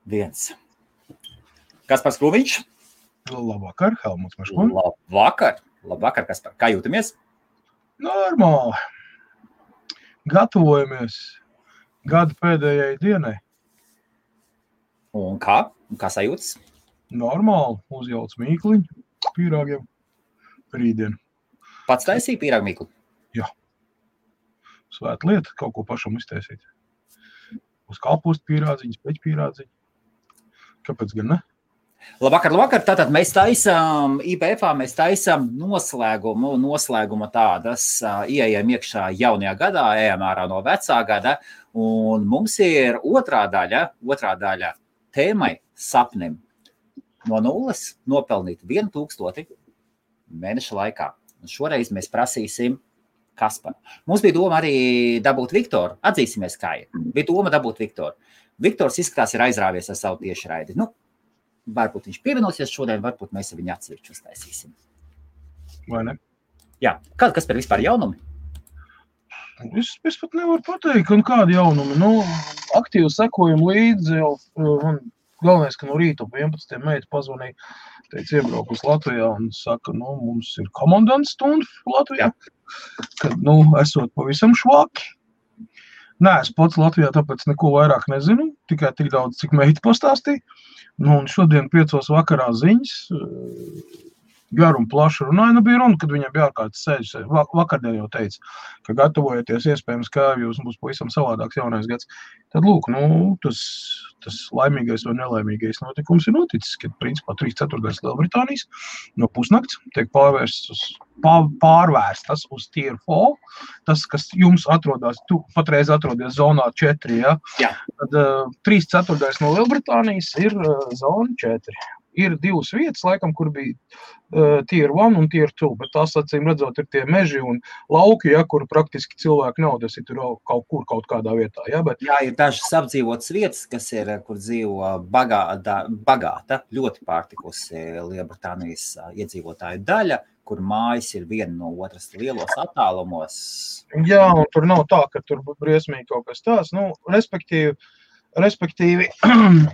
1. Kaspars Krūmiņš. Labvakar, Helmuts Meško. Labvakar, Kaspar. Kā jūtamies? Normāli. Gatavojamies gada pēdējai dienai. Un kā? Kā sajūtas? Normāli. Uzjauc mīkliņu pīrāgiem rītdien. Pats taisīja pīrāgu mīklu? Jā. Svēta lieta, kaut ko pašam iztaisīt. Uz kāpostu pīrādziņas, peķu pīrādziņu. Kāpēc gan ne? Labvakar. Tātad mēs taisām IPF-ā, mēs taisām noslēguma tādas, ieejam iekšā jaunajā gadā, ejam ārā no vecā gada, un mums ir otrā daļa tēmai sapnim. No 0 nopelnīt 1000 mēneša laikā. Un šoreiz mēs prasīsim Kasparu. Mums bija doma arī dabūt Viktoru. Atzīsimies, kā ir. Bija doma dabūt Viktoru. Viktors izskatās ir aizrāvies ar savu tiešraidi. Varbūt viņš pievienosies šodien, varbūt mēs viņu atsevišķi uztaisīsim. Vai ne? Jā. Kas par vispār jaunumi? Es pat nevaru pateikt, un kādi jaunumi. Aktīvi sekojam līdzi jau. Galvenais, ka no rīta 11. meita pazvanīja, teica, iebraukus Latvijā un saka, mums ir komandants stunda Latvijā, kad, esot pavisam švaki. Nē, es pats Latvijā tāpēc neko vairāk nezinu, tikai tik daudz, cik meita pastāstīja. Un šodien 5 vakarā ziņas, garu un plašu runāja, bija runa, kad viņam bija ārkārtas sēžas. Vakardien jau teica, ka gatavojoties iespējams, ka jūs būs pavisam savādāks jaunais gads. Tad lūk, tas laimīgais vai nelaimīgais notikums ir noticis, kad principā 3/4 Lielbritānijas no pusnakts tiek pārvērstas uz Tier 4. Tas, kas jums atrodas, tu patreiz atrodies zonā 4, ja? Jā. Tad 3/4 no Lielbritānijas ir zona 4. Ir 2 vietas, laikam, kur bija Tier 1 un Tier 2, bet tās, acīm redzot, ir tie meži un lauki, ja, kur praktiski cilvēki nav, tas ir tur kaut kādā vietā. Ja, bet... Jā, ir dažas apdzīvotas vietas, kas ir, kur dzīvo bagāta, ļoti pārtikusi Lielbritānijas iedzīvotāju daļa, kur mājas ir viena no otras lielos attālumos. Jā, un tur nav tā, ka tur briesmīgi kaut kas tās. Respektīvi,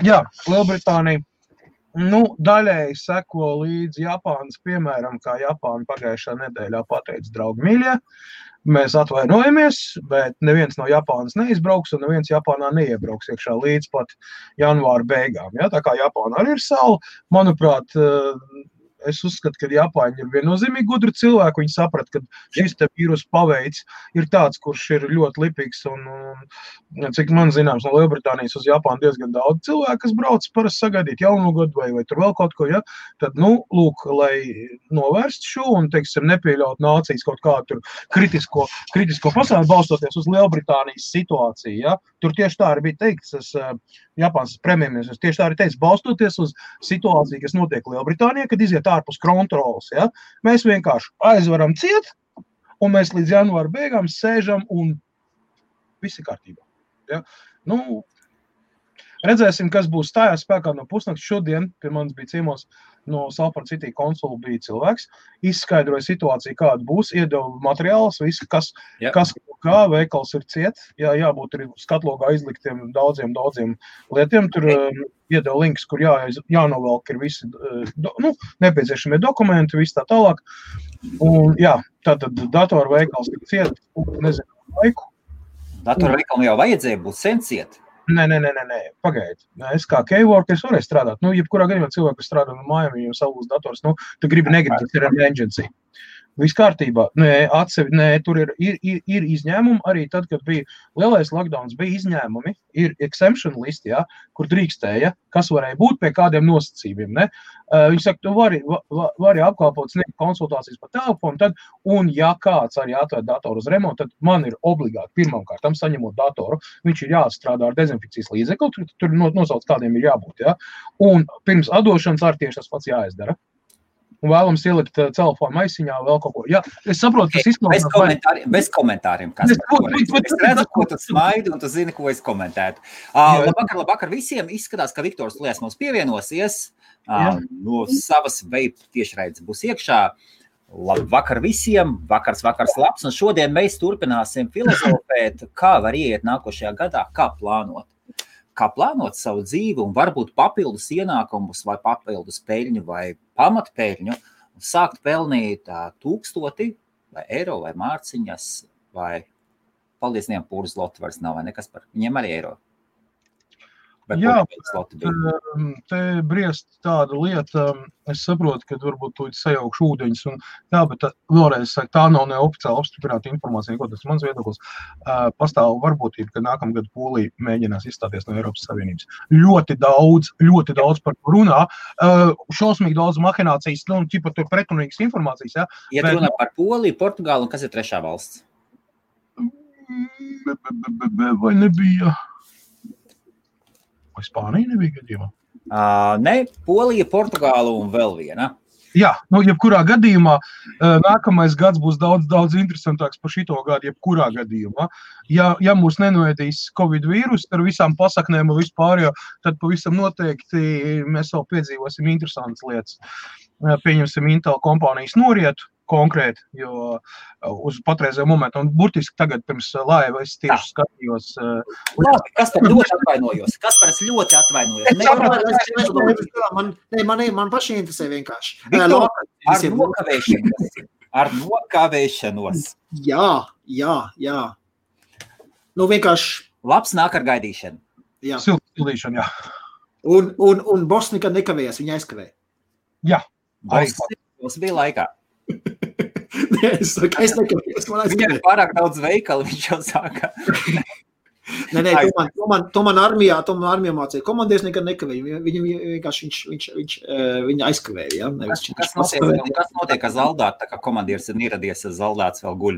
jā, Lielbritānija daļēji seko līdz Japānas, piemēram, kā Japāna pagājušā nedēļā pateica, draugi mīļie, mēs atvainojamies, bet neviens no Japānas neizbrauks un neviens Japānā neiebrauks iekšā līdz pat janvāra beigām. Ja? Tā kā Japāna arī ir sala, manuprāt, es uzskatu, ka Japāņi ir viennozīmīgi gudri cilvēki. Viņi saprat, ka šis te vīrus paveids ir tāds, kurš ir ļoti lipīgs. Un cik man zināms, no Lielbritānijas uz Japānu diezgan daudz cilvēku, kas brauc parasti sagaidīt jaunu gadu vai tur vēl kaut ko. Ja? Tad, lūk, lai novērst šo un, teiksim, nepieļaut nācijas kaut kādu tur kritisko pasauli, balstoties uz Lielbritānijas situāciju. Ja? Tur tieši tā arī bija teikts, Japānas premjerministrs tieši tā arī teica, balstoties uz situāciju, kas notiek Lielbritānijā, kad iziet ārpus kontrolas. Ja? Mēs vienkārši aizvaram ciet, un mēs līdz janvāra beigām sēžam, un viss ir kārtībā. Ja? Redzēsim, kas būs stājās spēkā no pusnakts. Šodien pie manis bija ciemos no Salford City konsula bija cilvēks, izskaidroja situāciju, kāda būs, iedeva materiālus, visu, kas kā veikals ir ciet, jābūt arī skatlogā izliktiem daudziem lietiem, tur iedeva links, kur jānovelk ir visi nepieciešamie dokumenti, viss tā tālāk. Un tātad datoru veikals ir ciet, nezinu laiku. Datoru veikalu jau vajadzēja būt sen ciet. Nē, pagaidi. Es kā K-workers varēju strādāt. Jebkurā gadījumā cilvēki, kas strādā no mājām, viņiem savus dators, tu negribi, tas ir emergency. Viss kārtībā. Tur ir izņēmumi arī tad, kad bija lielais lockdowns, bija izņēmumi, ir exemption listi, kur drīkstēja, kas varēja būt pie kādiem nosacījumiem. Ne? Viņi saka, tu vari apkalpot sniegt konsultācijas pa telefonu, un ja kāds arī atvērt datoru uz remontu, tad man ir obligāti pirmkārt saņemot datoru, viņš ir jāstrādā ar dezinfekcijas līdzekli, tur nosauc kādiem ir jābūt. Ja? Un pirms atdošanas arī tieši tas pats jāizdara. Un vēlams ielikt telefonu maisiņā vēl kaut ko. Jā, es saprotu, tas izklausās... Bez komentāriem, kas es redzu, ko tu smaidi, un tu zini, ko es komentētu. Labvakar visiem. Izskatās, ka Viktors Lies mums pievienosies. No savas vape tiešraides būs iekšā. Labvakar visiem. Vakars labs. Un šodien mēs turpināsim filozofēt, kā var ieiet nākošajā gadā, kā plānot. kā plānot savu dzīvi un varbūt papildus ienākumus vai papildus peļņu vai pamatpeļņu un sākt pelnīt 1000 vai eiro vai mārciņas vai paldies Dievam pūras loti vairs nav vai nekas par viņiem arī eiro. Jā, te briest tāda lieta, es saprotu, ka varbūt tūlīt sajaukšu ūdeņus, un jā, bet vēlreiz saka, tā nav neoficiāli apstiprināta informācija, ko tas mans viedoklis. Pastāv varbūtība, ka nākamgad Polija mēģinās izstāties no Eiropas Savienības. Ļoti daudz par to runā, šausmīgi daudz mahinācijas, nu, ķipa tur pretrunīgas informācijas, jā. Ja bet... runā par Poliju, Portugālu, un kas ir trešā valsts? Vai nebija... Vai Spānija nebija gadījumā? Ne, Polija, Portugāla un vēl viena. Jā, nu, jebkurā gadījumā nākamais gads būs daudz interesantāks par šito gadu, jebkurā gadījumā. Ja mūs nenoēdīs Covid vīrus ar visām pasaknēm un vispār, tad pavisam noteikti mēs vēl piedzīvosim interesantas lietas. Pieņemsim Intel kompānijas norietu konkrēti, jo uz patreizējo momentu, un burtiski tagad pirms laiva es tieši skatījos. Kas par ļoti atvainojos? Man paši interesē vienkārši. Ar nokavēšanos. Jā. Nu vienkārši. Labs nāk ar gaidīšanu. Jā. Sildīšana, jā. Un boss nekad nekavējas, viņa aizkavēja. Jā. Boss bija laikā. Es nekavējos, man aizkavēja. Viņam ir pārāk daudz veikalu, viņš jau sāka. Nē, to man armijā mācīja. Komandieris nekad nekavēja. Viņam vienkārši viņa aizkavēja. Ja? Kas notiek ar zaldātu, tā kā komandieris ir ieradies, zaldāts vēl guļ?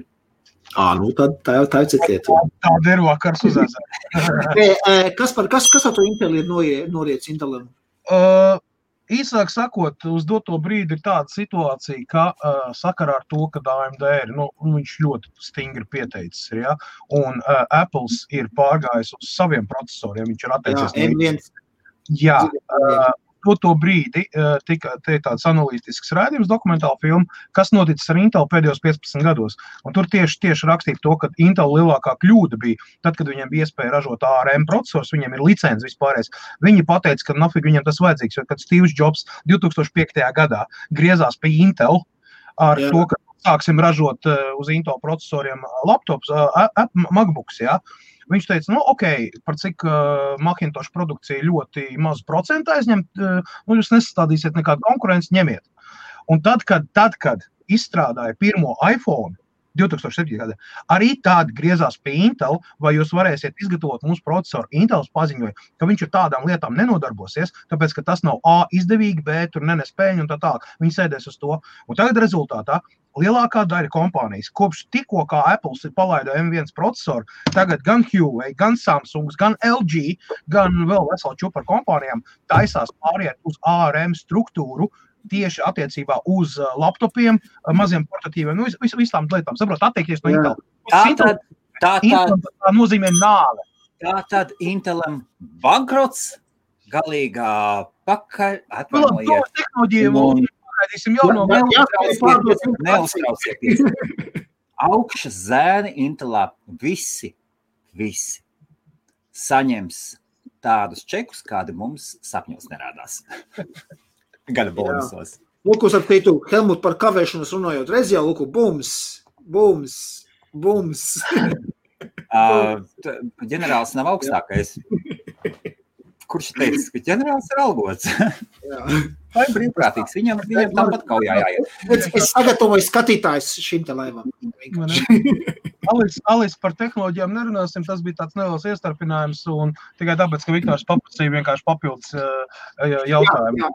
Nu tā jau citiet. Tāda ir vakars uzēzē. Kas ar to Intel ir noriets Intelam? Īsāk sakot, uz doto brīdi ir tāda situācija, ka sakarā ar to, ka AMD ir, viņš ļoti stingri pieteicis, ja? Un Apples ir pārgājis uz saviem procesoriem, viņš ir atteicies. M1. Jā, to brīdi tika tāds analītisks rādījums, dokumentāla filma, kas noticis ar Intel pēdējos 15 gados. Un tur tieši rakstīja to, ka Intel lielākā kļūda bija, tad, kad viņiem bija iespēja ražot ARM procesors, viņiem ir licences vispārējais. Viņi pateica, ka nafig viņiem tas vajadzīgs, jo kad Steve Jobs 2005. Gadā griezās pie Intel ar to, ka sāksim ražot uz Intel procesoriem laptops, MacBooks, jā. Viņš teica, par cik Macintosh produkcija ļoti mazu procentu aizņemt, jūs nesastādīsiet nekādu konkurenci, ņemiet. Un tad, kad izstrādāja pirmo iPhone 2007. Gadā, arī tādi griezās pie Intel, vai jūs varēsiet izgatavot mūsu procesoru. Intels paziņoja, ka viņš ar tādām lietām nenodarbosies, tāpēc, ka tas nav A izdevīgi, B tur nenes peļņu un tā tālāk. Viņi sēdēs uz to. Un tagad rezultātā lielākā daļa kompānijas, kopš tikko kā Apples ir palaida M1 procesoru, tagad gan Huawei, gan Samsungs, gan LG, gan vēl veselu čupu ar kompānijām taisās pāriet uz ARM struktūru, tieši attiecībā uz laptopiem, maziem portatīviem, visām lietām. Saprot, atteikties no Intel. Tā nozīmē nāve. Tātad Intelam bankrots, galīgā pakaļ, atvainojiet. Tehnoloģija parādīsim jau no neuztraucieties. Augšas zēni Intelā visi saņems tādus čekus, kādi mums sapņos nerādās. Gada bonusos. Lūkus ar teitu, Helmut, par kavēšanos runājot, reiz jau, lūku, bums. Ģenerālis nav augstākais. Kurš teica, ka ģenerālis ir algots? Vai brīvprātīgs? Viņam tāpat kaujā jāiet. Es sagatavoju skatītājs šim te laivam. Alis par tehnoloģijām nerunāsim, tas bija tāds neliels iestarpinājums un tikai tāpēc, ka Viktors paprasīja vienkārši papildus jautājumu. Jā,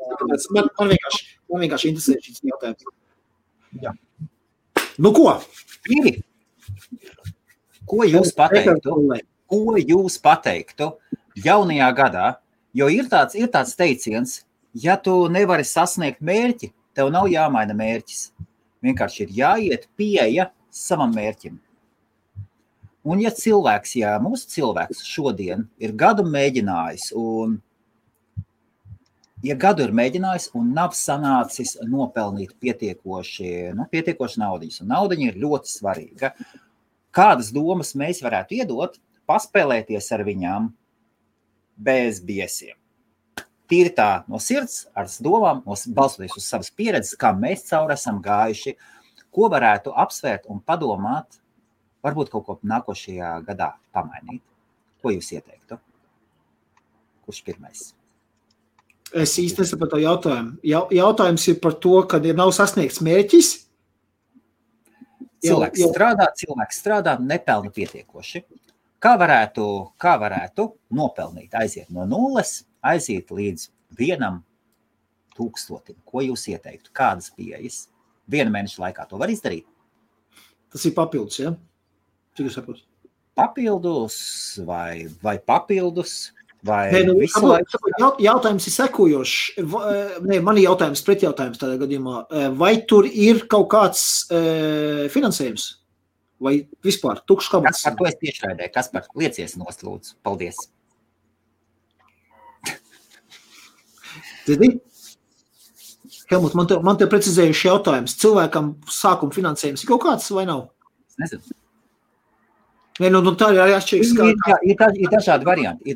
man vienkārši interesē šis jautājums. Jā. Nu ko? Pīri, ko jūs pateiktu jaunajā gadā? Jo ir tāds teiciens, ja tu nevari sasniegt mērķi, tev nav jāmaina mērķis. Vienkārši ir jāiet pieeja savam mērķim. Un ja mūsu cilvēks šodien ir gadu mēģinājis un nav sanācis nopelnīt pietiekoši naudiņas, un naudiņa ir ļoti svarīga, kādas domas mēs varētu iedot, paspēlēties ar viņām, bez biesiem. Tīri tā no sirds, ar domām, balstoties uz savas pieredzes, kā mēs cauri esam gājuši, ko varētu apsvērt un padomāt, varbūt kaut ko nākošajā gadā pamainīt. Ko jūs ieteiktu? Kurš pirmais? Es īsti nesapratu jautājumu. Jautājums ir par to, kad ir nav sasniegts mērķis. Cilvēks strādā, nepelna pietiekoši. Kā varētu nopelnīt, aiziet no 0, aiziet līdz 1,000? Ko jūs ieteiktu? Kādas pieejas? 1 mēneša laikā to var izdarīt? Tas ir papildus, ja? Cik jūs saprotat? Papildus vai papildus? Vai jautājums ir sekojošs. Mani jautājums, pretjautājums tādā gadījumā. Vai tur ir kaut kāds finansējums? Vai vispār tukšs kabatas? Kaspar, to es tiešraidēju. Kaspar, liecies nost, lūdzu. Paldies. Helmut, man te precizējuši jautājums. Cilvēkam sākuma finansējums ir kaut kāds vai nav? Es nezinu. Tā ir arī atšķirīgs. Ir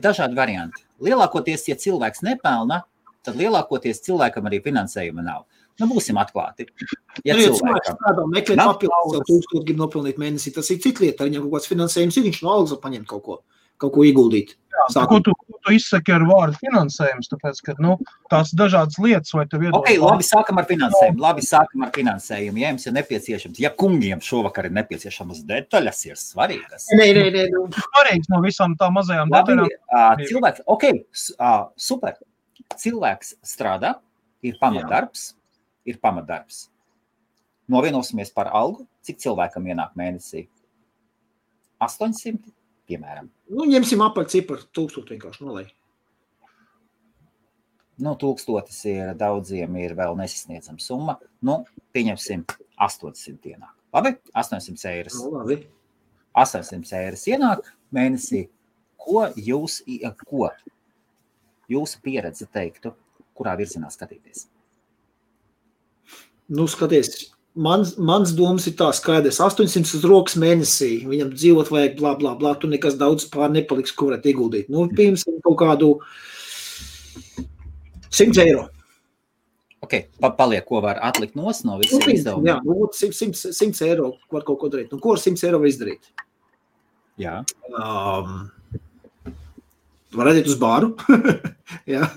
dažādi varianti. Lielākoties, ja cilvēks nepelna, tad lielākoties cilvēkam arī finansējuma nav. Būsim atklāti. Ja cilvēks strādā, meklē papildus, 1000 grib nopelnīt mēnesī, tas ir cita lieta. Viņam kaut kāds finansējums ir, viņš no algas var paņemt kaut ko ieguldīt. Jā, ko tu izsaki ar vārdu finansējums, tāpēc, ka, tās dažādas lietas, vai tev iedod... Ok, labi, sākam ar finansējumu. Ja jums ir nepieciešams, ja kungiem šovakar ir nepieciešamas detaļas, ir svarīgas. Nē. Svarīgs no visām tā mazajām detaļām. Super. Cilvēks strādā, ir pamatdarbs. Novienosimies par algu, cik cilvēkam ienāk mēnesī? 800, piemēram. Ņemsim apaļ ciparu, 1000 vienkārši nolai. 1000 ir daudziem, ir vēl nesasniedzama summa. Pieņemsim 800 ienāk. Labi? 800 eiras. Labi. 800 eiras ienāk mēnesī. Ko jūsu pieredze teiktu, kurā virzienā skatīties? Skaties, mans domas ir tā skaidrs. 800 uz rokas mēnesī, viņam dzīvot vajag blā, blā, blā, tu nekas daudz pār nepaliks, ko varētu ieguldīt. Piemēram, kaut kādu 100 eiro. Ok, paliek, ko var atlikt no visiem izdevumiem. Jā, 100 eiro var kaut ko darīt. Ko ar 100 eiro var izdarīt? Jā. Var aiziet uz bāru. Jā,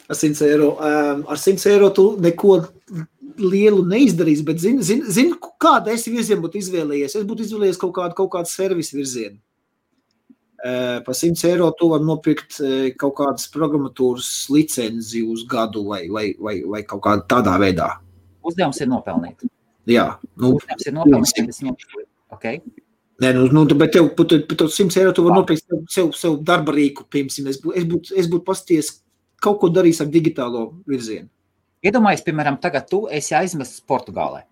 ar 100 eiro. Ar 100 eiro tu neko lielu neizdarīs, bet zinu, kāda es virzienu būtu izvēlējies. Es būtu izvēlējies kaut kādu servisu virzienu. Par 100 eiro tu var nopirkt kaut kādas programmatūras licenzi uz gadu vai kaut kādā tādā veidā. Uzdevums ir nopelnīt. Jā. Uzdevums ir nopelnīt. Okay. Nē, bet tev par 100 eiro tu var nopirkt sev darba rīku, piemēram. Es būtu pasties kaut ko darījis ar digitālo virzienu. Iedomājies, piemēram, tagad tu esi aizmests Portugālē.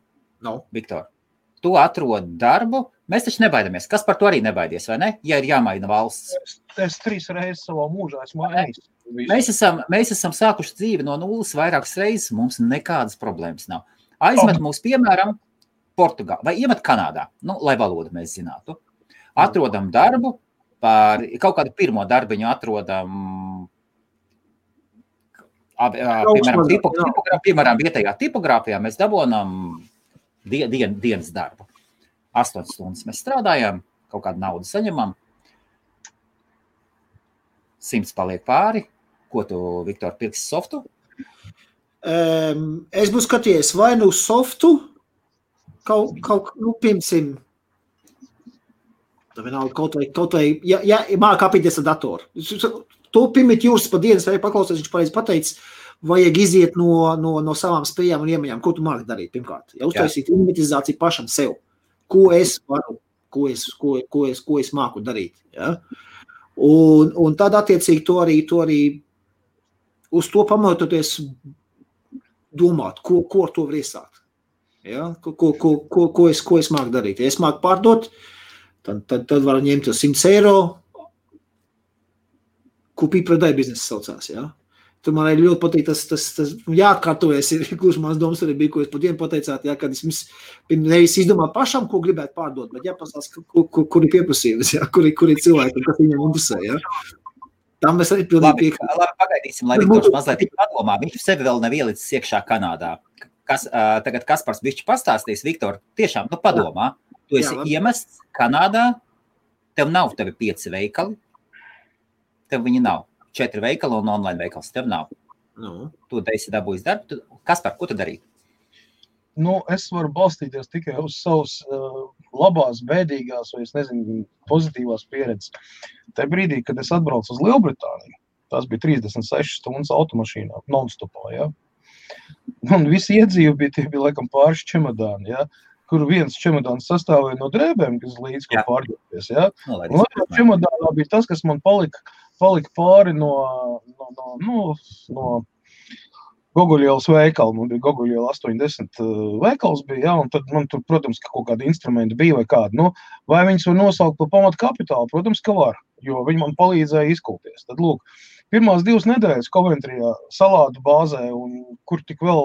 Viktor, tu atrod darbu. Mēs taču nebaidamies. Kas par to arī nebaidies, vai ne? Ja ir jāmaina valsts. Es 3 reizes savā mūžā esmu ejis. Mēs esam sākuši dzīvi no 0 vairākas reizes. Mums nekādas problēmas nav. Aizmet mūs, piemēram, Portugālē vai iemet Kanādā, lai valodu mēs zinātu. Atrodam darbu, par kaut kādu pirmo darbiņu atrodam, piemēram, vietējā tipogrāfijā mēs dabonam dienas darbu. 8 stundas mēs strādājam, kaut kādu naudu saņemam. 100 paliek pāri. Ko tu, Viktor, pirksi softu? Es būtu skatījies vai softu, piemēram, kaut vai, ja māk apīties ar datoru. To pirmīt jūras pa dienas, vai paklausies, viņš pareizi pateicis, vajag iziet no savām spējām un iemaņām. Ko tu māki darīt, pirmkārt? Ja uztaisīt inventivizāciju pašam sev. Ko es varu, ko es māku darīt. Ja? Un tad attiecīgi to arī uz to pamatoties domāt, ko ar to var iesākt. Ja? Ko es māku darīt. Ja es māku pārdot, tad var ņemt 100 eiro, ko pīpradai biznesa saucās. Ja? Tur man ļoti patīk tas jāatkārtojas, ir gluži mans domas arī bija, ko jūs pat dienu pateicāt, ja, kad es nevis izdomāju pašam, ko gribētu pārdot, bet jāpasās, kur ir pieprasījums, ja, kur ir cilvēki, kas viņam interesē. Ja. Tam mēs arī pilnīgi piekrītam. Labi, pagaidīsim, lai Viktors mazliet padomā. Viņš sevi vēl nav ielicis iekšā Kanādā. Tagad Kaspars bišķi pastāstīs, Viktor, tiešām, padomā. Tu esi iemests Kanādā, tev nav tevi 5 veikali, tev viņi nav. 4 veikali un online veikals, tev nav. Tu esi dabūjis darbu. Kaspar, ko tu darīt? Es varu balstīties tikai uz savas labās, bēdīgās vai, es nezinu, pozitīvās pieredzes. Tajā brīdī, kad es atbraucu uz Lielbritāniju, tās bija 36 stundas automašīnā, non-stopā, ja? Un visi iedzīvi bija laikam pāris čemodāni, ja? Kur viens čemodāns sastāvēja no drēbēm, kas līdz ko pārģēties, ja? Un otrā čemodānā bija tas, kas man palika pāri no Goguļielas veikalu, man bija Goguļiela 80 veikals bija, ja, un tad man tur, protams, ka kaut kādi instrumenti bija vai kādi, vai viņus var nosaukt par pamatu kapitālu, protams, ka var, jo viņi man palīdzēja izkulties. Tad, lūk, pirmās 2 nedēļas Coventryjā salātu bāzē, un kur tik vēl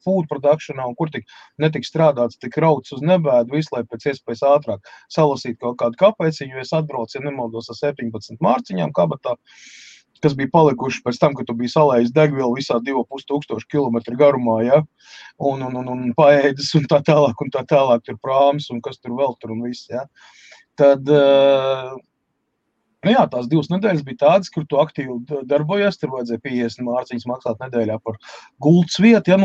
food productionā, un kur tik netik strādāts, tik rauts uz nebēdu, visu, lai pēc iespējas ātrāk salasīt kaut kādu kapeciņu, jo es atbraucu, ja nemaldos ar 17 mārciņām kabatā, kas bija palikuši pēc tam, kad tu biji salējis degvielu visā 2500 kilometru garumā, ja? Un paēdis un tā tālāk tur prāms un kas tur vēl tur un viss, ja? Tad, tās 2 nedēļas bija tādas, kur tu aktīvi darbojies, tur vajadzēja 50 mārciņas maksāt nedēļā par gultas vietu, ja?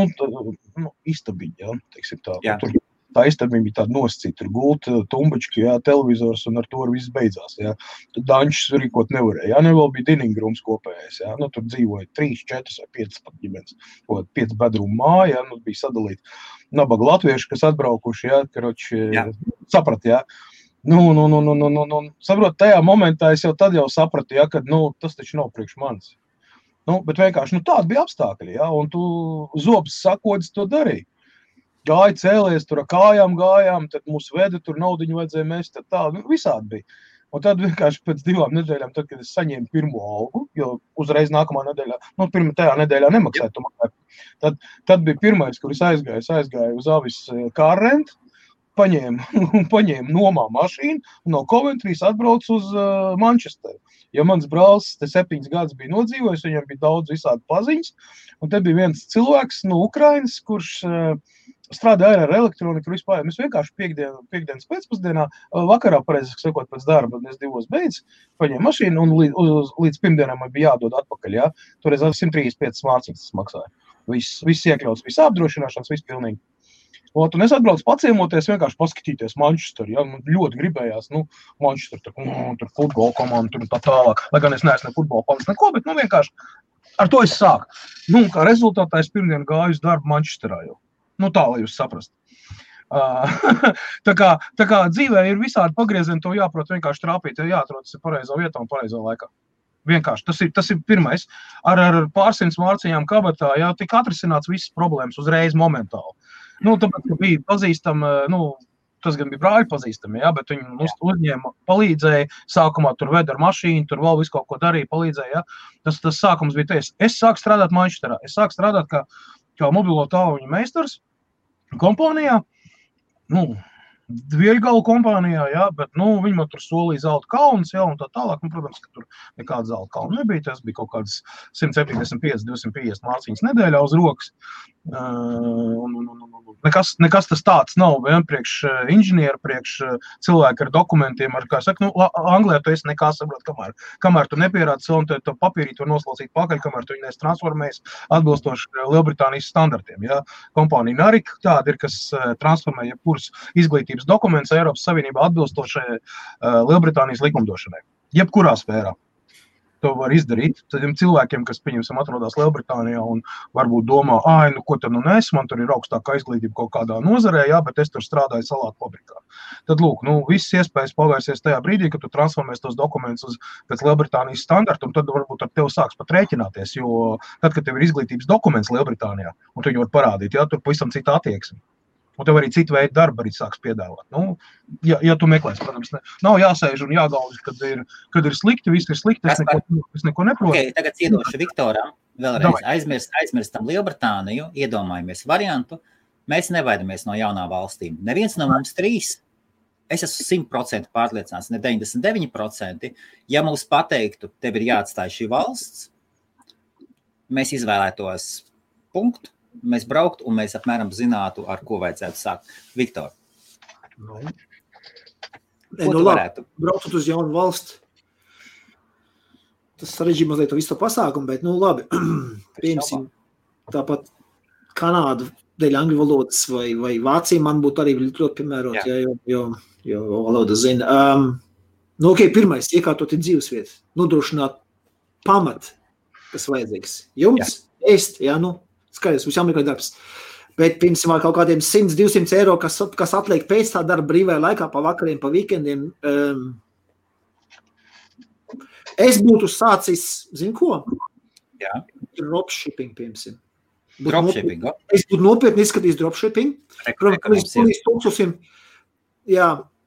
Istabiņa, ja? Teiksim tā. Jā. Tur tā istabiņa bija tāda nosacīta, tur gulta, tumbački, ja? Televizors un ar to viss beidzās, ja? Tur dančus rīkot nevarēja, ja? Vēl bija diningrums kopējais, ja? Tur dzīvoja 3, 4 vai 5 pat ģimenes, 5 bedrumu māja, ja? Bija sadalīti nabaga latvieši, kas atbraukuši, ja? Karoči, saprat, ja? Saprot, tajā momentā es tad jau sapratu, ja, ka, tas taču nav priekš manis. Bet vienkārši, tādi bija apstākļi, ja, un tu zobs sakodis to darīji. Gāja cēlies, tur ar kājām gājām, tad mūs veda, tur naudiņu vajadzēja mest, tad tā, visādi bija. Un tad vienkārši pēc 2 nedēļām, tad, kad es saņēmu pirmo algu, jo uzreiz nākamā nedēļā, tajā nedēļā nemaksāju, tu maksāju. Tad bija pirmais, kur es aizgāju uz Avis kārrentu, paņēmu nomā mašīnu un no Coventrys atbraucu uz Manchesteru. Jo mans brālis 7 gadus bija nodzīvojis, viņam bija daudz visādi paziņas, un te bija viens cilvēks no Ukrainas, kurš strādāja ar elektroniku vispār. Mēs vienkārši piekdienas pēcpusdienā, vakarā, pareizāk sakot, pēc darba, es 2 beidz, paņēmu mašīnu un līdz pirmdienām man bija jādod atpakaļ, ja? Toreiz 135 mārciņas tas maksāja. Viss iekļauts, viss apdrošināšanas, viss pilnīgi. Un es atbraucu paciemoties, vienkārši paskatīties Manchesteru, ja, man ļoti gribējās, Manchester, tur futbola komanda, tur tā tālāk, lai gan es neesmu ne futbola komandas neko, bet, vienkārši ar to es sāku. Kā rezultātā es pirmdien gāju uz darbu Manchesterā jau. Tā, lai jūs saprast. Tā kā dzīvē ir visādi pagriezieni, to jāprot vienkārši trāpīt, ja jāatrodas pareizā vietā un pareizā laikā. Vienkārši, tas ir pirmais. Ar pārsimts mārciņām kabatā, jā, tika atrisināts visas problēmas uzreiz momentāli. Tāpēc, ka bija pazīstami, tas gan bija brāļi pazīstami, jā, bet viņi uzņēma, palīdzēja, sākumā tur veda ar mašīnu, tur vēl visu kaut ko darīja, palīdzēja, jā. Tas sākums bija ties. Es sāku strādāt Manchesterā, es sāku strādāt kā mobilo tāluņu meistars kompānijā, Dvieļgalu kompānijā, jā, bet, viņi man tur solīja zelta kalnus, jā, un tā tālāk, protams, ka tur nekāda zelta kalna nebija, tas bija kaut kādas 175-250 mārciņas nedēļā uz rokas. Nekas tas tāds nav, vien priekš inženiera, priekš cilvēki ar dokumentiem, ar, kā saka, Anglijā tu esi nekā saprot, kamēr tu nepierādi savu, un tu papīrīt var noslaucīt pakaļ, kamēr tu viņu transformējas atbilstoši Lielbritānijas standartiem, jā. Kompānija Narik tāda ir, kas transformē jebkuras izglītības dokuments Eiropas Savienībā atbilstošai Lielbritānijas likumdošanai. Jebkurā sfērā. To var izdarīt. Tādiem cilvēkiem, kas, pieņemsim, atrodas Lielbritānijā un varbūt domā, ko tad nes, man tur ir augstākā izglītība kaut kādā nozarē, jā, bet es tur strādāju salātu fabrikā. Tad, lūk, visas iespējas pavērsies tajā brīdī, kad tu transformēs tos dokumentus pēc Lielbritānijas standarta, un tad varbūt ar tevi sāks pat rēķināties, jo tad, kad tev ir izglītības dokuments Lielbritānijā, un tu viņu var parādīt, jā, tur pavisam cita attieksme. Un tev arī citu veidu darba arī sāks piedāvāt. Ja tu meklēsi, protams, nav jāsēž un jāgalvas, kad ir slikti, viss ir slikti, es neko neprotu. Okay, tagad iedošu Viktoram, vēlreiz aizmirstam Lielbritāniju, iedomājamies variantu, mēs nevaidamies no jaunām valstīm. Neviens no mums 3 es esmu 100% pārliecināts, ne 99%, ja mums pateiktu, tev ir jāatstāj šī valsts, mēs izvēlētos punktu, mēs brauktu un mēs apmēram zinātu, ar ko vajadzētu sākt. Viktor, ko tu varētu? Braukt uz jaunu valsti. Tas sarežģīja mazliet to visu pasākumu, bet, labi, piemēram, tāpat Kanādu dēļ angļu valodas vai Vācija man būtu arī ļoti piemērot, jo valoda zina. Pirmais, iekārtot ir dzīvesvietas, nodrošināt pamat, kas vajadzīgs. Jums, ēst, skaidrs, mums jāmeklē darbs. Bet, piemēram, kaut kādiem 100-200 eiro, kas atliek pēc tā darba brīvajā laikā, pa vakariem, pa weekendiem, es būtu sācis, zinu ko? Jā. Dropshipping, piemēram. Dropshipping, Es būtu nopietni izskatījis dropshipping.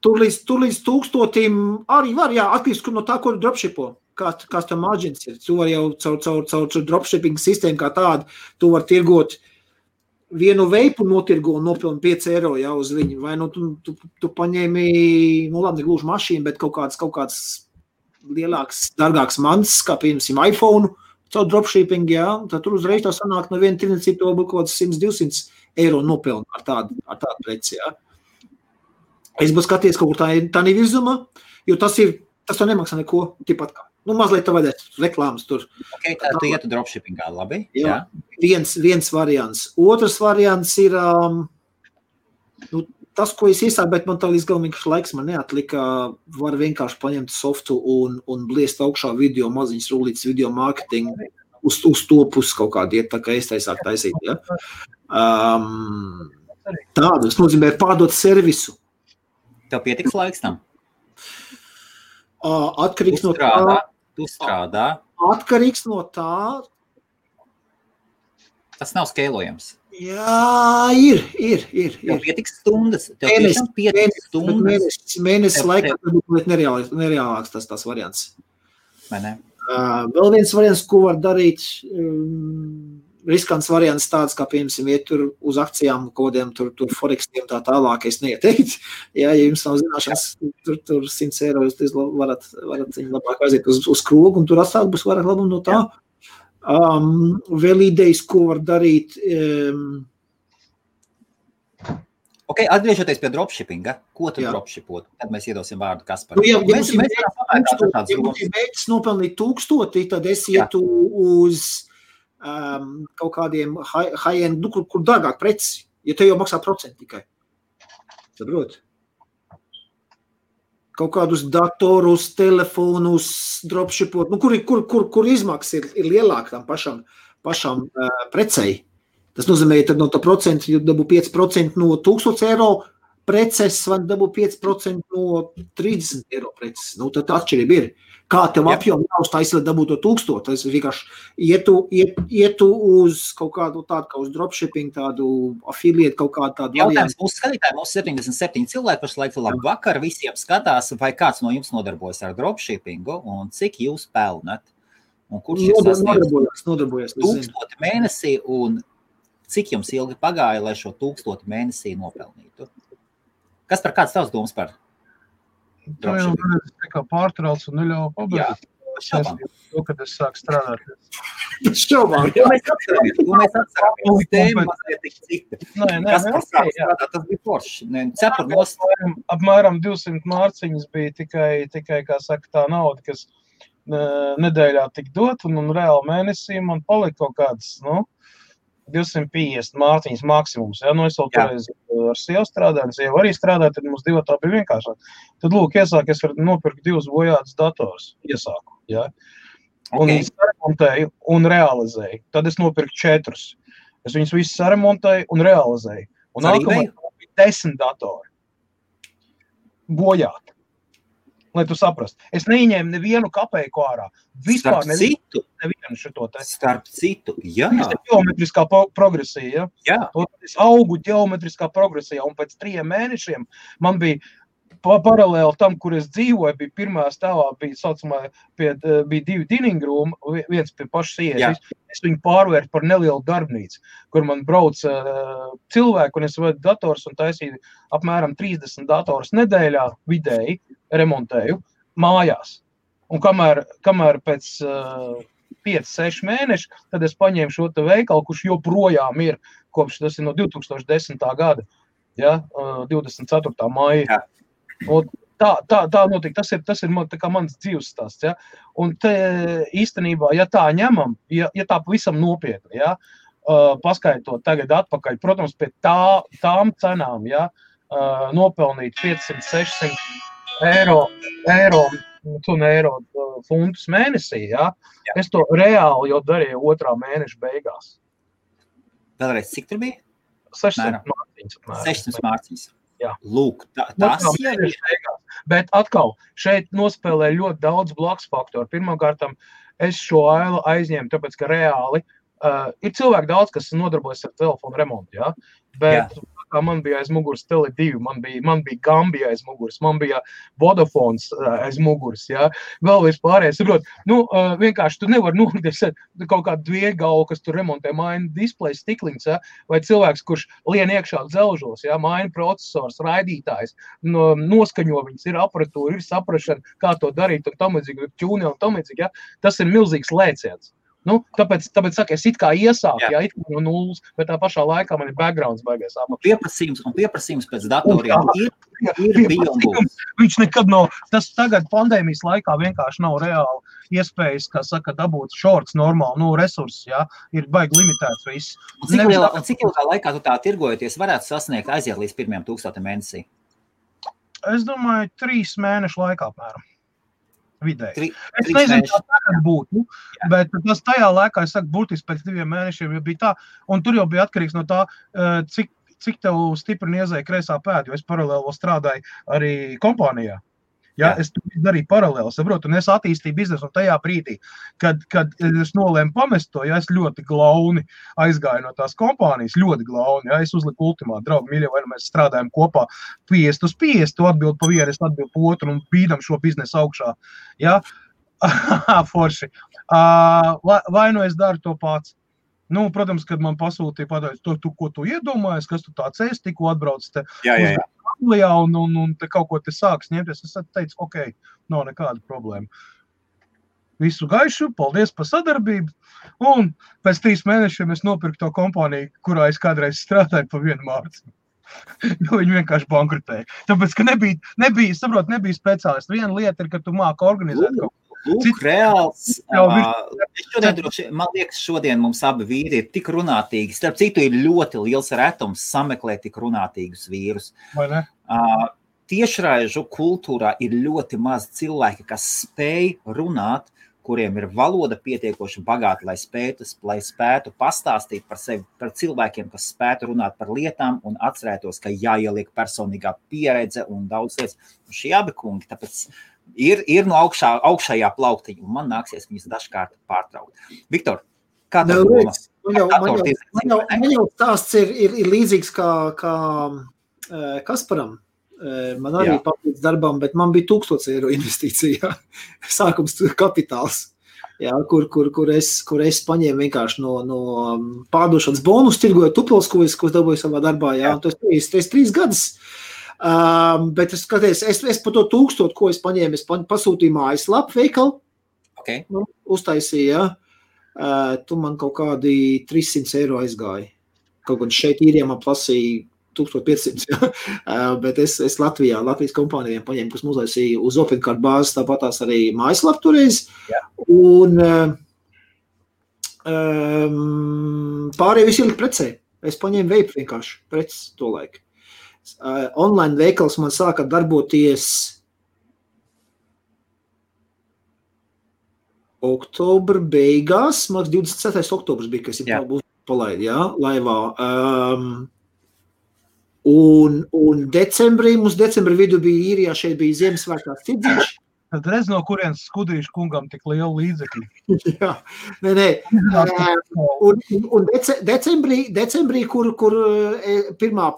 Tur līdz 1000 arī var, atkarīgs no tā, ko dropshipo. Kāds tam margins ir. Tu var jau caur dropshipping sistēmu kā tādu, tu var tirgot vienu veipu notirgo un nopilni 5 eiro uz viņu. Vai tu paņēmi, labi, gluži mašīnu, bet kaut kāds lielāks, dārgāks mans, kā piemēram iPhone, caur dropshipping, tad tur uzreiz tā sanāk no viena tirniecība to būtu kaut kāds 100-200 eiro nopelni ar tādu preci, Es būtu skaties kaut kur tā nevirzumā, jo tas to nemaksā neko, tipat kā. Mazliet tā vajadzētu reklāmas tur. Ok, tā tu ietu dropshippingā, labi? Jā. Viens variants. Otrs variants ir, tas, ko es iesāku, bet man tā līdz galam vienkārši laiks man neatlika, var vienkārši paņemt softu un bliest augšā video, maziņas rulītas video marketing, uz to pusi kaut kādu iet, tā kā es sāku taisīt, Tādu, es nozīmē pārdot servisu. Tev pietiks laiks tam? Atkarīgs no tā. Tu strādā. Atkarīgs no tā. Tas nav skeilojams. Jā, ir. Tev pietiks stundas. Tev tiešām pietiks stundas. Mēnesis laikā varbūt nereālāks tas variants. Vai ne? Vēl viens variants, ko var darīt, riskants variants tāds, kā piemēram, iet tur uz akcijām, kodiem, tur forexiem tā tālāk, es neieteikt. Ja jums nav zināšanas, tur 100 eiro, jūs varat viņu labāk aiziet uz krogu, un tur atstāt būs vairāk labumu no tā. Vēl idejas, ko var darīt. Ok, atgriežoties pie dropshippinga, ko tu dropshipot? Tad mēs iedosim vārdu Kasparam. Ja mēģis nopelnīt 1000, tad es ietu uz kaut kādiem high-end, kur dārgāk preci, ja te jau maksā procentu tikai. Saprot? Kaut kādus datorus, telefonus, dropshipot, kur izmaksas ir lielāka tam pašam precei. Tas nozīmē, tad no tā procenta, ja dabū 5% no 1000 eiro preces, vai dabū 5% no 30 eiro preces. Tad atšķirība ir. Kā tev apjomu jāuztaisa, lai dabūtu 1000? Tas vienkārši ietu uz kaut kādu tādu, kā uz dropshipping, tādu affiliate, kaut kādu tādu. Jautājums mūsu skatītāji, mūsu 77 cilvēki pašlaik labu vakar, visiem skatās, vai kāds no jums nodarbojas ar dropshippingu un cik jūs pelnat? Un kurš nodarbojas? 1000 mēnesī un cik jums ilgi pagāja, lai šo 1000 mēnesī nopelnītu? Kas par kāds tavs domas par? Tu jau kā pārtrauc un neļauj pabeigt. To, kad es sāku strādāt. Šaubām. Mēs atceramies. Tēma mazliet tik cita. Kas par sāku strādāt, tas bija forši. Cepur nost. Apmēram 200 mārciņas bija tikai, kā saka, tā nauda, kas nedēļā tik dot, un reāli mēnesī man palika kaut kāds, 250 mārciņas maksimums. Es vēl toreiz ar sievu strādāju, sieva arī strādāju, tad mums divi tā bija vienkāršāk. Tad, iesāku, es varu nopirkt 2 bojātas dators. Iesāku, Un viņus saremontēju un realizēju. Tad es nopirku 4. Es viņus visus saremontēju un realizēju. Un nākamā bija 10 datori. Bojāti. Lai tu saprast. Es neieņēmu nevienu kapeiku ārā. Vispār nevienu šito te. Starp citu, jā. Tas ir ģeometriskā progresija, Jā. Es augu ģeometriskā progresijā, un pēc 3 mēnešiem man bija paralēli tam, kur es dzīvoju, bija pirmā stāvā, bija 2 dining room, viens pie pašas ieejas. Es viņu pārvērtu par nelielu darbnīcu, kur man brauc cilvēki, un es vadu dators un taisīju apmēram 30 dators nedēļā vidēji remontēju mājās. Un kamēr pēc 5-6 mēneši, tad es paņēmu šo te veikalu, kurš joprojām ir, kopš tas ir no 2010. gada, 24. maija. Un tā notika, tas ir tā kā mans dzīves stāsts, ja? Un te īstenībā, ja tā ņemam, ja tā pavisam nopietni, ja? Paskaitot tagad atpakaļ, protams, pie tām cenām, ja? Nopelnīt 500-600 eiro funtus mēnesī, ja? Es to reāli jau darīju 2. mēneša beigās. Vēlreiz, cik tur bija? 600 mārciņas. 600 mārciņas. Jā. Lūk, tas ir. Bet atkal, šeit nospēlē ļoti daudz blakus faktoru. Pirmkārt, es šo ailu aizņēmu, tāpēc, ka reāli ir cilvēki daudz, kas nodarbojas ar telefonu remontu, ja? Bet man bija aiz muguras Tele2, man bija Gambija aiz muguras, man bija Vodafons aiz muguras, ja? Vēl vispārējais, saprot, vienkārši tu nevar nolikt kaut kādu dviegalu, kas tur remontē maina display stikliņus, ja? Vai cilvēks, kurš lien iekšā dzelžos, ja? Maina procesors, raidītājs, noskaņo viņas, ir aparatūra, ir saprašana, kā to darīt, un tam līdzīgi, ķūni un tam līdzīgi, ja? Tas ir milzīgs lēciens. Tāpēc saka, es it kā iesāku, it kā no nulles, bet tā pašā laikā man ir backgrounds baigais apakšā. Pieprasījums pēc datoriem ir bijums. Viņš nekad nav, tas tagad pandēmijas laikā vienkārši nav reāli iespējas, kā saka, dabūt shorts normāli, resursus, ir baigi limitēts viss. Un cik ilgā laikā tu tā tirgojoties varētu sasniegt aiziet līdz 1,000 mēnesī? Es domāju, 3 mēnešu laikā apmēram. Vidēji. Es nezinu, kā tagad būtu, bet tas tajā laikā, es saku, būtiski pēc 2 mēnešiem jau bija tā, un tur jau bija atkarīgs no tā, cik tev stipri iezēja kreisā pēda, jo es paralēli vēl strādāju arī kompānijā. Ja, es darīju paralēli, saprotu, un es attīstīju biznesu, un tajā brīdī, kad es nolēmu pamest to, es ļoti glauni aizgāju no tās kompānijas, ļoti glauni, es uzliku ultimātu, draugi, mīļie, vai mēs strādājam kopā 50/50, tu atbild pa vienu, es atbild pa otru, un bīdam šo biznesu augšā, ja, forši. Vai nu es daru to pats? Protams, kad man pasūtīja pateikt, ko tu iedomājies, kas tu tāds esi, tikko atbrauc te uz Anglijā un te kaut ko te sāks ņemties. Es teicu, ok, nav nekāda problēma. Visu gaišu, paldies par sadarbību. Un pēc 3 mēnešiem es nopirku to kompāniju, kurā es kādreiz strādāju pa 1 mārciņu. Viņi vienkārši bankrutēja. Tāpēc, ka nebija speciālisti. Viena lieta ir, ka tu māki organizēt kaut ko. Lūk, reāls. Man liekas, šodien mums abi vīri ir tik runātīgi. Starp citu, ir ļoti liels retums sameklēt tik runātīgus vīrus. Vai ne? Tiešraižu kultūrā ir ļoti maz cilvēki, kas spēj runāt, kuriem ir valoda pietiekoši bagāta, lai spētu pastāstīt par sevi, par cilvēkiem, kas spētu runāt par lietām un atcerētos, ka jāieliek personīgā pieredze un daudz lietas. Un šie abi kungi, tāpēc ir no augšējā plauktiņa, un man nāksies viņus dažkārt pārtraukt. Viktor, kā tev doma? Man jau stāsts ir līdzīgs kā Kasparam. Man arī papildus darbam, bet man bija 1000 eiro investīcija, sākums kapitāls, kur es paņēmu vienkārši no pārdošanas bonus, tirgoju tupels, ko es dabūju savā darbā, tas 3 gadus. Bet es skaties, es par to 1000, ko es paņēmu, es pasūtīju mājaslapu veikalu, uztaisīju, tu man kaut kādi 300 eiro aizgāja. Kaut gan šeit īrijā man plasīja 1500, bet es Latvijas kompānijām paņēmu, kas uztaisīja uz OpenCard bāzes, tāpatās arī mājaslapu toreiz. Un pārējie visi ielikt precē. Es paņēmu veipu vienkārši preces to laiku. Online veikals man sāka darboties oktobra beigās, man 27. oktobrs bija, kas ir palaid, laivā. Un decembrī, mums decembra vidu bija īrijā, šeit bija Ziemassvētkās tirdziņš. Tad redz, no kurienes Skudrīšu kungam tik liela līdzekļi. Jā, nē. Un decembrī, kur pirmā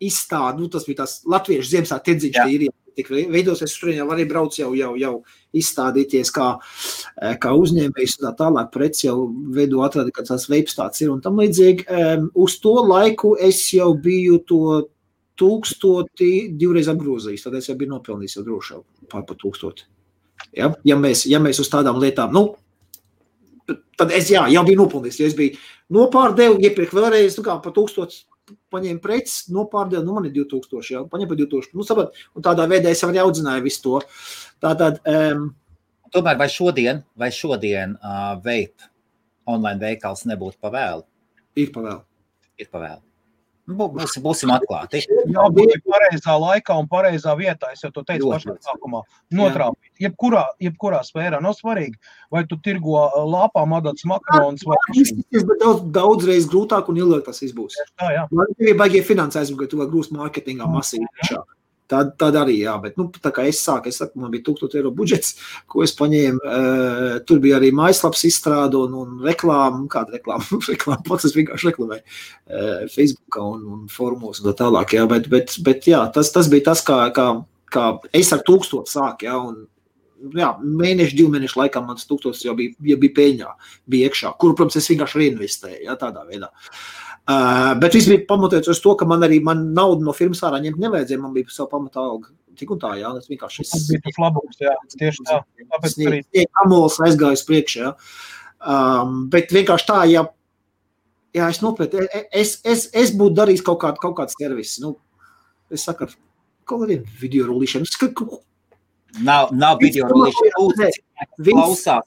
izstāde, tas bija tās latviešu Ziemassvētku tirdziņš īrijā, tik veidosies, tur jau arī brauc jau izstādīties kā uzņēmējs un tā tālāk preci jau veido atradi, ka tās veips tāds ir un tam līdzīgi. Uz to laiku es jau biju to 1000 divreiz apgrozījis, tad es jau biju nopelnījis jau droši pār 1000. Ja mēs uz tādām lietām, tad es jau biju nopelnījis, ja es biju nopārdevu, iepirkt vēlreiz, kā pa 1000 paņēmu preces, nopārdevu, man ir 2000, paņēmu pa 2000, sabat, un tādā veidā es arī audzināju visu to. Tātad, Tomēr vai šodien vape online veikals nebūtu pavēlu? Ir pavēlu. Ir pavēlu. Būsim atklāti. Jābūt pareizā laikā un pareizā vietā, es jau to teicu pašā sākumā, notrāpīt. Jebkurā sfērā, nav svarīgi, vai tu tirgo lāpām adats makarons vai mašīnu. Tas ir daudzreiz grūtāk un ilgāk tas izbūs. Tā, jā. Man ir baigie finansējumi, ka tu vēl grūst mārketingā masīvi. Tad arī, jā, bet tā kā es saku, man bija 1000 eiro budžets, ko es paņēmu, tur bija arī mājaslaps izstrāde un reklāma, kāda reklāma, pats es vienkārši reklamēju Facebookā un forumos un tā tālāk, jā, bet jā, tas bija tas, kā es ar 1000 sāku, jā, un jā, mēneši, 2 mēnešu laikā mans 1000 jau bija peļņā, bija iekšā, kuru, protams, es vienkārši reinvestēju, jā, tādā veidā. Bet viss bija pamatots uz to, ka man naudu no firmas ārā ņemt nevajadzēja, man bija savu pamatā alga. Tik un tā, jā, tas vienkārši... Tas bija tas labums, jā, tieši tā. Tāpēc arī... Amols aizgāju uz priekšu, jā. Bet vienkārši tā, jā, es nopētu, es būtu darījis kaut kāds servis, es saku, kaut kādiem video rullīšana. Nav video rullīšana, klausās.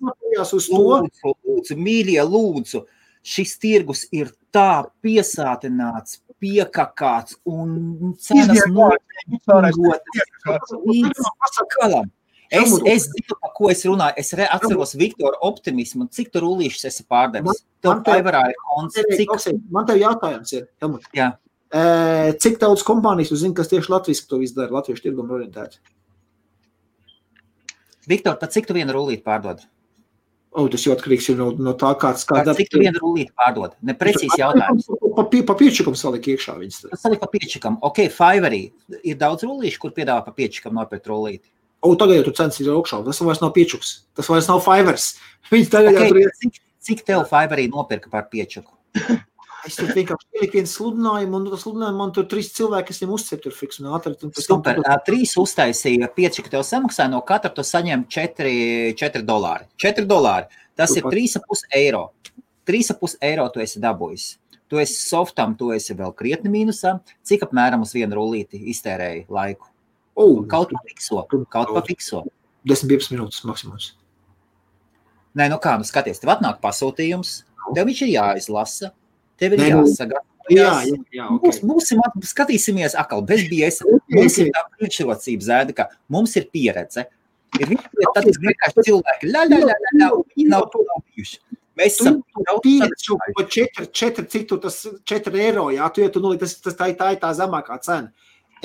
Lūdzu, mīļie, lūdzu. Šis tirgus ir tā piesātināts, piekakāts un cenas notiek. Es zinu, par ko es runāju. Es atceros Viktora optimismu. Cik tu rullīšas esi pārdevis? Tev Fiverrā ir konts. Man tev jautājums ir, Helmut. Jā. Cik daudz kompānijas tu zini, kas tieši latviešu to visu dara, latviešu tirgumu orientēti? Viktor, pat cik tu vienu rullīti pārdod? Tas jau atkarīgs ir no tā, kāds... Cik tu vienu rullīti pārdod? Neprecīzi jautājums. Pa piečikam salik iekšā viņas. Salik pa piečikam. Ok, Fiverrī ir daudz rullīšu, kur piedāvā pa piečikam nopirkt rullīti. Tagad jau tu cenas ir augšā. Tas vairs nav piečuks. Tas vairs nav Fivers. Viņas tagad jau tur ir... Cik tev Fiverī nopirka par piečuku? Es tur vienkārši ieliku vienu sludinājumu, un tas sludinājumu man tur 3 cilvēki, kas viņiem uzcep tur fiks un ātri. Super, 3 uztaisīja, 5, ka tev samaksāja, no katra tu saņem $4. $4. Tas ir 3,5 eiro. 3,5 eiro tu esi dabūjis. Tu esi softam, tu esi vēl krietni mīnusā. Cik apmēram uz vienu rullīti iztērēji laiku? Kaut pa fikso. 10-15 minūtes maksimums. Nē, skaties, tev atnāk pasūtījums, tev viņš ir jāizlasa. Tev ir jāsagatavojas. Jā, okay. Skatīsimies atkal, bez biesa. Mums ir tā priekšrocība zēda, ka mums ir pieredze. Ir vienkārši cilvēki, viņi nav to bijuši. Mēs esam pieredzi pa 4, cik tu tas 4 eiro, jā, tu nolīd, tā ir tā zemākā cena.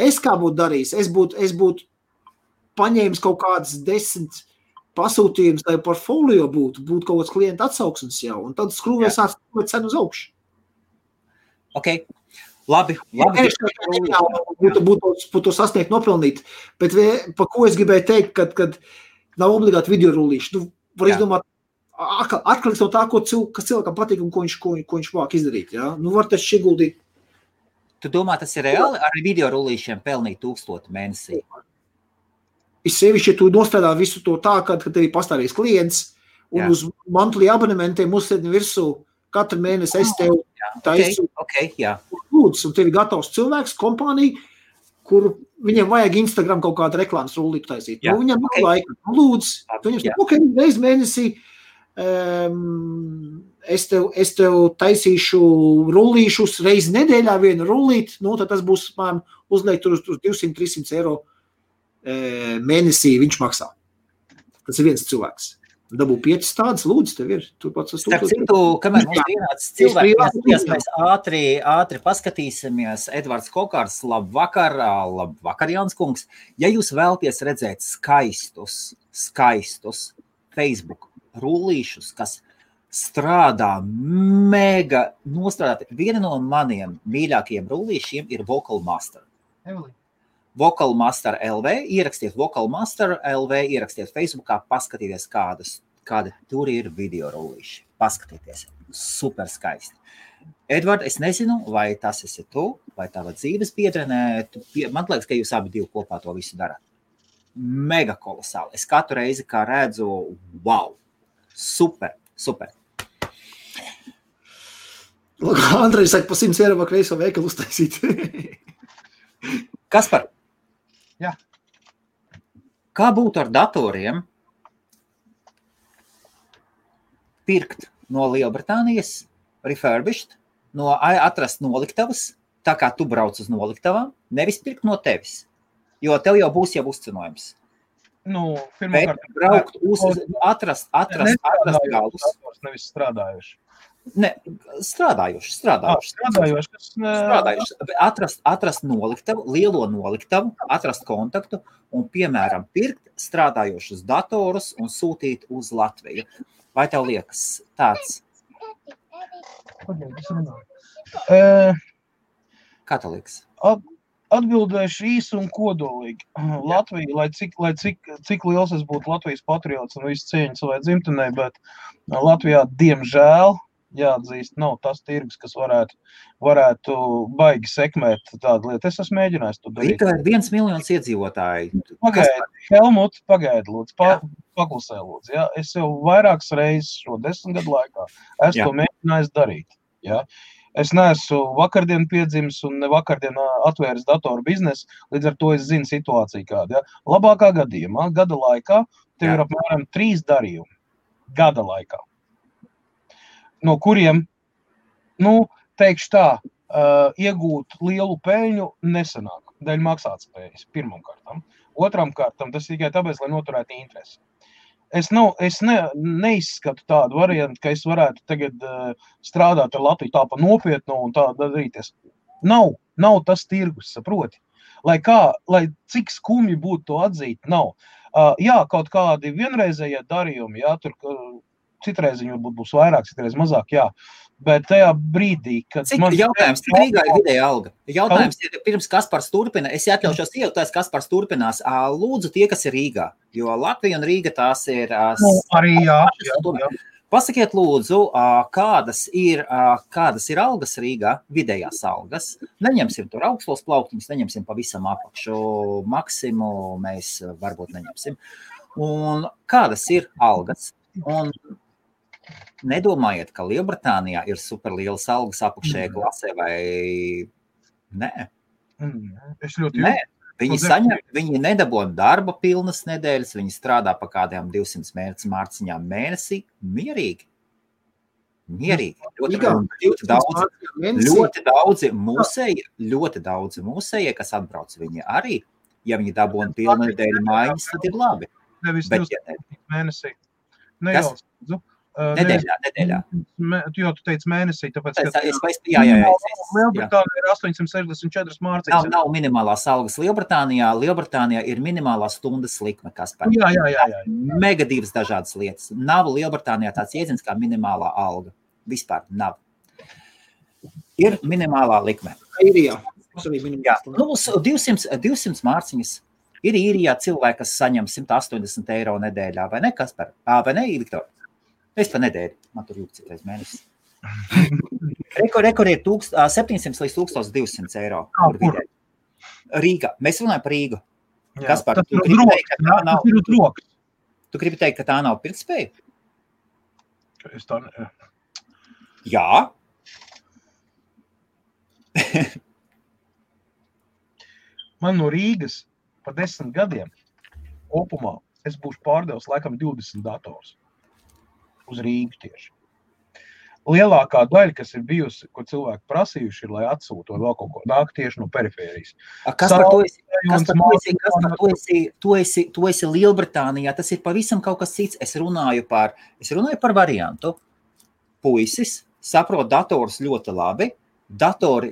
Es kā būtu darījis, es būtu paņēmis kaut kādas 10 pasūtījums, lai portfolio būtu kaut kāds klienta atsauksmes jau, un tad skrūvēs cenu uz augšu. Ok, labi. Būtu sasniegt nopelnīt, bet pa ko es gribēju teikt, kad nav obligāti video rullīši. Var izdomāt, atkarīgs no tā, kas cilvēkam patīk un ko viņš vāk izdarīt. Ja? Var taču ieguldīt. Tu domā, tas ir reāli ar video rullīšiem pelnīt 1000 mēnesī? Es sevišķi, ja tu nostrādā visu to tā, kad tev ir pastāvīgs klients un uz monthly abonementiem uzsēdni virsū katru mēnesi es tev taisu. Lūdzu, un tev ir gatavs cilvēks, kompānija, kur viņiem vajag Instagram kaut kādu reklāmas rullīti taisīt. Viņam nav laika. Lūdzu, viņam reiz mēnesī es tev taisīšu rullīšus reizi nedēļā vienu rullīti, tad tas būs uzliekt uz 200-300 eiro mēnesī viņš maksā. Tas ir viens cilvēks. Dabū 5 tādas, lūdzu, tev ir. Starp citu, kamēr mums vienāds cilvēks, mēs ātri paskatīsimies. Edvards Kokārs, labvakar, Jānis kungs. Ja jūs vēlaties redzēt skaistus Facebook rullīšus, kas strādā mega nostrādāti, viena no maniem mīļākajiem rullīšiem ir Vocal Master. Vocalmaster LV, ierakstiet Vocalmaster LV, ierakstiet Facebookā, paskatieties, kādi tur ir video rullīši. Paskatieties, super skaisti. Edvard, es nezinu, vai tas esi tu, vai tava dzīves biedrenē. Man liekas, ka jūs abi divi kopā to visu darāt. Mega kolosāli. Es katru reizi, kā redzu, wow, super. Andrejs saka, pa 100 eiro var kreiso veikalu uztaisīt. Kaspar? Jā. Kā būtu ar datoriem pirkt no Lielbritānijas, refurbished, atrast noliktavas, tā kā tu brauc uz noliktavām, nevis pirkt no tevis, jo tev jau būs uzcenojums. Pirmkārt, braukt atrast galus. Nevis strādājuši. Ne, strādājuši. Atrast noliktavu, lielo noliktavu, atrast kontaktu un, piemēram, pirkt strādājošus datorus un sūtīt uz Latviju. Vai tev liekas tāds? Kā tev liekas? Atbildēšu īsi un kodolīgi. Latvija, lai cik liels es būtu Latvijas patriots un visu cieņu savai dzimtenei, bet Latvijā, diemžēl, jāatzīst, nav tas tirgus, kas varētu baigi sekmēt tādu lietu. Es esmu mēģinājis to darīt. Rīgā ir 1 miljons iedzīvotāji. Helmut, pagaidi, lūdzu, paklusē, lūdzu. Ja? Es jau vairākas reizes šo 10 gadu laikā esmu to mēģinājis darīt. Ja? Es neesmu vakardien piedzimis un ne vakardien atvēris datoru biznesu, līdz ar to es zinu situāciju kādu. Ja? Labākā gadījumā, gada laikā, tev ir apmēram 3 darījumi. Gada laikā. No kuriem, teikšu tā, iegūt lielu peļņu nesanāk, dēļ maksātspējas, pirmam kārtam. Otram kārtam, tas tikai tāpēc, lai noturētu interesi. Es neizskatu tādu variantu, ka es varētu tagad strādāt ar Latviju tā pa nopietnu un tā darīties. Nav tas tirgus, saproti. Lai cik skumji būtu to atzīt, nav. Jā, kaut kādi vienreizējie darījumi, jā, tur citreiz viņi varbūt būs vairāk, citreiz mazāk, jā. Bet tajā brīdī, kad... Jautājums, cik Rīgā ir vidēja alga? Jautājums ir, pirms Kaspars turpina, es atļaušos iejautājis, Kaspars turpinās. Lūdzu tie, kas ir Rīgā, jo Latvija un Rīga tās ir... Arī jā. Pasakiet lūdzu, kādas ir algas Rīgā, vidējās algas. Neņemsim tur augstos plauktiņus, neņemsim pavisam apakšu maksimu, mēs varbūt neņemsim. Un kādas ir algas? Un nedomājiet, ka Lielbritānijā ir superlielas algas apakšējā klasē vai nē? Nē, viņi nedabūna darba pilnas nedēļas, viņi strādā pa kādiem 200 mārciņām mēnesī, mierīgi. Ļoti daudzi mūsēji, kas atbrauc viņi arī, ja viņi dabūna pilnu nedēļu mājas, tad ir labi. Nevis 200 mēnesī. Nedēļā. Jo tu teici mēnesī, tāpēc, ka Lielbritānija ir 864 mārciņas. Nav minimālās algas Lielbritānijā. Lielbritānijā ir minimālā stundas likme, kas par mega divas dažādas lietas. Nav Lielbritānijā tāds jēdziens kā minimālā alga. Vispār nav. Ir minimālā likme. Īrijā. 200 mārciņas. Ir Īrijā cilvēki, kas saņem 180 eiro nedēļā, vai ne, Kaspar? Vai ne, Viktor? Es pa nedēļu, man tur jūgt citreiz mēnesis. Rekord ir 700 līdz 1200 eiro. Rīgā. Mēs runājam par Rīgu. Kaspar, tu gribi teikt, ka tā nav pirktspēja? Es tā ne... Jā. Man no Rīgas pa 10 gadiem kopumā es būšu pārdevis laikam 20 dators uz Rīgu tieši. Lielākā daļa, kas ir bijusi, ko cilvēki prasījuši, ir, lai atsūto vēl kaut ko nāk tieši no perifērijas. Kaspar, tu esi Lielbritānijā, tas ir pavisam kaut kas cits. Es runāju par variantu. Puisis saprot datorus ļoti labi. Datori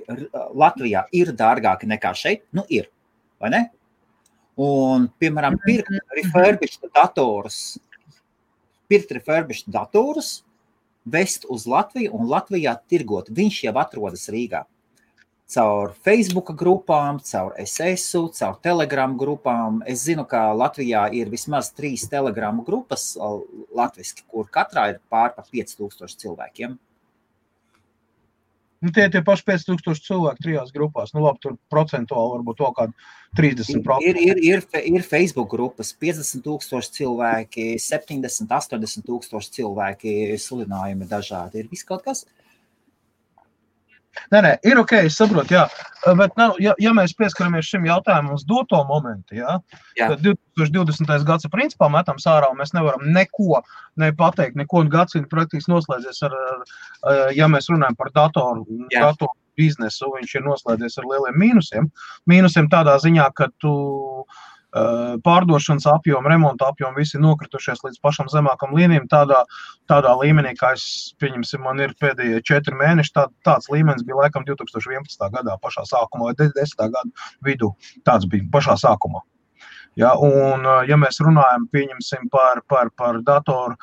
Latvijā ir dārgāki nekā šeit. Ir, vai ne? Un, piemēram, pirkt refurbished datorus, vest uz Latviju un Latvijā tirgot. Viņš jau atrodas Rīgā. caur Facebook grupām, caur SS-u, caur Telegram grupām. Es zinu, ka Latvijā ir vismaz 3 Telegram grupas latviski, kur katrā ir pār par 5000 cilvēkiem. Nu, tie paši 5000 cilvēki 3 grupās. Nu, labi, tur procentuāli varbūt to kādu 30%. Ir Facebook grupas 50,000 cilvēki, 70, 80,000 cilvēki, sludinājumi dažādi. Ir viss kaut kas? Nē, ir ok, es saprotu, jā. Bet, ja mēs pieskaramies šim jautājumam uz doto momentu, tad 2020. gads principā metam sārā, un mēs nevaram neko nepateikt, neko gadsimtu praktiski noslēdzies ar, ja mēs runājam par datoru biznesu, viņš ir noslēdzies ar lieliem mīnusiem. Mīnusiem tādā ziņā, ka tu pārdošanas apjomu, remonta apjomu visi nokritušies līdz pašam zemākam līmenim, tādā līmenī, kā pieņemsim, man ir pēdējie 4 mēneši, tāds līmenis bija laikam 2011. gadā pašā sākumā, vai 10. gada vidū, tāds bija pašā sākumā. Ja, un, ja mēs runājam, pieņemsim par datoru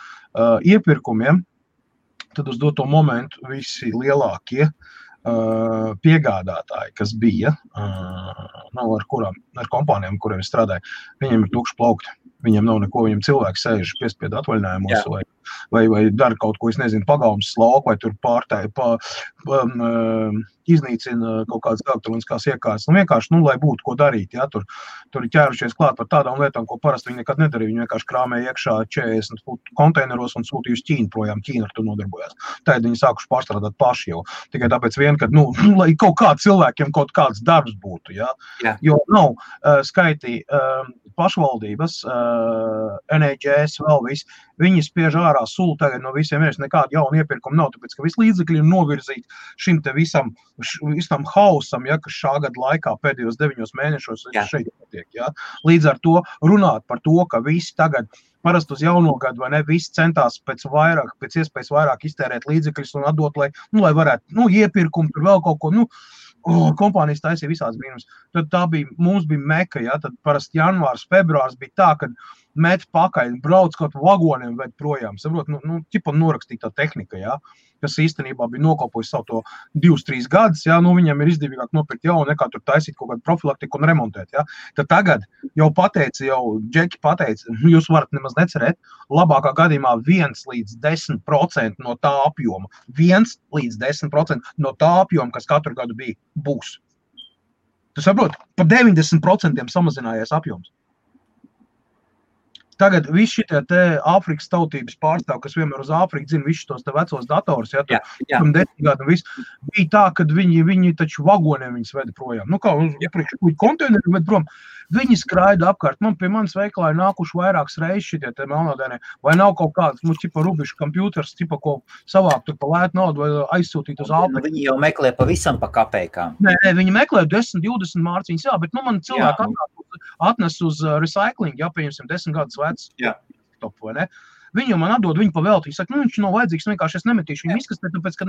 iepirkumiem, tad uz doto momentu visi lielākie piegādātāji, kas bija, ar kompānijām, kuriem es strādāju, viņiem ir tukši plaukti. Viņiem nav neko, viņiem cilvēki sēž piespiedu atvaļinājumos vai dara kaut ko, es nezinu, pagalmas slauku, vai tur iznīcina kaut kādas elektroniskās iekārtas. Vienkārši, lai būtu ko darīt, tur ir ķērušies klāt par tādām lietām, ko parasti viņi nekad nedarīja. Viņi vienkārši krāmēja iekšā 40 futu konteineros un sūtīja uz Ķīnu projām. Ķīna ar to nodarbojās. Tad viņi sākuši pārstrādāt paši jau. Tikai tāpēc ka, lai kaut kā cilvēkiem kaut kāds darbs būtu, Jo nav skaitī pašvaldības, NHS, vēl viss, viņi spiež ārā sulu tagad no visiem, nekāda jauna iepirkuma nav, tāpēc, ka visi līdzekļi ir novirzīti šim te visam hausam, kas šā gada laikā pēdējos 9 mēnešos šeit notiek, Līdz ar to runāt par to, ka visi tagad parasti uz jauno gadu, vai ne, visi centās pēc iespējas vairāk iztērēt līdzekļus un atdot, lai varētu, iepirkumu, tur vēl kaut ko, kompānijas taisīja visāds brīnums. Tad mums bija meka, tad parasti janvārs, februārs bija tā, kad met pakaļ, brauc kaut vagoniem ved projām, saprot, norakstītā tehnika, kas īstenībā bija nokalpojusi savu to 2-3 gadus, viņam ir izdevīgāk nopirkt jaunu, nekā tur taisīt kaut kādu profilaktiku un remontēt, Tad tagad jau Džeki pateica, jūs varat nemaz necerēt, labākā gadījumā 1-10% no tā apjoma, 1-10% no tā apjoma, kas katru gadu bija, būs. Tu saprot, pa 90% samazinājies apjoms. Tagad visi šitie te Āfrikas tautības pārstāv, kas vienmēr uz Āfriku dzina visus tos te vecos datorus, tur 10 gadu un viss, bija tā, kad viņi taču vagoniem viņus veda projām. Kā uz konteineru ved prom, viņi skraida apkārt. Pie manis veikalā ir nākuši vairākas reizes šitie te melnādēnie, vai nav kaut kāds, rubišu kompjūters, ko savāk tur pa lētu naudu vai aizsūtīt uz Āfriku. Viņi jau meklē pavisam pa kapeikām. Nē, viņi meklē 10-20 mārciņas, bet man cilvēki atnes uz recycling, pieņemsim 10 gadus vecs top, vai ne? Viņi jau man atdod viņu pa velti. Viņš saka, viņš nav vajadzīgs, vienkārši es nemetīšu viņu izkastē, tāpēc, ka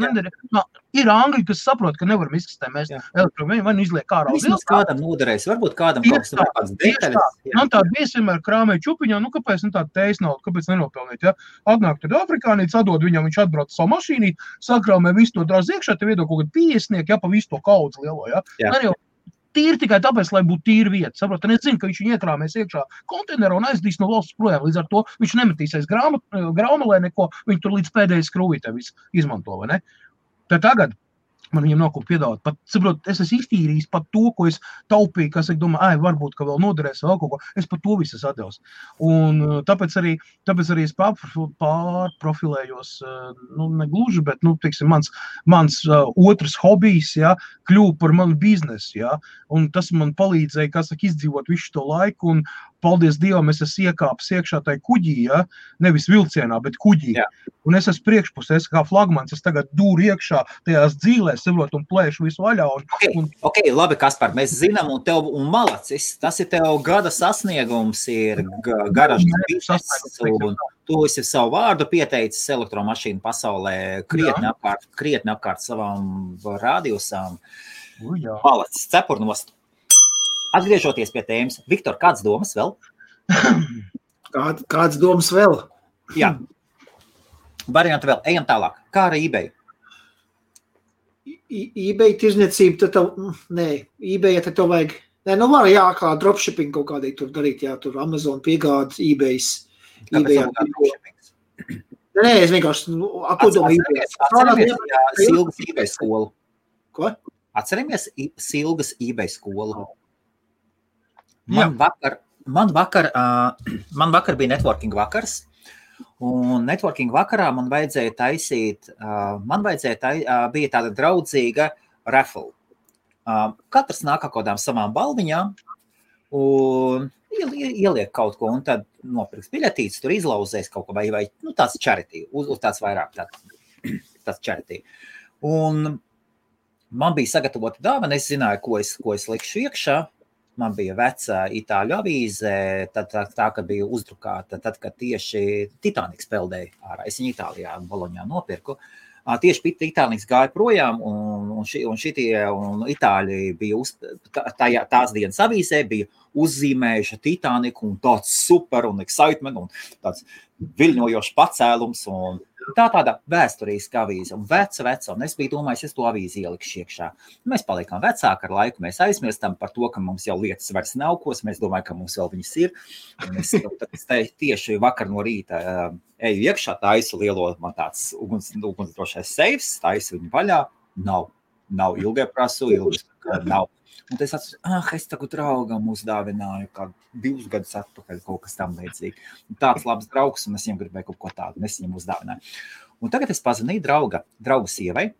ir angļi, kas saprot, ka nevaram izkastē mēs elektrovienu, vai izliek ārā. Vismaz kādam noderēs, varbūt kādam kaut kāds detaļas. Man tāda bies vienmēr krāmēja čupiņā, kāpēc tāda teis naudu, kāpēc nenopelnīt, Atnāk tad afrikānīts, atdod viņam, viņš atbrauc savu mašīnīt, sakrāmē visu to drāz iekšā, te viedok kaut kādu 50, pa visu to kaudzi lielo, Tīri tikai tāpēc, lai būtu tīra vieta. Saprot, un es zinu, ka viņš viņu iekrāmēs iekšā konteinerā un aizdīs no valsts projām. Līdz ar to viņš nemetīsies graumalē neko, viņš tur līdz pēdējai skrūvītē visu izmanto, vai ne? Tad tagad man viņam nav ko piedāvāt. Pat, saprot, es esmu iztīrījis pat to, ko es taupīju, kas, es domāju, varbūt, ka vēl noderēs vēl kaut ko. Es pat to visu atdevu. Un tāpēc arī es pārprofilējos, negluži, bet, teiksim, mans otrs hobijs, kļuva par manu biznesu, un tas man palīdzēja, izdzīvot visu to laiku, un paldies Dievam, es esmu iekāpis iekšā tai kuģī, nevis vilcienā, bet kuģī. Un es esmu priekšpusē, es kā flagmans, es tagad dūru iekšā tajās dzīlēs, saprot, un plēšu visu vaļā. Ok, labi, Kaspar, mēs zinām, un malacis, tas ir tev gada sasniegums, ir garažas bizness, un tu esi savu vārdu pieteicis elektromašīnu pasaulē krietni apkārt savām radiusām. Malacis, cepurnost. Atgriežoties pie tēmas, Viktor, kādas domas vēl? Kādas domas vēl? Jā. Varianti vēl. Ejam tālāk. Kā ar eBay? eBay tirzniecība, tad eBay, tad tev vajag, var kā dropshipping kaut kādīgi tur darīt, tur Amazon piegāda, eBay's. Kāpēc tev dropshippings? Es vienkārši, Atceramies Silgas eBay skolu. Ko? Atceramies Silgas eBay skolu. Man vakar bija networking vakars, un networking vakarā man vajadzēja taisīt, bija tāda draudzīga raffle. Katrs nāk kaut kādām savām balviņām un ieliek kaut ko, un tad nopirks biļetītes, tur izlauzēs kaut ko, vai tāds charity, uz tāds vairāk tāds charity. Un man bija sagatavota dāvana, es zināju, ko es likšu iekšā. Man bija vecā itāļu avīze, tā ka bija uzdrukāta, tad, kad tieši Titaniks peldēja ārā. Es viņu Itālijā, Boloņā nopirku. Tieši Titaniks gāja projām, un Itāļi bija tās dienas avīzē, bija uzzīmējuši Titaniku, un tāds super un excitement, un tāds viļņojošs pacēlums, un tāda vēsturiska avīze, un veca, un es biju domājis, es to avīzi ielikšu iekšā. Mēs palikām vecāki ar laiku, mēs aizmirstam par to, ka mums jau lietas vairs nav kos, mēs domājam, ka mums vēl viņas ir, un es tieši vakar no rīta eju iekšā, taisu lielo, man tāds ugunsdrošais seifs, taisu viņu vaļā, nav ilgai prasu, nav. Un es atceros, es tagad draugam uzdāvināju, kā 2 gadus atpakaļ kaut kas tam līdzīgi. Tāds labs draugs, un es viņam gribēju kaut ko tādu, un es viņam uzdāvināju. Un tagad es pazvanīju drauga sievai.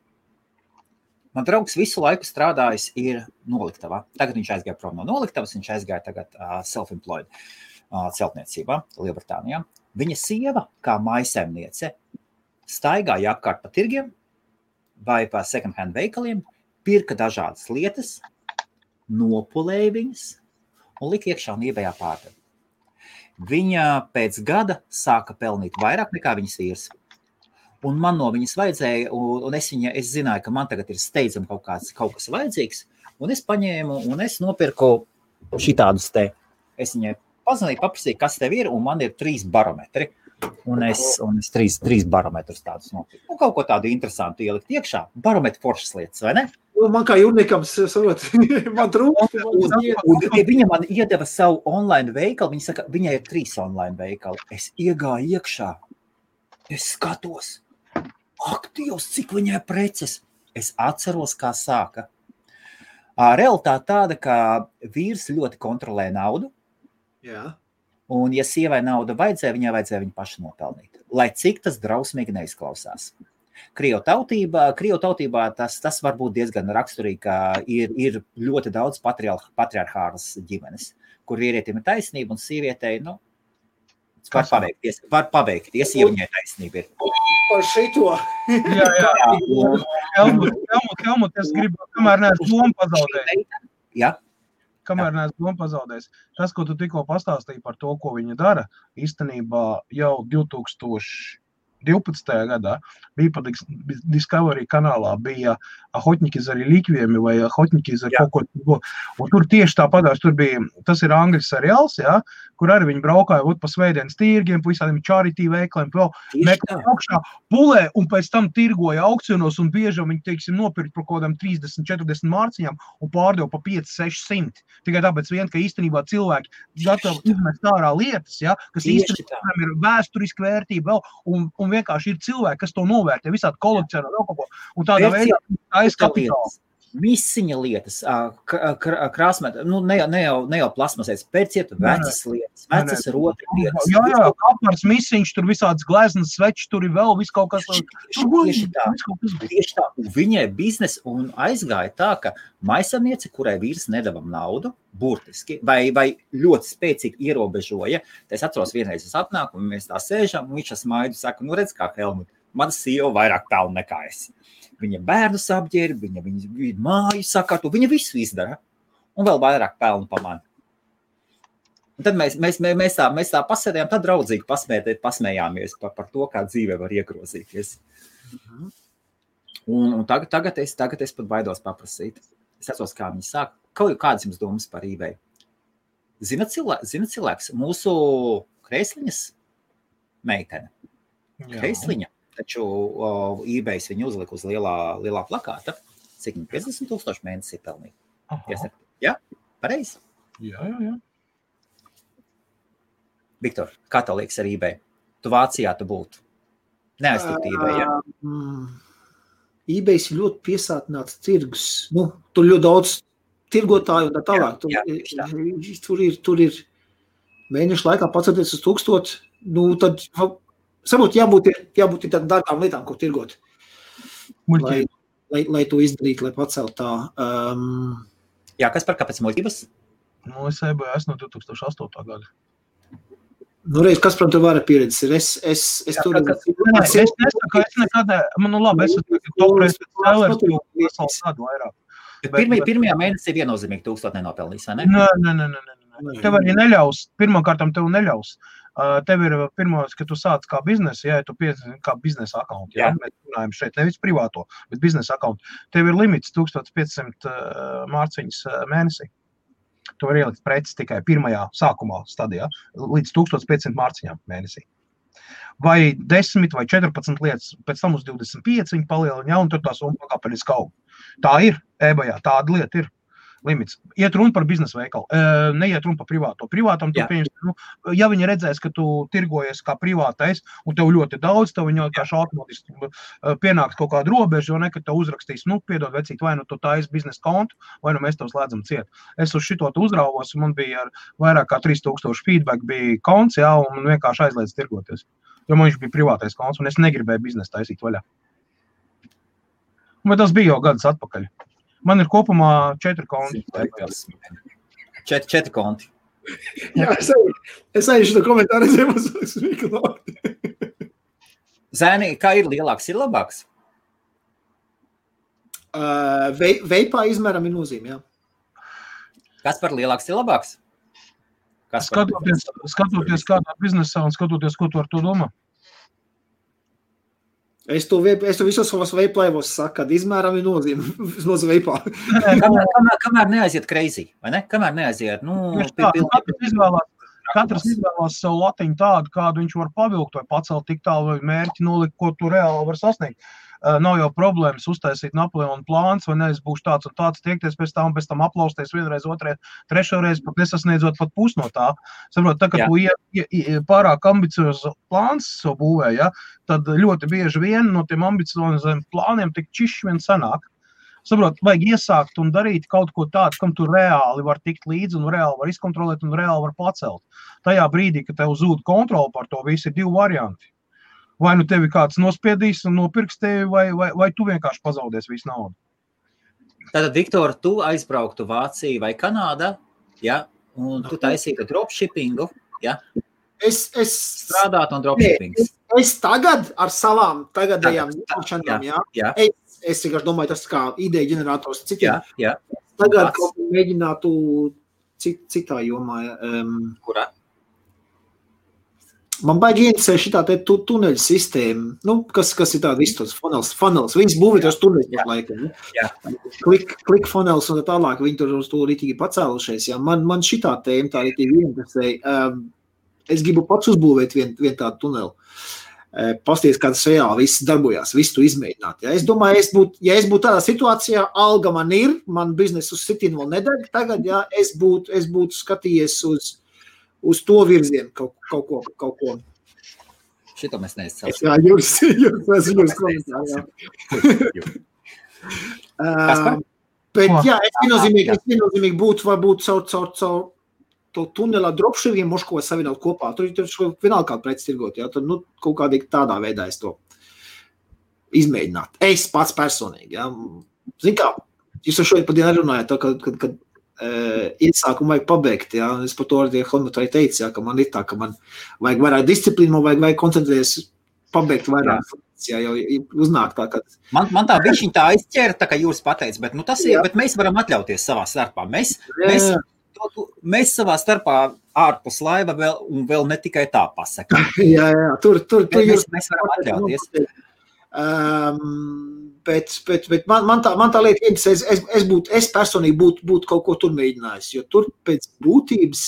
Man draugs visu laiku strādājis ir noliktavā. Tagad viņš aizgāja prom no noliktavas, viņš aizgāja tagad self-employed celtniecībā Lielbritānijā. Viņa sieva, kā mājsaimniece, staigāja apkārt pa tirgiem vai pa second hand veikaliem, pirka dažādas lietas, nopulēja viņas un lika iekšā un eBayā pārdeva. Viņa pēc gada sāka pelnīt vairāk nekā viņas vīrs. Un man no viņas vajadzēja, un es zināju, ka man tagad ir steidzami kaut kas vajadzīgs, un es paņēmu un es nopirku šitādus te. Es viņai pazvanīju, paprasīju, kas tev ir, un man ir 3 barometri. Un es 3 barometrus tādus nopirku. Un kaut ko tādu interesantu ielikt iekšā. Barometri foršas lietas, vai ne? Man kā jūrniekam, man trūkst. Viņa man iedeva savu online veikalu. Viņa saka, viņai ir 3 online veikali. Es iegāju iekšā. Es skatos. Ak, Dievs, cik viņai preces. Es atceros, kā sāka. Realitāte tāda, ka vīrs ļoti kontrolē naudu. Jā. Un, ja sievai nauda vajadzēja viņu pašu nopelnīt. Lai cik tas drausmīgi neizklausās. Krievu tautībā tas var būt diezgan raksturīgi, ka ir ļoti daudz patriarchālas ģimenes, kur vīrietim ir taisnība un sievietei, var paveikties, ja viņai taisnība ir. Par šito. Jā. Helmut, es gribu, kamēr neesmu domu pazaudējis. Jā. Kamēr neesmu domu pazaudējis. Tas, ko tu tikko pastāstīji par to, ko viņa dara, īstenībā jau 2012. gadā bija pa Discovery kanālā, bija Охотники за реликвиями vai Охотники за kaut ko. Un tur tieši tāpatās, tur bija, tas ir angļu seriāls, jā, kur arī viņi braukāja pa svētdienas tirgiem, pa visādiem charity veikaliem, meklēja augšā, pulē un pēc tam tirgoja aukcionos un bieži viņi, teiksim, nopirkt par kaut kādām 30-40 mārciņām un pārdeva pa 500-600. Tikai tāpēc vien, ka īstenībā cilvēki gatavi izmest ārā lietas, jā, kas īstenībā ir vēsturiski vērtība vēl, un vienkārši ir cilvēki, kas to novērtē, visādi kolekcionē vēl kaut ko. Un tādā veidā aizkapitāli. Misiņa lietas, krāsmēt, ne jau plasmasēs, pērciet vecas lietas, vecas rotri lietas. Jā, apmārs misiņš, tur visādas gleznas svečs, tur ir vēl viss kaut kas. Tieši tā. Un viņai biznes un aizgāja tā, ka maisaimniece, kurai vīrs nedavam naudu, burtiski, vai ļoti spēcīgi ierobežoja. Es atceros vienreiz, es atnāku, un mēs tā sēžam, un viņš smaidu saka, redz kā Helmut, mana sieva vairāk pelna nekā es. Viņa bērnus apģērba, viņa māju sakārto, viņa visu izdara un vēl vairāk pelnu pa mani. Un tad mēs tā pasēdējām, tad draudzīgi pasmējāmies par to, kā dzīve var iegrozīties. Un tagad es pat baidos paprasīt. Es atceros, kā viņi sāk. Kādas jums domas par eBay? Zina cilvēks, mūsu Kreisliņas meitene. Kreisliņa. Taču eBay viņu uzlika uz lielā plakāta. cik 50,000 mēnesī pelnīt. Aha. Jā, pareizi. Jā. Viktor, kā tev liekas ar eBay? Tu Vācijā tu būtu. Neaiztiktu eBay, ja? eBay ir ļoti piesātināts tirgus. Nu, tur ļoti daudz tirgotāju un tā tālāk. Tur ir mēnešu laikā pacelties uz 1000. Nu, tad saprot, jābūt tādām dārgām lietām, ko tirgot. Lai to izdarītu, lai pacelt tā. Jā, kas par kāpēc muļķības? Nu, es eBay esmu no 2008. gada. Nu, reiz, kas, protams, var pieredzes ir? Es tur... Es nesaku, es nekad... Nu, labi, es esmu topreis spēlēs, jo vesels gadu vairāk. Pirmajā mēnesī viennozīmīgi 1000 nenopelnīs, vai ne? Nē. Tev arī neļaus. Pirmkārtam tev neļaus. Tev ir pirmais, ka tu sāc kā biznesa, ja tu piesaistīsi kā biznesa akauntu. Ja? Mēs runājam šeit nevis privāto, bet biznesa akauntu. Tev ir limits 1500 mārciņas mēnesī. Tu vari ielikt preces tikai pirmajā sākumā stadijā, līdz 1500 mārciņām mēnesī. Vai 10 vai 14 lietas, pēc tam uz 25 viņi palielina, ja, un tur tā summa pakāpeniski aug. Tā ir, eBayā, tāda lieta ir. Limits. Iet runa par biznesa veikalu, neiet runa par privāto. Privātam tu pieņems, ja viņi redzēs, ka tu tirgojies kā privātais, un tev ļoti daudz, tev viņi kā automātiski pienāks kaut kādu robežu, jo nekad tev uzrakstīs, piedod vecīt, vai nu tu taisi biznesa kontu, vai nu mēs tev slēdzam ciet. Es uz šito uzrauvos, un man bija ar vairāk kā 3000 feedback bija konts, jā, un man vienkārši aizliedz tirgoties. Jo man viņš bija privātais konts, un es negribēju biznesa taisīt vaļā. Bet tas bija jau gadus atpakaļ. Man ir kopumā 4 konti. 4 konti. Jā, es aizšu to komentāru redzējumu uz Miklu. Zēni, kā ir lielāks, ir labāks? Veipā izmēram ir nozīme, jā. Kas par lielāks ir labāks? Skatoties kādā biznesā un skatoties, ko tu ar to domā? Es to visos savos veiplaivos saku, kad izmēram ir nozīme uz veipā. Kamēr neaiziet crazy, vai ne? Kamēr neaiziet, katrs izvēlās savu latiņu tādu, kādu viņš var pavilkt vai pacelt tik tālu vai mērķi nolikt, ko tu reāli var sasniegt. Nav jau problēmas uztaisīt Napoleona plāns, vai ne, es būšu tāds un tāds, tiekties pēc tam aplausties vienreiz, otrais, trešoreiz, pat nesasniedzot pat pus no tā. Saprot, tā, ka tu pārāk ambiciozu plāns savu būvē, ja, tad ļoti bieži vien no tiem ambicioziem plāniem tik čišķi vien sanāk. Saprot, vajag iesākt un darīt kaut ko tādu, kam tu reāli var tikt līdzi un reāli var izkontrolēt un reāli var pacelt. Tajā brīdī, ka tev zūd kontroli par to, visi ir 2 varianti. Vai nu tevi kāds nospiedīs un nopirks tevi, vai tu vienkārši pazaudēs visu naudu. Tātad, Viktor, tu aizbrauktu Vāciju vai Kanādā, ja, un tu taisītu dropshippingu, ja? Es strādātu un dropshippings. Es tagad ar savām tagadējām zināšanām, jā. Es vienkārši domāju, tas kā ideja ģenerators citiem. Jā. Tagad kaut ko mēģinātu citā jomā. Kurā? Man baigi interesē šitā te tuneļu sistēma, kas ir tāda visu tos funnels. Viņas būvē tos tuneļus par laikam. Click funnels un tā tālāk, viņi tur uz to rītīgi pacēlušies. Jā. Man šitā tēma tā rītīgi interesē. Es gribu pats uzbūvēt vien tādu tuneli. Pasties, kā tas reāli viss darbojās, visu to izmēģināt. Ja? Es domāju, ja es būtu tādā situācijā, alga man ir, man biznesu uz sitīnu vēl nedeg tagad, ja? Es būtu skatījies uz to virzienu kaut ko. Šito mēs neizcelsim. Jā, jūs komentāri, jā. Bet jā, es viennozīmīgi būtu varbūt caur to tunelā dropshippingiem moško savienot kopā. Tur vienalga kādu preci tirgot, jā. Tad, kaut kādīgi tādā veidā es to izmēģināt. Es pats personīgi, jā. Zin kā, jūs ar šodien pa dienu runājat, kad iesākumu vajag pabeigt, jā. Es par to arī Helmutai teicu, jā, ka man ir tā, ka man vajag vairāk disciplīnu, man vajag koncentrēties pabeigt vairāk. Jā, jau uznāk tā, ka... Man tā bišķiņ tā aizķēra, tā kā jūs pateic, bet, tas ir, bet mēs varam atļauties savā starpā. Mēs savā starpā ārpus laiva vēl ne tikai tā pasaka. Jā, tur mēs varam atļauties. Bet man tā lieta interesē, es personīgi būtu kaut ko tur mēģinājis, jo tur pēc būtības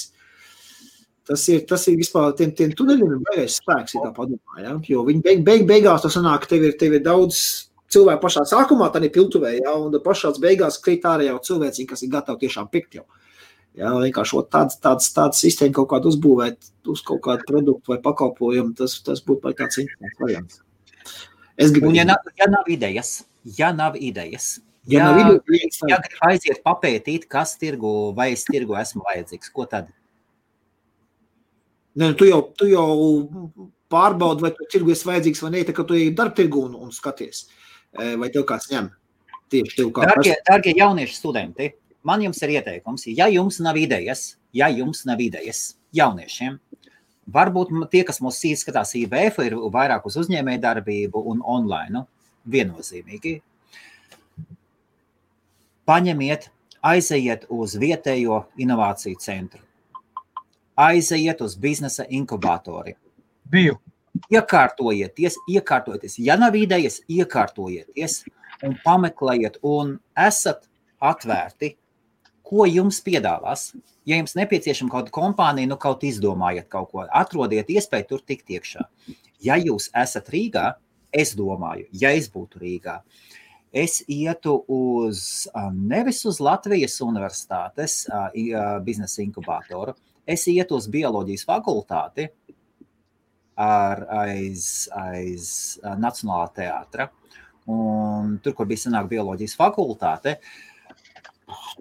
tas ir vispār tiem tuneļiem ir baigais spēks, ja tā padomā, ja? Jo viņi beigās tas sanāk, tev ir daudz cilvēki pašā sākumā, tā ir piltuvē, ja, un pašās beigās krīt ārā jau cilvēci, kas ir gatavi tiešām pikt jau. Ja, vienkārši tāds sistēma kaut kādu uzbūvēt uz kaut kādu produktu vai pakalpojumu, tas būtu vai tāds interesants variants. Un ja nav idejas, ja grib aiziet papētīt, kas tirgu vai es tirgu esmu vajadzīgs, ko tad? Ne, tu jau pārbaudi, vai tu tirgu esi vajadzīgs vai ne, tā kā tu ej darba tirgu un skaties, vai tev kāds ņem. Tieši tev kā Dargie jaunieši studenti, man jums ir ieteikums, ja jums nav idejas jauniešiem, varbūt tie, kas mūs skatās IBF, ir vairāk uz uzņēmēju darbību un online, viennozīmīgi. Paņemiet, aizejiet uz vietējo inovāciju centru. Aizejiet uz biznesa inkubatori. Biju. Iekārtojieties. Ja nav idejas, iekārtojieties un pameklējiet un esat atvērti, ko jums piedāvās. Ja jums nepieciešama kaut kompānija, kaut izdomājiet kaut ko, atrodiet iespēju tur tikt iekšā. Ja jūs esat Rīgā, es domāju, ja es būtu Rīgā, es ietu nevis uz Latvijas universitātes biznesa inkubatoru, es ietu uz bioloģijas fakultāti aiz Nacionālā teātra. Un tur, kur bija sanāk bioloģijas fakultāte,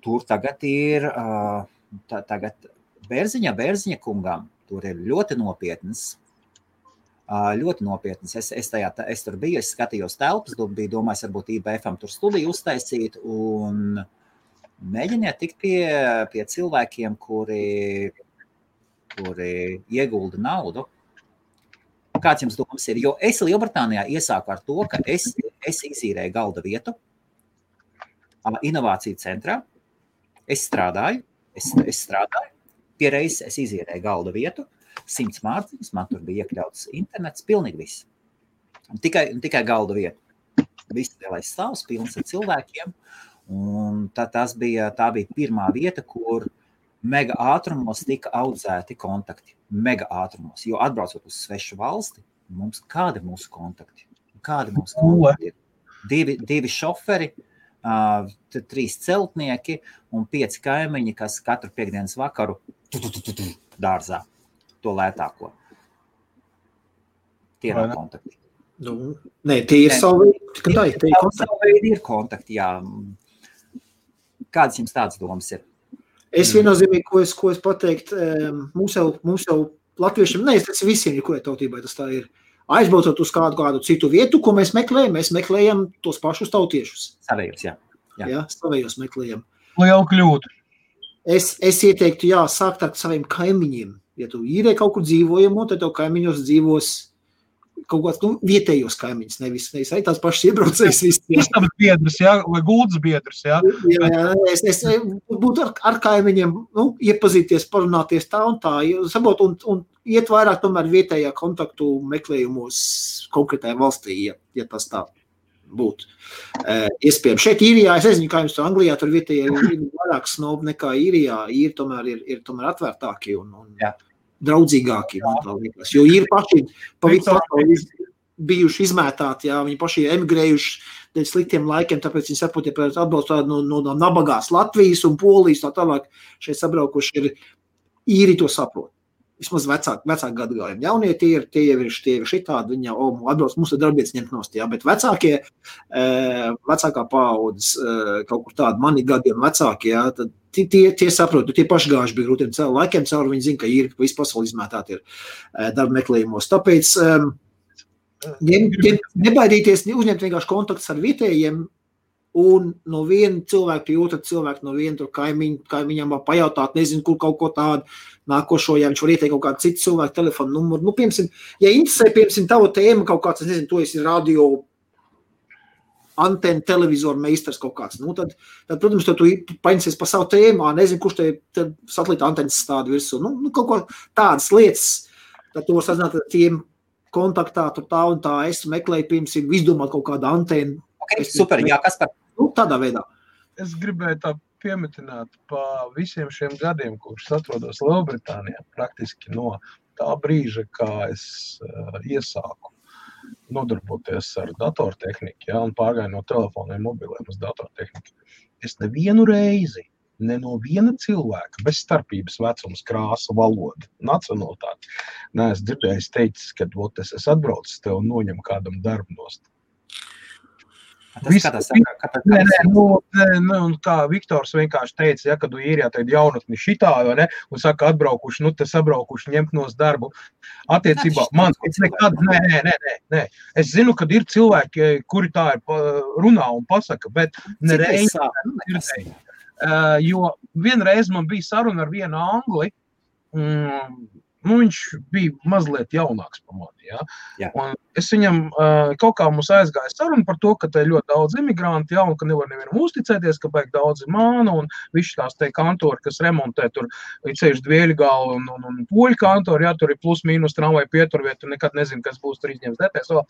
tur tagad ir Bērziņa kungam. Tur ir ļoti nopietnas. Es tur biju, es skatījos telpas, biju domājis, varbūt IBF-am tur studiju uztaisīt un mēģiniet tikt pie cilvēkiem, kuri iegulda naudu. Kāds jums domas ir? Jo es Lielbritānijā iesāku ar to, ka es izīrēju galda vietu inovāciju centrā. Es strādāju, pie reizes es izīrēju galda vietu, 100 mārciņas, man tur bija iekļauts internets, pilnīgi viss. Tikai galda vieta. Viss lielais stāvs, pilns ar cilvēkiem. Un tā bija pirmā vieta, kur mega ātrumos tika audzēti kontakti. Mega ātrumos, jo atbraucot uz svešu valsti, kādi mūsu kontakti? Ir? Divi šoferi, 3 celtnieki un 5 kaimiņi, kas katru piekdienas vakaru dārzā to lētāko. Tie nav kontakti. Nē, tie ir savi veidi ir kontakti, jā. Kādas jums tādas domas ir? Es viennozīmīgi, ko es pateikt, mums jau latviešiem, tas visiem, kurai tautībai tas tā ir, aizbraucot uz kādu citu vietu, ko mēs meklējam tos pašus tautiešus. Savējos, jā. Jā, savējos meklējam. Liela kļūda. Es ieteiktu, sākt ar saviem kaimiņiem. Ja tu īrē kaut kur dzīvojamo, tad tev kaimiņos dzīvos kaut kāds vietējos kaimiņus, nevis arī tās pašas iebraucējas viss. Istabas biedrs, vai guldas biedrs, jā? Jā, es būtu ar kaimiņiem, iepazīties, parunāties tā un tā, sabot, un iet vairāk tomēr vietējā kontaktu meklējumos konkrētajā valstī, ja tas tā būtu. Iespējams, šeit Īrijā, es nezinu, kā jums to Anglijā, tur vietējā ir vairāk snobi nekā Īrijā, ir tomēr atvērtāki un draudzīgāki, man tā liekas, jo ir paši bijuši izmētāti, viņi paši emigrējuši dēļ sliktiem laikiem, tāpēc viņi saprot, ja atbalstu no nabagās Latvijas un Polijas, tā tālāk šeit sabraukuši ir īri to saprot. Vismaz vecāki gadagājumi. Jaunie tie ir šitādi, viņi jau atbrauc, mums ir darbietis ņemt nost, bet vecākā paaudzes, kaut kur tādi mani gadiem vecāki, tad tie saprot, tie pašgājuši bija grūtiem laikiem cauri, viņi zina, ka ir visu pasauli izmētāti ir darba meklējumos. Tāpēc nebaidīties, uzņemt vienkārši kontaktus ar vietējiem un no viena cilvēka pie otra cilvēka, no viena tur kaimiņam pajautāt, nezinu, kur kaut ko tādu nākošo, ja viņš var ieteikt kaut kādu citu cilvēku telefonu numuru. Piemēram, ja interesē, tava tēma kaut kāds, es nezinu, to esi radio antena, televizoru meistars kaut kāds, tad, protams, tu paņemsies pa savu tēmu, nezinu, kurš te satelīta antenas stāda virsū, kaut ko tādas lietas, tad tu var sazināt ar tiem kontaktā, tur tā un tā, es meklēju, piemēram, izdomāt kaut kādu antenu. Okay, super, jā, kas par? Tādā veidā. Es gribēju tā piemetināt pa visiem šiem gadiem, kurus atrodos Lielbritānijā, praktiski no tā brīža, kā es iesāku nodarboties ar datortehniku, un pārgāju no telefoniem mobiliem uz datortehniku. Es nevienu reizi, ne no viena cilvēka, bez starpības vecums, krāsa, valoda, nacionalitāte, neesmu dzirdējis teicis, ka es atbraucu tev un noņem kādam darbu nost. Kā Viktors vienkārši teica, ja, kad īrijā teid jaunatni šitā, ne, un saka, atbraukuši, te sabraukuši, ņemt nos darbu. Attiecībā, man nekad, nē. Es zinu, kad ir cilvēki, kuri tā ir runā un pasaka, bet nereiz dzirdēju. Jo vienreiz man bija saruna ar vienu angli, viņš bija mazliet jaunāks par mani, ja? Un es viņam kaut kā mums aizgāja saruna par to, ka te ir ļoti daudz imigranti, un ka nevar nevienam uzticēties, ka baigi daudz ir māna, un visi tās te kantori, kas remontē tur ceļš Dvieļgalu un Poļu kantori, ja, tur ir plus mīnus tramvai pieturviet, tu nekad nezinu, kas būs tur izņems DTS vēl.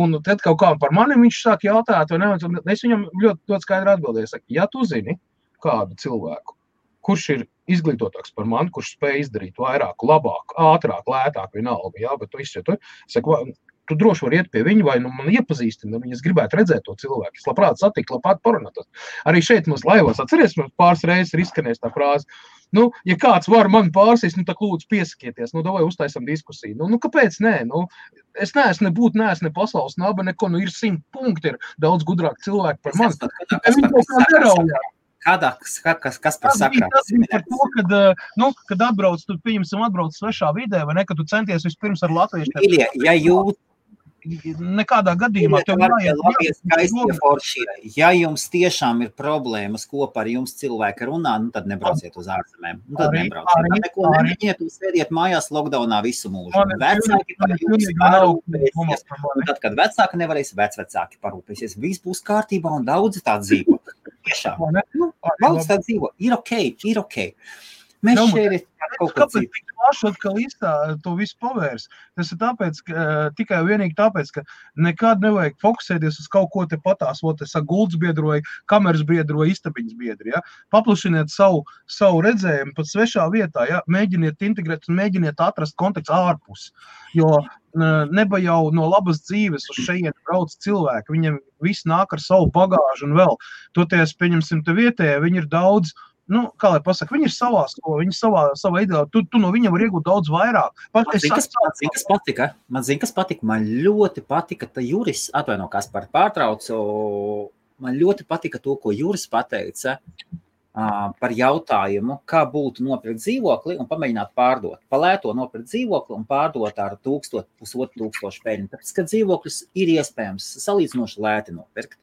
Un tad kaut kā par mani viņš sāk jautāt, vai ne, un es viņam ļoti skaidri atbildēju, saku, ja tu zini kādu cilvēku, kurš ir izglītotāks par mani, kurš spēj izdarīt vairāk, labāk, ātrāk, lētāk, vienalga, jā, bet tu izšķiet, tu droši var iet pie viņa, vai man iepazīstina, es gribētu redzēt to cilvēku, es labprāt satikt, labprāt parunāt. Arī šeit mums laivos, atceries, mums pāris reizes ir izskanējis tā frāze, ja kāds var mani pārsīs, tā lūdzu piesakieties, davai uztaisam diskusiju. Kāpēc nē? Es neesmu ne pasaules naba, neko, ir 100 punkti, ir daudz gudrāk cilvēki par mani. Kas par sakrā? Tas bija par to, kad atbrauc, tu pieņemsim atbrauc svešā vidē, vai ne, kad tu centies vispirms ar latviešiem. Nekādā gadījumā ja jums tiešām ir problēmas kopā ar jums cilvēki runā, tad nebrauciet uz ārzemēm. Tad nebrauciet. Neko nemēģiniet un sēdiet mājās lockdownā visu mūžu. Vecāki par jums parūpēsies. Tad, kad vecāki nevarēs, vecvecāki parūpēsies. Viss būs kārtībā un daudzi tā dzīvo. Tiešām. Daudz tā dzīvo. Ir ok. Mēs šeit kaut ko citu. Kāpēc plaši atkal to visu pavērs? Tas ir tāpēc, tikai vienīgi tāpēc, ka nekad nevajag fokusēties uz kaut ko te patās, gulds biedroja, kameras biedroja, istabiņas biedri, ja? Paplašiniet savu redzējumu pat svešā vietā, ja? Mēģiniet integrēt un mēģiniet atrast kontekstu ārpus, jo neba jau no labas dzīves uz šeit brauc cilvēki, viņiem viss nāk ar savu bagāžu un vēl. Toties, pieņemsim te vietējā, viņi ir daudz, kā lai pasaka, viņi ir savā skolu, viņi savā ideālā, tu no viņiem var iegūt daudz vairāk. Man ļoti patika, ka Juris, atvaino, kas par pārtraucu, man ļoti patika to, ko Juris pateica par jautājumu, kā būtu nopirkt dzīvokli un pamēģināt pārdot. Palēto nopirkt dzīvokli un pārdot ar 1,500 peļņu, tāpēc, ka dzīvoklis ir iespējams salīdzinoši lēti nopirkt.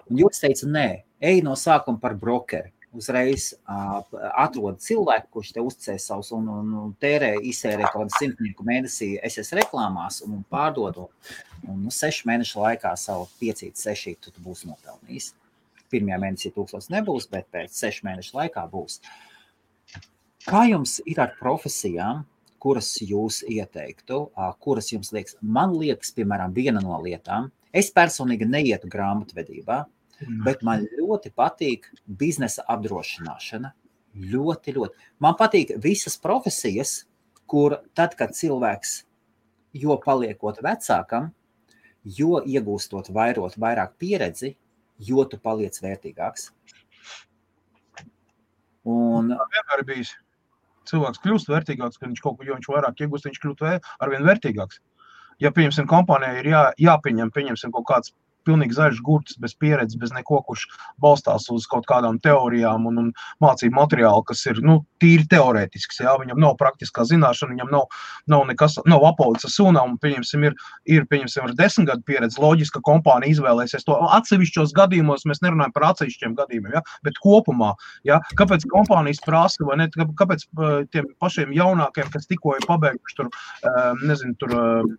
Un Juris teica, nē, ej no sākuma par brokeri. Uzreiz atrod cilvēku, kurš te uzticēs savus un izsērē kaut kādu 100 mēnesī SS reklāmās un pārdod. Un 6 mēnešu laikā savu 5-6 tu būsi nopelnījis. Pirmajā mēnesī 1000 nebūs, bet pēc 6 mēnešu laikā būs. Kā jums ir ar profesijām, kuras jūs ieteiktu, kuras jums liekas? Man liekas, piemēram, viena no lietām. Es personīgi neietu grāmatvedībā, bet man ļoti patīk biznesa apdrošināšana. Ļoti. Man patīk visas profesijas, kur tad, kad cilvēks, jo paliekot vecākam, jo iegūstot vairāk pieredzi, jo tu paliec vērtīgāks. Un vienmēr bijis. Cilvēks kļūst vērtīgāks, kad viņš vairāk iegūst, viņš kļūt arvien vērtīgāks. Ja, pieņemsim, kompānijai ir pieņemsim kaut kāds pilnīgi zaļš gurts, bez pieredzes, bez neko, kurš balstās uz kaut kādām teorijām un mācību materiālu, kas ir, tīri teorētisks, jā, viņam nav praktiskā zināšana, viņam nav nekas, nav apaudzes sūnām, un pieņemsim, ir 10 gadu pieredze, loģiski, ka kompānija izvēlēsies to atsevišķos gadījumos, mēs nerunājam par atsevišķiem gadījumiem, ja, bet kopumā, ja, kāpēc kompānijas prasa, vai ne, kāpēc tiem pašiem jaunākiem, kas tikko ir pabeiguši tur, tur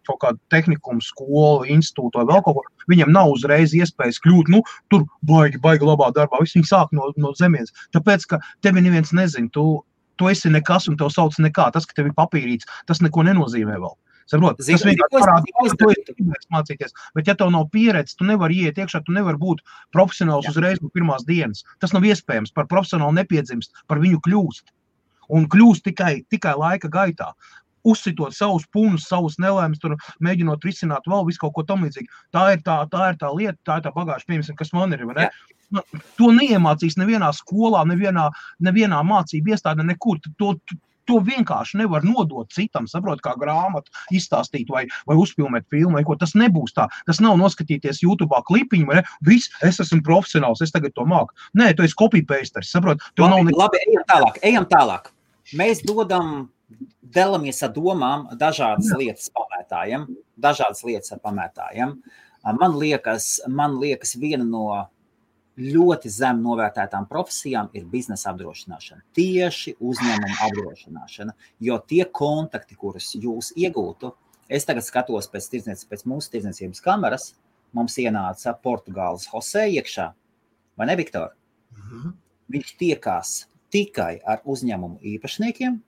kaut kādu tehnikumu, skolu, institūtu vai vēl kaut ko, viņam nav uzreiz iespējas kļūt, tur baigi labā darbā, visi viņi sāk no zemienes. Tāpēc, ka tevi neviens nezin, tu esi nekas un tev sauc nekā. Tas, ka tev ir papīrīts, tas neko nenozīmē vēl. Saprot? Tas vienkārši parāda, ka tu esi mācīties. Bet ja tev nav pieredze, tu nevari iet iekšā, tu nevari būt profesionāls uzreiz no pirmās dienas. Tas nav iespējams. Par profesionālu nepiedzimst, par viņu kļūst. Un kļūst tikai laika gaitā. uzsitot savus punus, savus nelēmas, tur mēģinot risināt vēl visu kaut ko tam līdzīgi. Tā ir tā lieta, tā ir tā bagāža, piemēram, kas man ir, vai ne? To neiemācīs nevienā skolā, nevienā mācību iestādē, nekur. To vienkārši nevar nodot citam, saprot, kā grāmatu izstāstīt vai uzfilmēt filmu, vai ko. Tas nebūs tā. Tas nav noskatīties YouTube'ā klipiņu, vai ne? Viss, es esmu profesionāls, es tagad to māku. Nē, tu esi copy-pasteris, saprot? Labi, ejam tālāk. Mēs dalamies ar domām dažādas lietas ar pamētājiem. Man liekas, viena no ļoti zem novērtētām profesijām ir biznesa apdrošināšana, tieši uzņēmuma apdrošināšana, jo tie kontakti, kurus jūs iegūtu, es tagad skatos pēc mūsu tirdzniecības kameras, mums ienāca Portugāles Jose iekšā, vai ne, Viktor? Viņš tiekās tikai ar uzņēmumu īpašniekiem.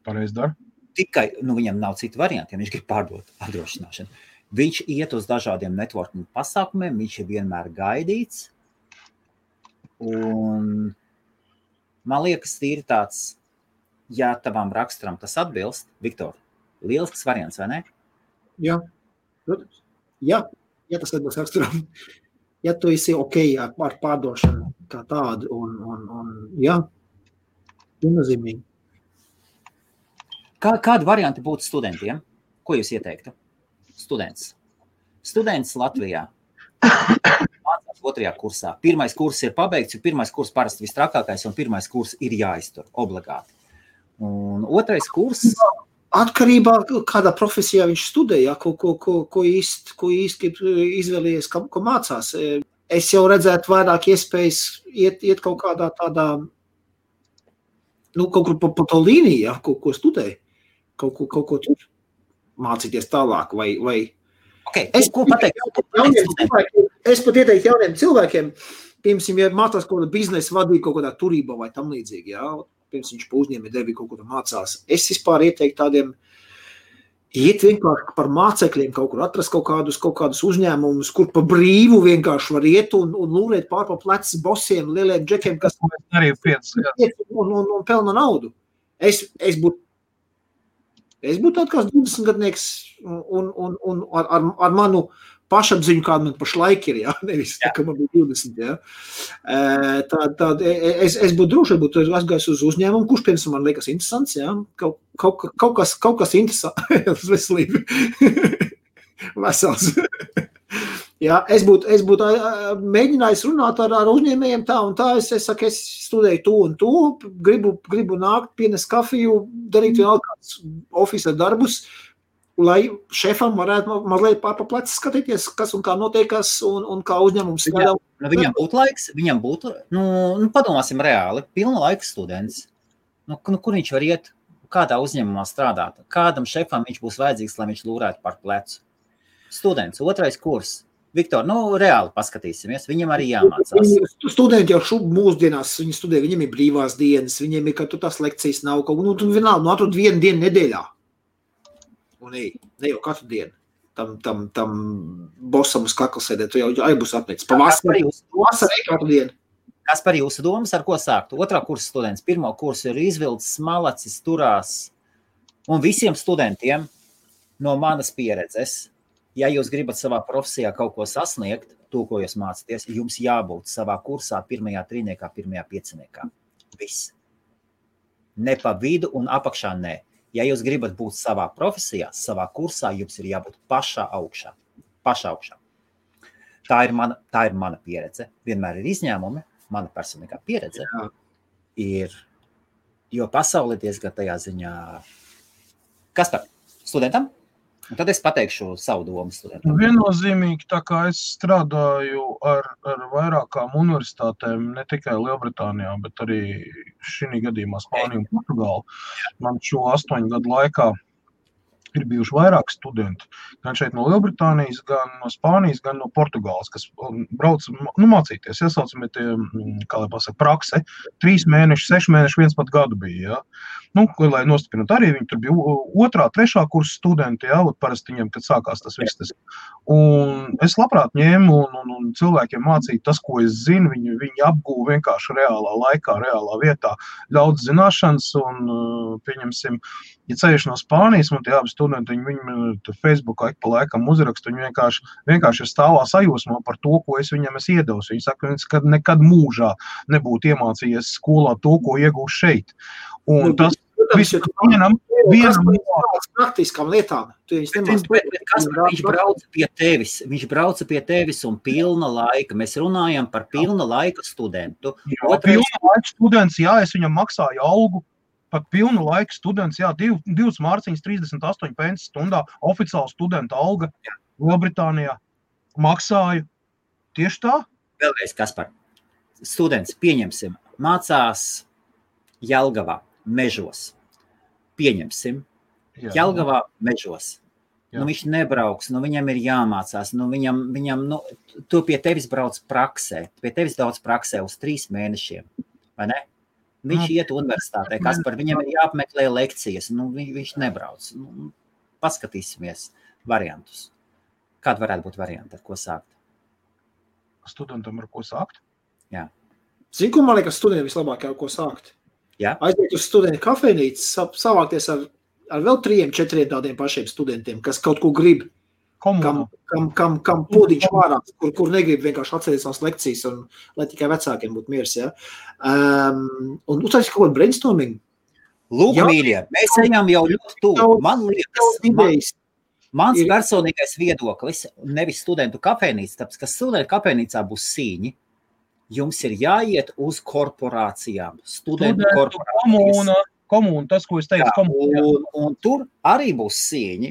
Pareizi dara. Tikai, viņam nav citu variantu, ja viņš grib pārdot apdrošināšanu. Viņš iet uz dažādiem networking pasākumiem, viņš ir vienmēr gaidīts. Un man liekas, tīri tāds, ja tavam raksturam tas atbilst, Viktor, lielisks variants, vai ne? Jā, protams. Jā, tas atbilst raksturam. Ja tu esi ok ar pārdošanu kā tādu, un jā, viennozīmīgi. Kādi varianti būtu studentiem? Ko jūs ieteiktu? Students Latvijā. Mācās 2. kursā. Pirmais kurs ir pabeigts, jo pirmais kurs parasti vistrakākais, un pirmais kurs ir jāiztur obligāti. Un 2. kurs... Atkarībā, kādā profesijā viņš studēja, ko īsti izvēlējies, ko mācās. Es jau redzētu vairāk iespējas iet kaut kādā tādā, kaut kur pa to līniju, ko studēja, kaut ko tur mācīties tālāk, vai Okay. Ko pateikt? Es pat ieteiktu jauniem cilvēkiem, piemēram, ja mācās kaut kādā biznesa vadīt kaut kādā turībā vai tam līdzīgi, jā, piemēram, viņš pa uzņēmē darbī kaut ko mācās. Es vispār ieteiktu tādiem, iet vienkārši par mācekļiem kaut kur, atrast kaut kādus uzņēmumus, kur pa brīvu vienkārši var iet un lūrēt pār pa plecs bosiem, lieliem džekiem, kas arī un pelna naudu. Es būtu tāds kāds 20-gadnieks un ar manu pašapziņu, kāda man pašlaik ir, jā, nevis tā, ka man bija 20, jā. Es būtu droši, būtu aizgājis uz uzņēmumu, kurš, piemēram, man liekas interesants, jā, kaut kas interesants, veselība, vesels. Jā, es būtu mēģinājis runāt ar uzņēmējiem tā un tā, es saku, es studēju to un to, gribu nākt, pienest kafiju, darīt vēl kāds ofisa darbus, lai šefam varētu mazliet pār pa plecu skatīties, kas un kā notiekās un kā uzņēmums strādā. Viņam būtu laiks, padomāsim reāli, pilna laika students. Kur viņš var iet, kādā uzņēmumā strādāt, kādam šefam viņš būs vajadzīgs, lai viņš lūrētu par plecu. Students, 2. kurs. Viktor, reāli paskatīsimies, viņam arī jāmācās. Studenti jau mūsdienās, viņi studē, viņiem ir brīvās dienas, viņiem ir, ka tu tās lekcijas nav kaut, tu vienalga, atrod vienu dienu nedēļā. Un ne jau katru dienu. Tam bosam uz kakla sēdēt, tu jau būs apnicis. Vasarī katru dienu. Kas par jūsu domas, ar ko sākt? 2. kursa students, 1. kursu ir izvilcis, malacis, turās. Un visiem studentiem no manas pieredzes, ja jūs gribat savā profesijā kaut ko sasniegt, to, ko jūs mācāties, jums jābūt savā kursā 1. trīniekā, 1. pieciniekā. Viss. Ne pa vidu un apakšā nē. Ja jūs gribat būt savā profesijā, savā kursā, jums ir jābūt pašā augšā. Tā ir mana pieredze. Vienmēr ir izņēmumi. Mana personīgā pieredze ir, jo pasauli diezgan tajā ziņā. Kas par studentam? Un tad es pateikšu savu domu studentam. Viennozīmīgi, tā kā es strādāju ar vairākām universitātēm, ne tikai Lielbritānijā, bet arī šī gadījumā Spāniju un Portugālu. Man šo 8 gadu laikā ir bijuši vairāk studenti, gan šeit no Lielbritānijas, gan no Spānijas, gan no Portugāles, kas brauc mācīties, iesaucami tie, kā lai pasaka, prakse, 3 mēneši, 6 mēneši, 1 pat gadu bija, lai nostiprināt arī, viņi tur bija 2., 3. kursa studenti, parasti viņiem, kad sākās tas viss. Un es labprāt ņēmu un cilvēkiem mācīju tas, ko es zinu, viņi apgūva vienkārši reālā laikā, reālā vietā, daudz zināšanas un, pieņemsim, ja ceļš no Spānijas, man tie abi studenti, viņi Facebookā ik pa laikam uzraksta, viņi vienkārši ir stāvā sajūsmā par to, ko es viņam esmu iedevis. Viņi saka, ka nekad mūžā nebūtu iemācījies skolā to, ko iegūst šeit. Un tas vienam praktiskām lietām. Viņš brauca pie tevis un pilna laika. Mēs runājam par pilna laika studentu. Pilna laika students, es viņam maksāju algu. Pat pilnu laiku students, 2 mārciņas 38 pensi stundā, oficiāla studenta alga Lielbritānijā. Maksāju. Tieši tā? Vēlreiz, Kaspar. Students, pieņemsim, mācās Jelgavā, Mežos. Pieņemsim, Jelgavā, Mežos. Viņš nebrauks, viņam ir jāmācās, viņam tu pie tevis brauc praksē, uz 3 mēnešiem, vai ne? Viņš iet universitātē, Kaspar, viņam ir jāapmeklē lekcijas, viņš nebrauc. Paskatīsimies variantus. Kāda varētu būt varianta, ar ko sākt? Studentam ar ko sākt? Jā. Zini, ko man liekas studentiem vislabāk ar ko sākt? Jā. Aiziet uz studentu kafejnīcu, savākties ar vēl 3, 4 tādiem pašiem studentiem, kas kaut ko grib. Kam pūdiņš vārāks, kur negrib vienkārši atcerēt savas lekcijas, un lai tikai vecākiem būtu miers, Un uztaisīt kaut kādu brainstorming. Lūk, mīļie, mēs ejam jau ļoti tuvu. Man liekas, mans personīgais viedoklis, nevis studentu kafejnīca, tāpēc, ka studentu kafejnīcā būs sīņi, jums ir jāiet uz korporācijām, studentu korporācijas. Komūna, tas, ko es teicu, komūna. Un tur arī būs sīņi,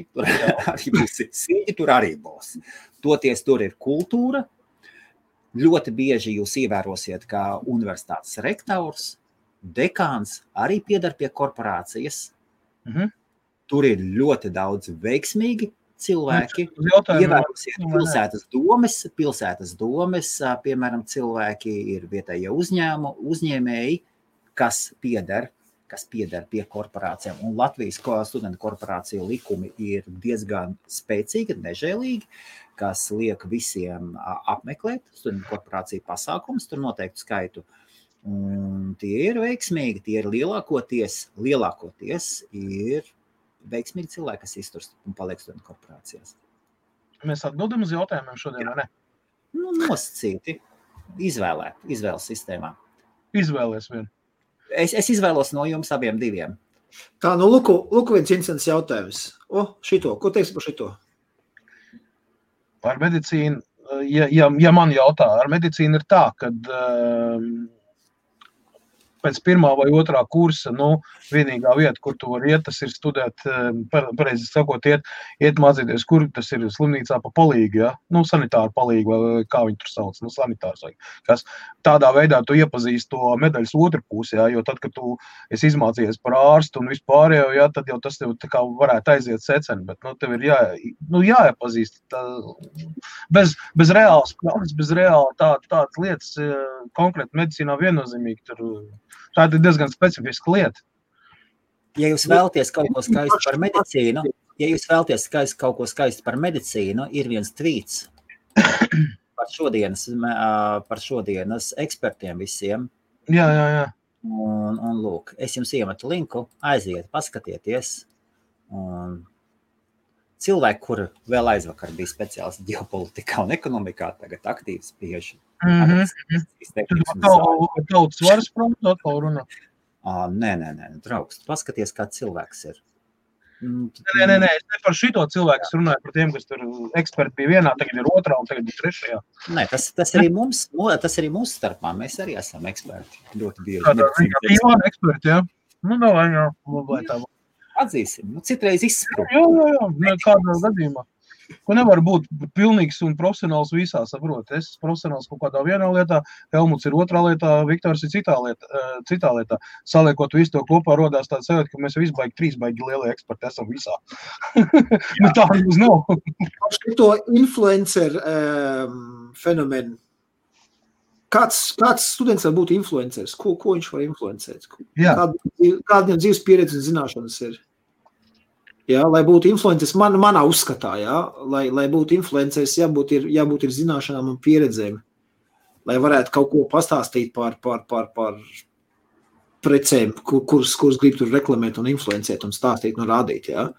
tur arī būs. Toties tur ir kultūra. Ļoti bieži jūs ievērosiet, kā universitātes rektors, dekāns arī piedar pie korporācijas. Tur ir ļoti daudz veiksmīgi cilvēki. Ievērosiet pilsētas domes, piemēram, cilvēki ir vietējie uzņēmēji, kas piedar pie korporācijām. Un Latvijas studentu korporāciju likumi ir diezgan spēcīgi, nežēlīgi, kas liek visiem apmeklēt studentu korporāciju pasākumus, tur noteiktu skaitu. Un tie ir veiksmīgi, tie ir lielākoties ir veiksmīgi cilvēki, kas izturst un paliek studentu korporācijās. Mēs atbildam uz jautājumiem šodien, vai ne? Nosacīti, izvēles sistēmā. Izvēlies vien. Es izvēlos no jums abiem diviem. Tā, lūku viens interesants jautājums. Ko teiksi par šito? Par medicīnu, ja man jautā, ar medicīnu ir tā, kad pēc 1. vai 2. kursa, vienīgā vieta, kur tu vari iet, tas ir studēt, pareizi sakot, iet mācīties, kur tas ir slimnīcā pa palīgi, sanitāru palīgi, vai kā viņi tur sauc, sanitārs vai kas. Tādā veidā tu iepazīsti to medaļas otru pusi, jo tad, kad tu esi izmācījies par ārstu un vispārējo, tad jau tas tev tā kā varētu aiziet seceni, bet tev ir jāiepazīst bez reālas prakses, bez reāla tādas lietas, konkrēti medicīnā viennozīmīgi tur. Tā ir diezgan specifiska lieta. Ja jūs vēlaties kaut ko skaistu par medicīnu, ir viens tvīts par šodienas ekspertiem visiem. Jā. Un lūk, es jums iemetu linku, aiziet, paskatieties. Un cilvēki, kur vēl aizvakar bija speciālisti ģeopolitikā un ekonomikā, tagad aktīvi spiež. Tautas varas prātu atkal runā? Nē, draugs, paskaties, kā cilvēks ir. Nē, es ne par šito cilvēku, es runāju par tiem, kas tur eksperti bija vienā, tagad ir otrā un tagad ir trešajā. Nē, tas arī mums starpā, mēs arī esam eksperti. Ļoti bieži. Tāda eksperti, jā. Davai, jā. Atzīsim, citreiz izsprūk. Jā, kādā gadījumā. Ka nevar būt pilnīgs un profesionāls visā, saprot. Es profesionāls kaut kādā vienā lietā, Helmuts ir otrā lietā, Viktors ir citā lietā. Saliekot visu to kopā, rodās tāds sajūta, ka mēs visi trīs baigi lielie eksperti esam visā. Nu tā mums nav. To influencer fenomenu. Kāds students var būt influenceris? Ko viņš var influencēt? Kāda viņam dzīves pieredze un zināšanas ir? Jā, lai būtu influenceris, manā uzskatā, jā, lai būtu influenceris, jābūt ir zināšanām un pieredzēm, lai varētu kaut ko pastāstīt par precēm, kuras grib tur reklamēt un influencēt un stāstīt un rādīt, jā.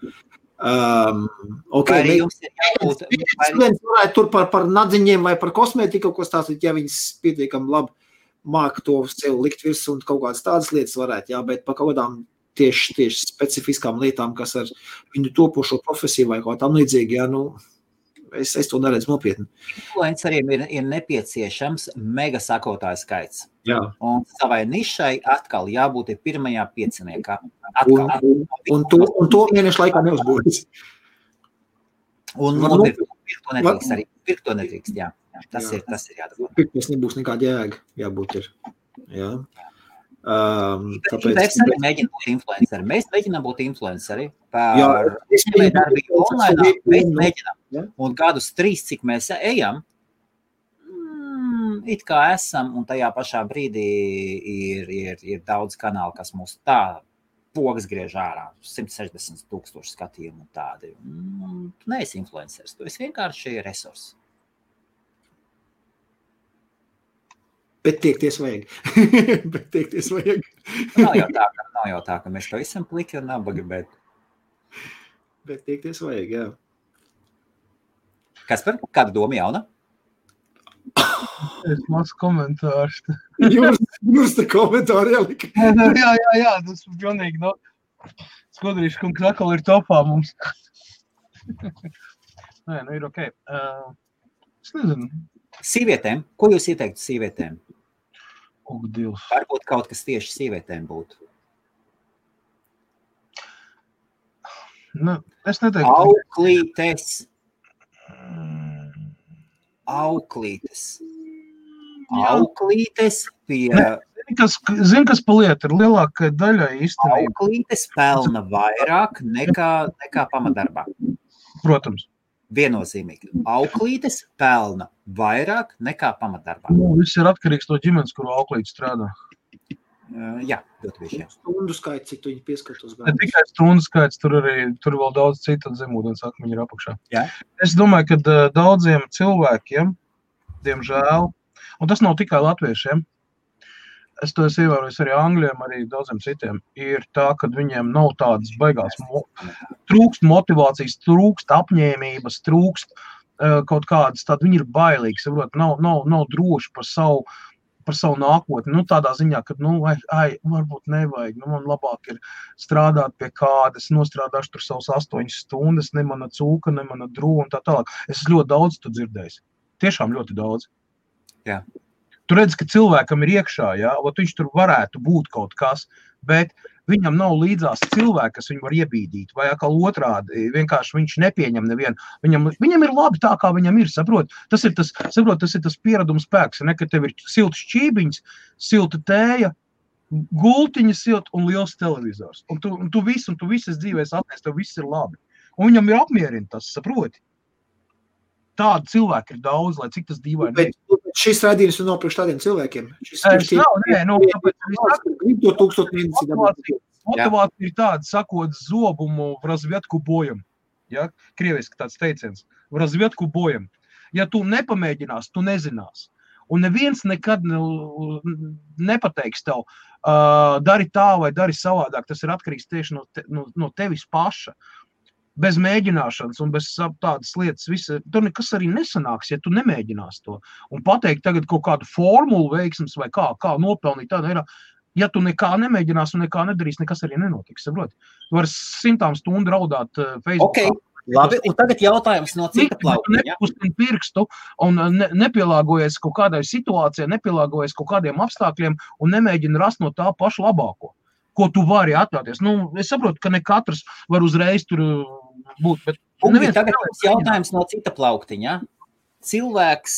Students varētu tur par nadziņiem vai par kosmētiku kaut ko stāstīt, ja viņas pietiekami labi māk to sev likt virs un kaut kādas tādas lietas varētu, jā, bet par kaut kādām tieši specifiskām lietām, kas ar viņu topošo profesiju vai kaut tam līdzīgi, jā, nu, es to neredzu nopietni. Influenceriem ir nepieciešams mega sakotāju skaits. Jā. Un savai nišai atkal jābūt pirmajā pieciniekā. Un to mēnešu laikā neuzbūvēs. Un pirkt to nedrīkst arī. Pirkt to nedrīkst, jā. Tas ir jādara. Pirkt nebūs nekāda jēga, jābūt ir. Jā. Tāpēc arī mēģina būt influenceri. Mēs mēģinām būt influenceri par darbību online. Mēs mēģinām. Un gadus 3, cik mēs ejam, it kā esam, un tajā pašā brīdī ir daudz kanālu, kas mūs tā pogas griež ārā. 160,000 skatījumu un tādi. Tu neesi influenceris, tu esi vienkārši resurs. Bet tiekties vajag. Nav jau tā, ka mēs to esam pliki un nabaga, bet tiekties vajag, jā. Kas par kādu domu jauna? Es maz komentārs. Jūs te komentāri ielika. Jā, tas ir pilnīgi, no. Skudrīši, kungs atkal ir topā mums. Nē, nu ir ok. Es nezinu. Sīvietēm? Ko jūs ieteiktu sīvietēm? Dievs. Varbūt kaut kas tieši sīvietēm būtu. Nu, es neteiktu. Auklītes pie... Zini, kas pa lietu ir lielākai daļai īstenībā. Auklītes pelna vairāk nekā pamatdarbā. Protams. Viennozīmīgi. Auklītes pelna vairāk nekā pamatdarbā. Viss ir atkarīgs no ģimenes, kuru auklīte strādā. Jā, ļoti bieži. Stundu skaits, cik tu viņi pieskatos. Ne tikai stundu skaits, tur vēl daudz citu zemūdens akmeņi ir apakšā. Jā. Es domāju, ka daudziem cilvēkiem, diemžēl, un tas nav tikai latviešiem, es to esmu ievērojis arī angļiem, arī daudziem citiem, ir tā, ka viņiem nav tādas baigās, trūkst motivācijas, trūkst apņēmības, trūkst kaut kādas, tad viņi ir bailīgi, saprot, nav droši par savu nākotni, nu tādā ziņā, ka, varbūt nevajag, man labāk ir strādāt pie kādas, nostrādāšu tur savus 8 stundas, ne mana cūka, ne mana drūva un tā tālāk. Es ļoti daudz tu dzirdējis, tiešām ļoti daudz. Jā. Tu redzi, ka cilvēkam ir iekšā, jā, viņš tur varētu būt kaut kas, bet viņam nav līdzās cilvēki, kas viņu var iebīdīt, vai atkal otrādi, vienkārši viņš nepieņem nevienu. Viņam ir labi tā, kā viņam ir, saprot. Tas ir tas piereduma spēks, ne, ka tev ir silts šķībiņas, silta tēja, gultiņa silta un liels televizors. Un tu visas dzīvēs atnes, tev viss ir labi. Un viņam ir apmierina tas, saproti. Tādi cilvēki ir daudz, lai cik tas dīvaini. Bet šis raidījums nav priekš tādiem cilvēkiem. Motivācija ir tāda, sakot zobumu v razvietku bojam. Ja? Krieviski tāds teiciens. V razvietku bojam. Ja tu nepamēģinās, tu nezinās. Un neviens nekad nepateiks tev, dari tā vai dari savādāk. Tas ir atkarīgs tieši no tevis paša. Bez mēģināšanas un bez tādas lietas, tur nekas arī nesanāks, ja tu nemēģinās to. Un pateikt tagad kaut kādu formulu veiksmes vai kā nopelnīt tādu ir, ja tu nekā nemēģinās un nekā nedarīs, nekas arī nenotiks, saproti. Tu vari 100 stundu raudāt Facebookā. Okay, labi, un tagad jautājums no cita plaukuma. Nepustin pirkstu un nepielāgojies kaut kādai situācijai, nepielāgojies kaut kādiem apstākļiem un nemēģina rast no tā pašu labāko, ko tu vari atļauties. Nu, es saprotu, ka ne katrs var uzreiz tur būt, bet Tagad mums jautājums no cita plauktiņa. Cilvēks,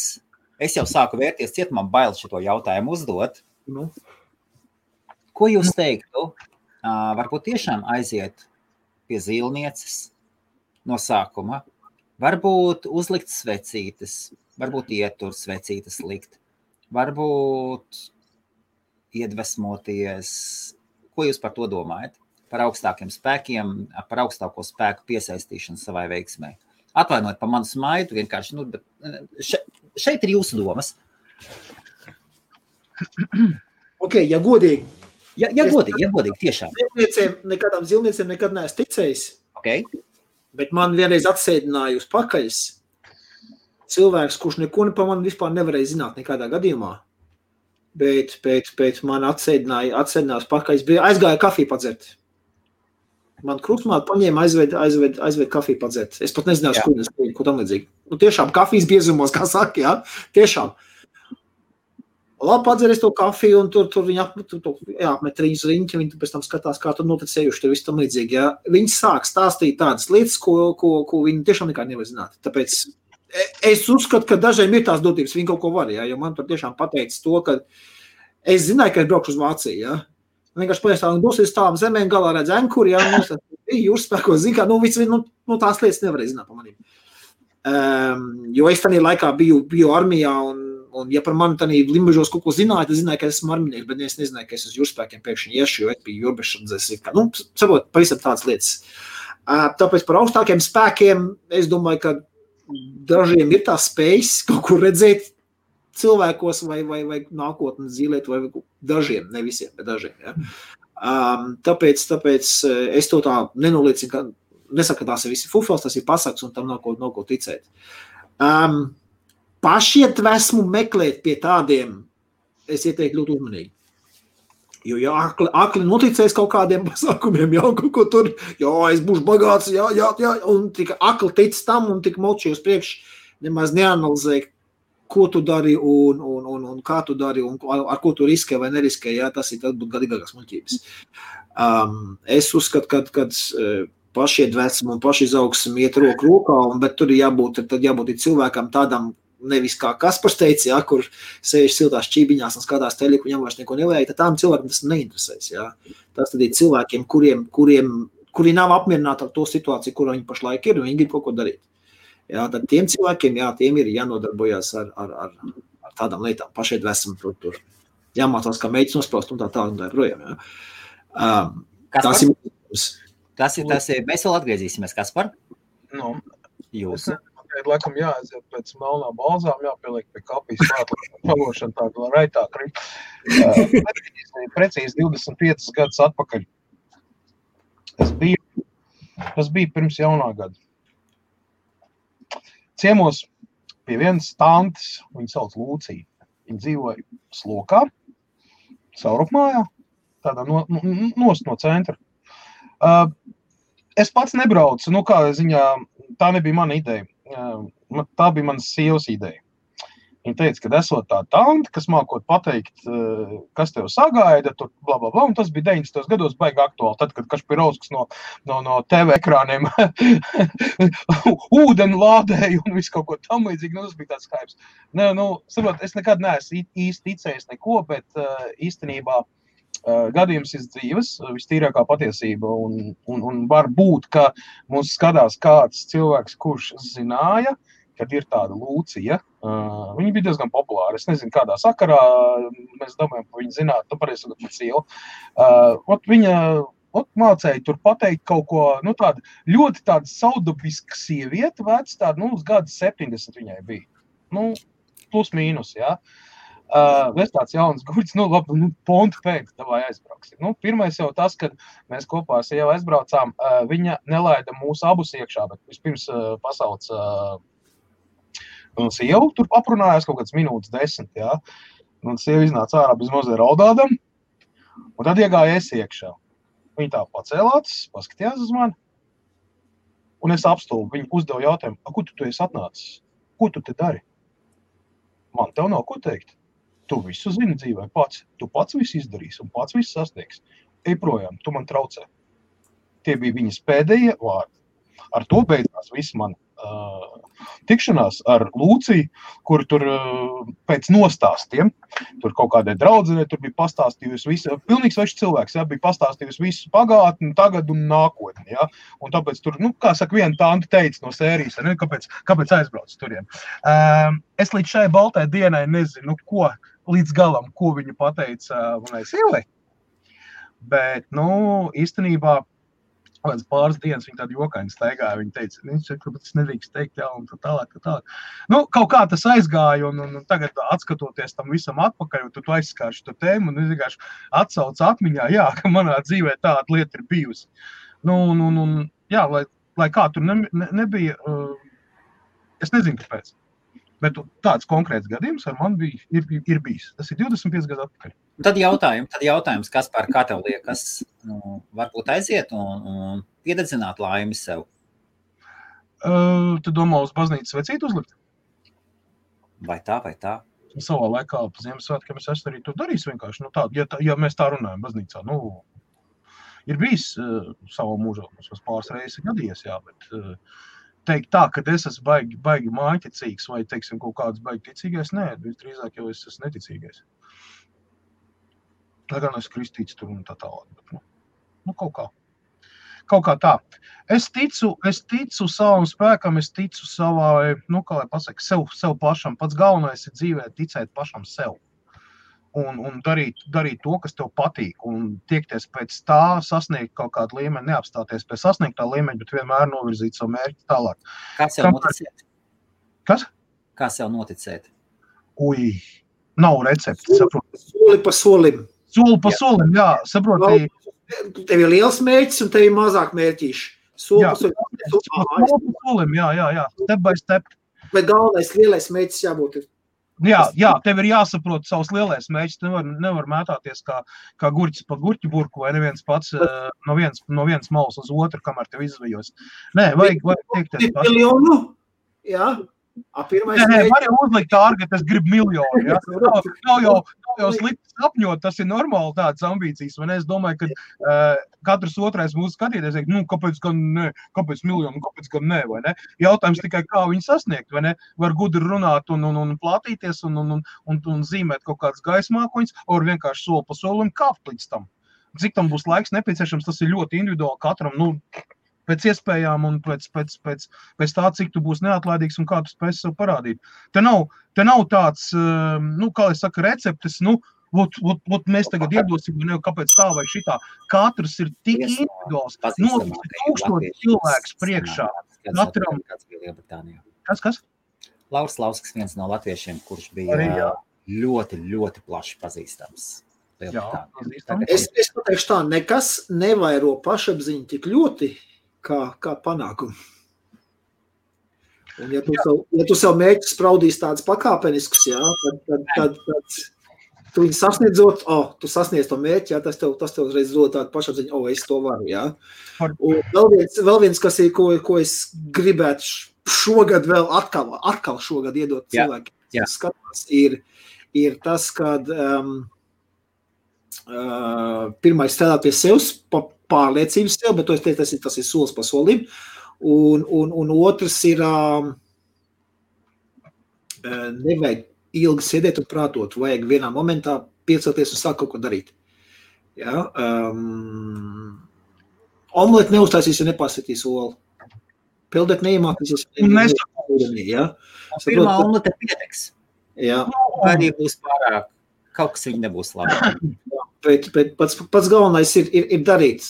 es jau sāku vērties ciet, man bail šito jautājumu uzdot. Ko jūs teiktu? Varbūt tiešām aiziet pie zīlnieces no sākuma. Varbūt uzlikt svecītes, varbūt ietur svecītes likt. Varbūt iedvesmoties. Ko jūs par to domājat? Par augstākiem spēkiem, par augstāko spēku piesaistīšanu savai veiksmē. Atvainojiet par manu smaidu, vienkārši, šeit ir jūsu domas. Ok, ja godīgi. Ja godīgi, tiešām. Nekādām zilniecēm nekad neesmu ticējis. Okay. Bet man vienreiz atsēdināja uz pakaļas cilvēks, kurš neko pa mani vispār nevarēja zināt nekādā gadījumā. Bet man atsēdinājās pakaļas, aizgāja kafiju padzert. Man krustmāte paņēma aizved kafiju padzert. Es pat nezināju, ko tam līdzīgi. Tiešām kafijas biezumos, kā saka, jā, tiešām. Labi, padzeries to kafiju, un tur viņi apmet riņas riņķi, viņi pēc tam skatās, kā tur noticējuši, tur viss tam līdzīgi, jā. Viņi sāk stāstīt tādas lietas, ko viņi tiešām nekā nevar zināt. Tāpēc es uzskatu, ka dažiem ir tās dotības, viņi kaut ko var, jā, jo man tur tiešām pateicis to, ka es zināju, ka es braukšu uz Vāciju, jā. Vienkārši pajaustā, un dosies tāvam zemēm galā redz enkuri, jā, jūras spēkos, zin kā, tās lietas nevarēja zināt pa manīm. Jo es tādā laikā biju armijā, un ja par mani tādā limbažos kaut ko zināju, tad zināju, ka esmu arminieks, bet es nezināju, ka es uz jūras spēkiem pēkšņi iešu, jo es biju jūrbešandzēs, saprot, pavisam tādas lietas. Tāpēc par augstākiem spēkiem, es domāju, ka dažiem ir tās spējas kaut ko redzēt cilvēkos vai nākotnes zīlēt, vai dažiem, ne visiem, bet dažiem. Ja? Tāpēc es to tā nenoliecinu, ka nesaku, ka tās ir visi fufels, tas ir pasaks, un tam nav ko ticēt. Pašiedvesmu meklēt pie tādiem, es ieteiktu ļoti uzmanīgi. Jo, ja akli noticēs kaut kādiem pasākumiem, jau kaut ko tur, es būšu bagāts, un tik akli tic tam, un tik moči uz priekš, nemaz neanalizē, ko tu dari un kā tu dari un ar ko tu riskē vai neriskē, tas ir būtu gadīgākās muļķības. Es uzskatu, ka pašiedvesmu un pašizaugsmu iet roku rokā, bet tur jābūt cilvēkam tādam, nevis kā Kaspars teica, kur sēž siltās čībiņās un skatās teļiku, viņam vairs neko nevajag, tad tām cilvēkiem tas neinteresēs. Tas tad ir cilvēkiem, kuri nav apmierināti ar to situāciju, kur viņi pašlaik ir, un viņi grib kaut ko darīt. Tad tiem cilvēkiem, tiem ir jānodarbojās ar tādām lietām, pašiedvesmu tur. Jāmācās, kā mēģis nospraust un tā projām. Tas ir, mēs vēl atgriezīsimies, Kaspar? Jūsu. Laikam jāaiziet pēc melnā balzām, jāpieliek pie kapijas klāt, palošana tāda raitāk. Precīzi 25 gadus atpakaļ. Tas bija pirms jaunā gada. Ciemos pie vienas tantes, viņa sauc Lūcija. Viņa dzīvoja Slokā, Saurupmājā, tādā nost no centra. Es pats nebraucu, kā ziņā, tā nebija mana ideja. Tā bija manas sievas ideja. Viņa teica, ka esot tā tante, kas mākot pateikt, kas tev sagaida, tur blablabla, un tas bija 90. gados baigi aktuāli, tad, kad Kašpirovskis no TV ekrāniem ūdeni lādēja un visu kaut ko tam līdzīgi, tas bija tāds skaips. Saprot, es nekad neesmu īsti ticējis neko, bet īstenībā gadījums ir dzīves, vistīrākā patiesība, un var būt, ka mums skatās kāds cilvēks, kurš zināja, kad ir tāda Lūcija. Viņa bija diezgan populāra. Es nezinu, kādā sakarā mēs domājam, ka viņa zinātu, pareizi sakot, sieva. Viņa mācēja tur pateikt kaut ko, tāda ļoti tāda saudabiska sieviete, vec tāda, uz gada 70 viņai bija. Plus mīnus, Es tāds jauns guļs, pontu pēc, davai aizbrauksim. Pirmais jau tas, kad mēs kopā ar sievu aizbraucām, viņa nelaida mūsu abus iekšā, bet vispirms pasauc sievu tur aprunājās kaut kāds minūtes 10, Un sieva iznāca ārā bez mazliet raudādam, un tad iegāja es iekšā. Viņa tā pacēlāts, paskatījās uz mani, un es apstulbu. Viņa uzdeva jautājumu, ko tu esi atnācis? Ko tu te dari? Man tev nav ko teikt. Tu visu zini dzīvē pats. Tu pats visu izdarīsi un pats visu sasniegs. Ej projām, tu man traucē. Tie bija viņas pēdējie vārdi. Ar to beidzās viss man tikšanās ar Lūciju, kur tur pēc nostāstiem, tur kaut kādai draudzenei, tur bija pastāstījusi visu, pilnīgi svešs cilvēks, jā, bija pastāstījusi visu pagātni, tagad un nākotni, jā, un tāpēc tur, kā saka, viena tante teica no sērijas, ne, kāpēc aizbrauc turien. Es līdz šai baltai dienai nezinu, ko līdz galam, ko viņa pateica manai sievai, bet, īstenībā, pāris dienas viņa tādu jokaini staigāja, viņa teica, kāpēc es nedrīkst teikt, jā, un tā tālāk. Kaut kā tas aizgāja, un tagad atskatoties tam visam atpakaļ, un tu aizskārši to tēmu, un es vienkārši atsaucu atmiņā, jā, ka manā dzīvē tāda lieta ir bijusi. Jā, lai kā tur nebija, es nezinu, kāpēc. Bet tāds konkrēts gadījums ar mani ir bijis. Tas ir 25 gadu atpakaļ. Tad jautājums, Kaspar, kā tev liekas, varbūt aiziet un piededzināt laimi sev? Tu domā uz baznīcas vecītu uzlikt? Vai tā? Savā laikā pa Ziemassvētkiem es arī to darīšu vienkārši. Ja mēs tā runājam baznīcā, ir bijis savā mūžā, mums pāris reizes gadījies, jā, bet teikt tā, ka es esmu baigi mājiņticīgs vai, teiksim, kaut kāds baigi ticīgais, nē, drīzāk jau es esmu neticīgais. Lai gan es kristīts tur un tā tālāk, bet, kaut kā tā. Es ticu savam spēkam, es ticu savai, kā lai pasaka, sev pašam. Pats galvenais ir dzīvē ticēt pašam sev. Un darīt to, kas tev patīk, un tiekties pēc tā, sasniegt kaut kādu līmeni, neapstāties pie sasniegtā līmeņa, bet vienmēr novirzīt savu mērķi tālāk. Kā sev noticēt? Kas? Kā sev noticēt? Nav recepti, saproti. Soli pa solim. Soli pa solim, jā, saproti. Tev ir liels mērķis un tev ir mazāk mērķīši. Soli pa solim, jā, step by step. Bet galvenais lielais mērķis jābūt ir. Jā, tev ir jāsaprot savus lielais mērķis, nevar mētāties kā gurķis pa gurķu burku, vai neviens pats no vienas malas uz otru, kamēr tev izvejos. Nē, vajag teikties. Miljonu, jā. Nē, var jau uzlikt ārgi, ka es gribu miljonu, jā. Nav jau slikti sapņot, tas ir normāli tādas ambīcijas, vai ne? Es domāju, ka katrs otrais mūsu skatīties, kāpēc gan ne, kāpēc miljonu, kāpēc gan ne, vai ne? Jautājums tikai, kā viņu sasniegt, vai ne? Var gudri runāt un plātīties un zīmēt kaut kādas gaismākoņas, var vienkārši soli pa solim kāpt līdz tam. Cik tam būs laiks nepieciešams, tas ir ļoti individuāli katram, pēc iespējām un pēc tā, cik tu būsi neatlaidīgs un kā tu spēsi sev parādīt. Te nav tāds, kā es saku, receptes, mēs tagad iedosim, kāpēc tā vai šitā. Katrs ir tik individuāls, tūkstoši cilvēks priekšā. Katram. Kas? Lauris Lauskas, viens no latviešiem, kurš bija ļoti, ļoti plaši pazīstams. Es pateikšu tā, nekas nevairo pašapziņu tik ļoti, kā panākumu. Un ja tu savu mērķi spraudīs tāds pakāpenisks, jā, tad tu viņu sasniedzot, tu sasniedz to mērķi, jā, tas tev uzreiz dod tādu pašapziņu, es to varu, jā. Un vēl viens, kas ir, ko es gribētu šogad vēl atkal šogad iedot cilvēkiem, skatās, ir tas, kad pirmais strādāt pie sevis, pārliecības sev, bet tas ir solis pa solim. Un otrs ir nevajag ilgi sēdēt un prātot, vajag vienā momentā piecelties un sākt kaut ko darīt. Ja? Omleti neuztaisīs, ja nepārsitīs olu. Peldēt neiemākīsies. Ja? Pirmā omlete pietiks. Jā. Arī būs pārāk, kaut kas viņa nebūs labi. Bet pats galvenais ir darīt.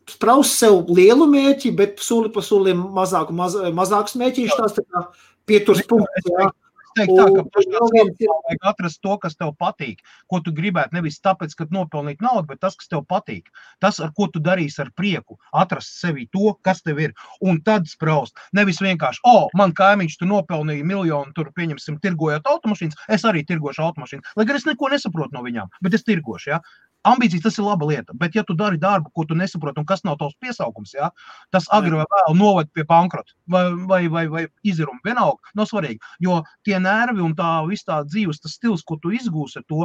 Spraust sev lielu mērķi, bet soli pa solim mazākus mērķīšus, tās tā kā pieturs punkts. Jā. Es teiktu tā, ka pašā vajag atrast to, kas tev patīk, ko tu gribētu, nevis tāpēc, ka nopelnīt naudu, bet tas, kas tev patīk. Tas, ar ko tu darīsi ar prieku, atrast sevi to, kas tev ir, un tad spraust. Nevis vienkārši, man kaimiņš tu nopelnīja miljonu, tur pieņemsim tirgojot automašīnas, es arī tirgošu automašīnas, lai gan es neko nesaprotu no viņām, bet es tirgošu, jā. Ambīcijas tas ir laba lieta, bet ja tu dari darbu, ko tu nesaproti un kas nav tavs piesaukums, jā, tas agri vai vēl noved pie bankrota vai iziruma vienalga, nav svarīgi, jo tie nervi un tā viss tā dzīves, tas stils, ko tu izgūsi ar to,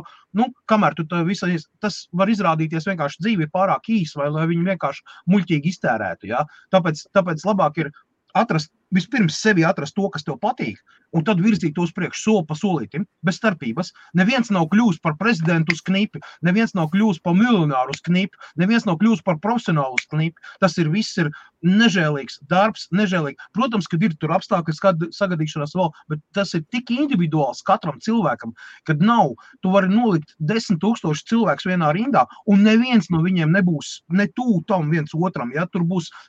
kamēr tu tas var izrādīties vienkārši dzīvi pārāk īs vai lai viņi vienkārši muļķīgi iztērētu, jā. Tāpēc labāk ir vispirms sevi atrast to, kas tev patīk, un tad virzīt tos priekš soli pa solītim, bez starpības. Neviens nav kļūst par prezidentu uz knipi, neviens nav kļūst par miljonāru uz knipi, neviens nav kļūst par profesionālu uz knipi. Tas viss ir nežēlīgs darbs, nežēlīgi. Protams, kad ir tur apstākļi sagadīšanās vēl, bet tas ir tik individuāls katram cilvēkam, kad nav, tu vari nolikt 10 000 cilvēkus vienā rindā, un neviens no viņiem nebūs ne tuvu tam viens otram, ja? Tur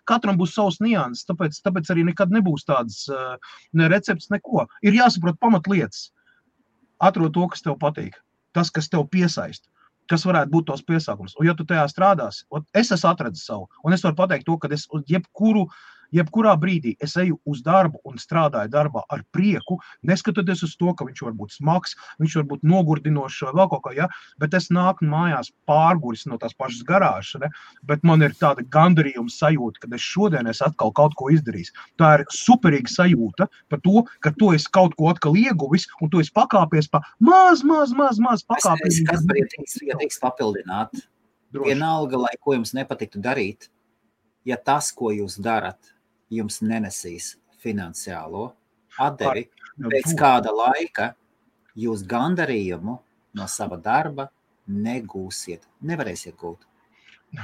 katram būs savs nianses, tāpēc arī nekad nebūs tādas ne recepts, neko. Ir jāsaprot pamatlietas. Atrod to, kas tev patīk. Tas, kas tev piesaist. Kas varētu būt tos piesākums. Un ja tu tajā strādās, es esmu atradis savu. Un es varu pateikt to, ka es jebkurā brīdī es eju uz darbu un strādāju darbā ar prieku, neskatoties uz to, ka viņš var būt smags, viņš var būt nogurdinošs vai vēl kaut kā, ja? Bet es nāku mājās pārguris no tās pašas garāžas, ne? Bet man ir tāda gandarījuma sajūta, ka šodien es atkal kaut ko izdarīju. Tā ir superīga sajūta par to, ka tu esi kaut ko atkal ieguvis un tu esi pakāpies pa maz pakāpies. Es teiks papildināt. Vienalga, lai ko jums nepatiktu darīt, ja tas, ko jūs darat, jums nenesīs finansiālo atdevi, pēc kāda laika jūs gandarījumu no sava darba negūsiet, nevarēsiet gūt.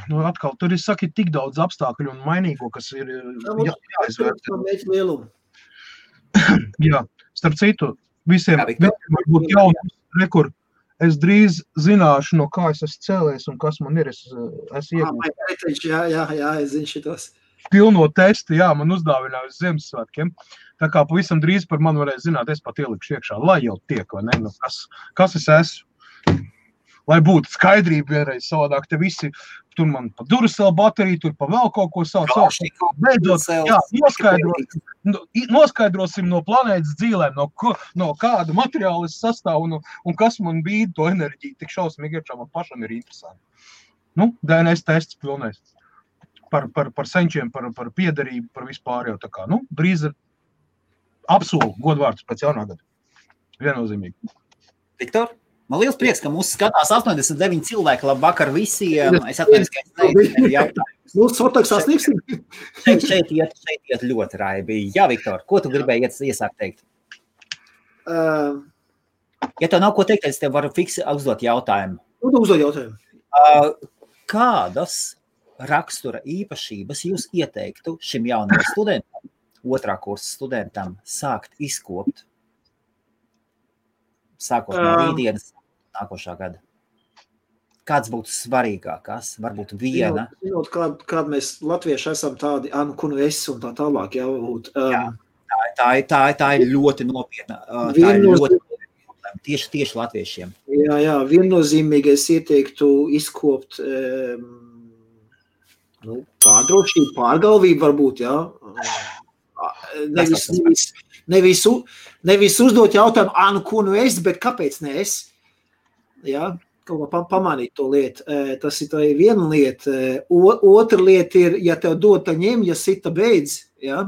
Nu, atkal, tur ir, saki, tik daudz apstākļu un mainīgo, kas ir jāizvērtē. Jā, starp citu, visiem varbūt jaunums, rekur, es drīz zināšu, no kā es esmu cēlējis un kas man ir, es iegūstu. Jā, es zinu šitos. Pilno testu, jā, man uzdāvināja uz Ziemassvētkiem. Tā kā pavisam drīz par mani varēja zināt, es pat ielikšu iekšā, lai jau tiek, vai ne? Nu, kas es esmu? Lai būtu skaidrība vienreiz savādāk, te visi, tur man pa Duracell bateriju, tur pa vēl kaut ko savu. Beidzot, jā, noskaidrosim no planētas dzīvēm, no kāda materiāla es sastāvu un kas man bīda to enerģiju. Tik šausmīgi iekšā man pašam ir interesanti. Nu, DNS tests pilnais. Par senčiem, par piederību, par vispār jau tā kā. Nu, drīz ir apsolu godvārds pēc jaunā gada. Viennozīmīgi. Viktor? Man liels prieks, ka mūs skatās 89 cilvēki. Labvakar visiem. Es atvainojos, ka es nezinu jautājumus. Mūsu fotoks sasniegsim. Šeit iet ļoti raibi. Jā, Viktor, ko tu gribēji iesākt teikt? Ja tev nav ko teikt, es tev varu uzdot jautājumu. Uzdot jautājumu. Kādas rakstura īpašības jūs ieteiktu šim jaunam studentam, otrā kursa studentam, sākt izkopt, sākot no rītdienas nākošā gada? Kāds būtu svarīgākās? Varbūt viena? Zinot, kāda mēs latvieši esam tādi, kunu es un tā tālāk, jā. Tā ir ļoti nopietna. Tā ir ļoti nopietna. Tieši latviešiem. Jā, viennozīmīgi es ieteiktu izkopt pārdrošību, pārgalvību varbūt, jā. Nevis uzdot jautājumu, ko nu es, bet kāpēc ne es? Jā, kaut kā pamanīt to lietu. Tas ir tā viena lieta. Otra lieta ir, ja tev dod, tā ņem, ja sita beidz, jā.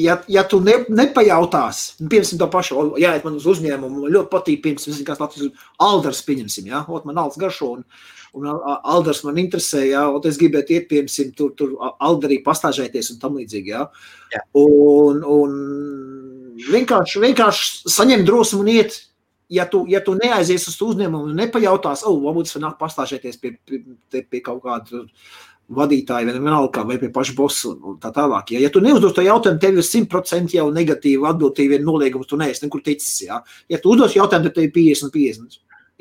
Ja tu nepajautās, piemēram, to pašu, jāiet man uz uzņēmumu, man ļoti patīk, piemēram, kāds Latvijas Aldars pieņemsim, jā, man Alds garšo, un Aldars man interesē, jā, un es gribētu iet, piemēram, tur Aldarī pastāžēties un tam līdzīgi, jā. Un vienkārši saņem drosmu un iet, ja tu neaizies uz uzņēmumu un nepajautās, varbūt es nāk pastāžēties pie kaut kāda vadītāji, vai pie paša bosu un tā tālāk. Ja tu neuzdos to jautājumu, tev ir 100% jau negatīva atbildība, noliegums, tu neesi nekur ticis. Ja, ja tu uzdos jautājumu, tad tev ir 50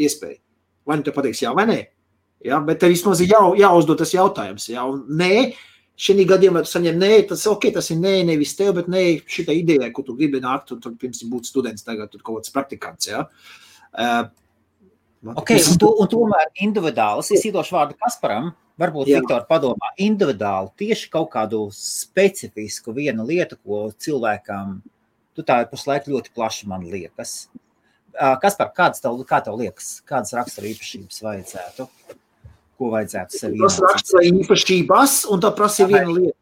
iespēja. Vai nu te pateiks jā vai nē. Ja, bet tev vismaz ir jāuzdod tas jautājums. Ja, un nē, šī gadījumā tu saņem nē, tas ir nē, nevis tev, bet nē, šitā idejā, ko tu gribi nākt, un tur pirms būt students, tagad tur kaut kāds praktikants. Ja. Un tomēr individuāls, es iedošu vārdu Kasparam, varbūt Viktor padomā, individuāli tieši kaut kādu specifisku vienu lietu, ko cilvēkam, tā ir pašlaik ļoti plaši man liekas. Kaspar, kā tev liekas, kādas rakstura īpašības vajadzētu? Ko vajadzētu sev iemācīt? Tas rakstura īpašības, un tā prasa viena lieta.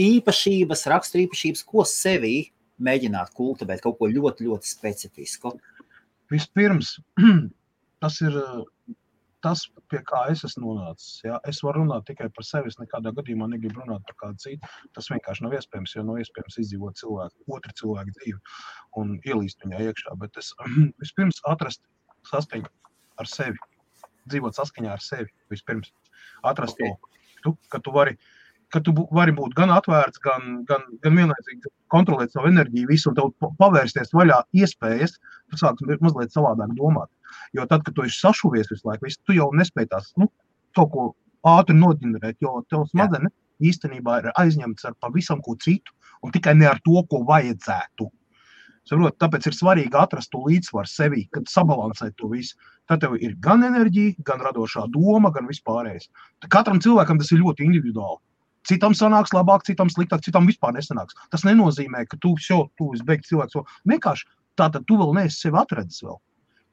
Īpašības, rakstura īpašības, ko sevī mēģināt kultivēt, kaut ko ļoti, ļoti specifisku. Vispirms, tas ir tas, pie kā es esmu nonācis. Ja? Es varu runāt tikai par sevi, es nekādā gadījumā negribu runāt par kādu citu. Tas vienkārši nav iespējams, jo nav iespējams izdzīvot otru cilvēku dzīvi un ielīst viņā iekšā. Bet es vispirms atrast saskaņu ar sevi, dzīvot saskaņā ar sevi vispirms. Atrast to, ka tu vari būt gan atvērts, gan vienlaicīgi kontrolēt savu enerģiju, visu, un tev pavērsties vaļā iespējas, tu sāks mazliet savādāk domāt. Jo tad, kad tu esi sašuvies visu laiku, tu jau nespēj tās, kaut ko ātri noģenerēt, jo tev smadzenes īstenībā ir aizņemts ar pavisam ko citu, un tikai ne ar to, ko vajadzētu. Saprot, tāpēc ir svarīgi atrast to līdzsvaru sevī, kad sabalansēt to visu. Tad tev ir gan enerģija, gan radošā doma, gan vispārējais. Katram cilvēkam tas ir ļoti individuāli. Citam sanāks labāk, citam sliktāk, citam vispār nesanāks. Tas nenozīmē, ka tu izbeigts cilvēks. Vienkārši tātad tu vēl neesi sevi atradzis vēl.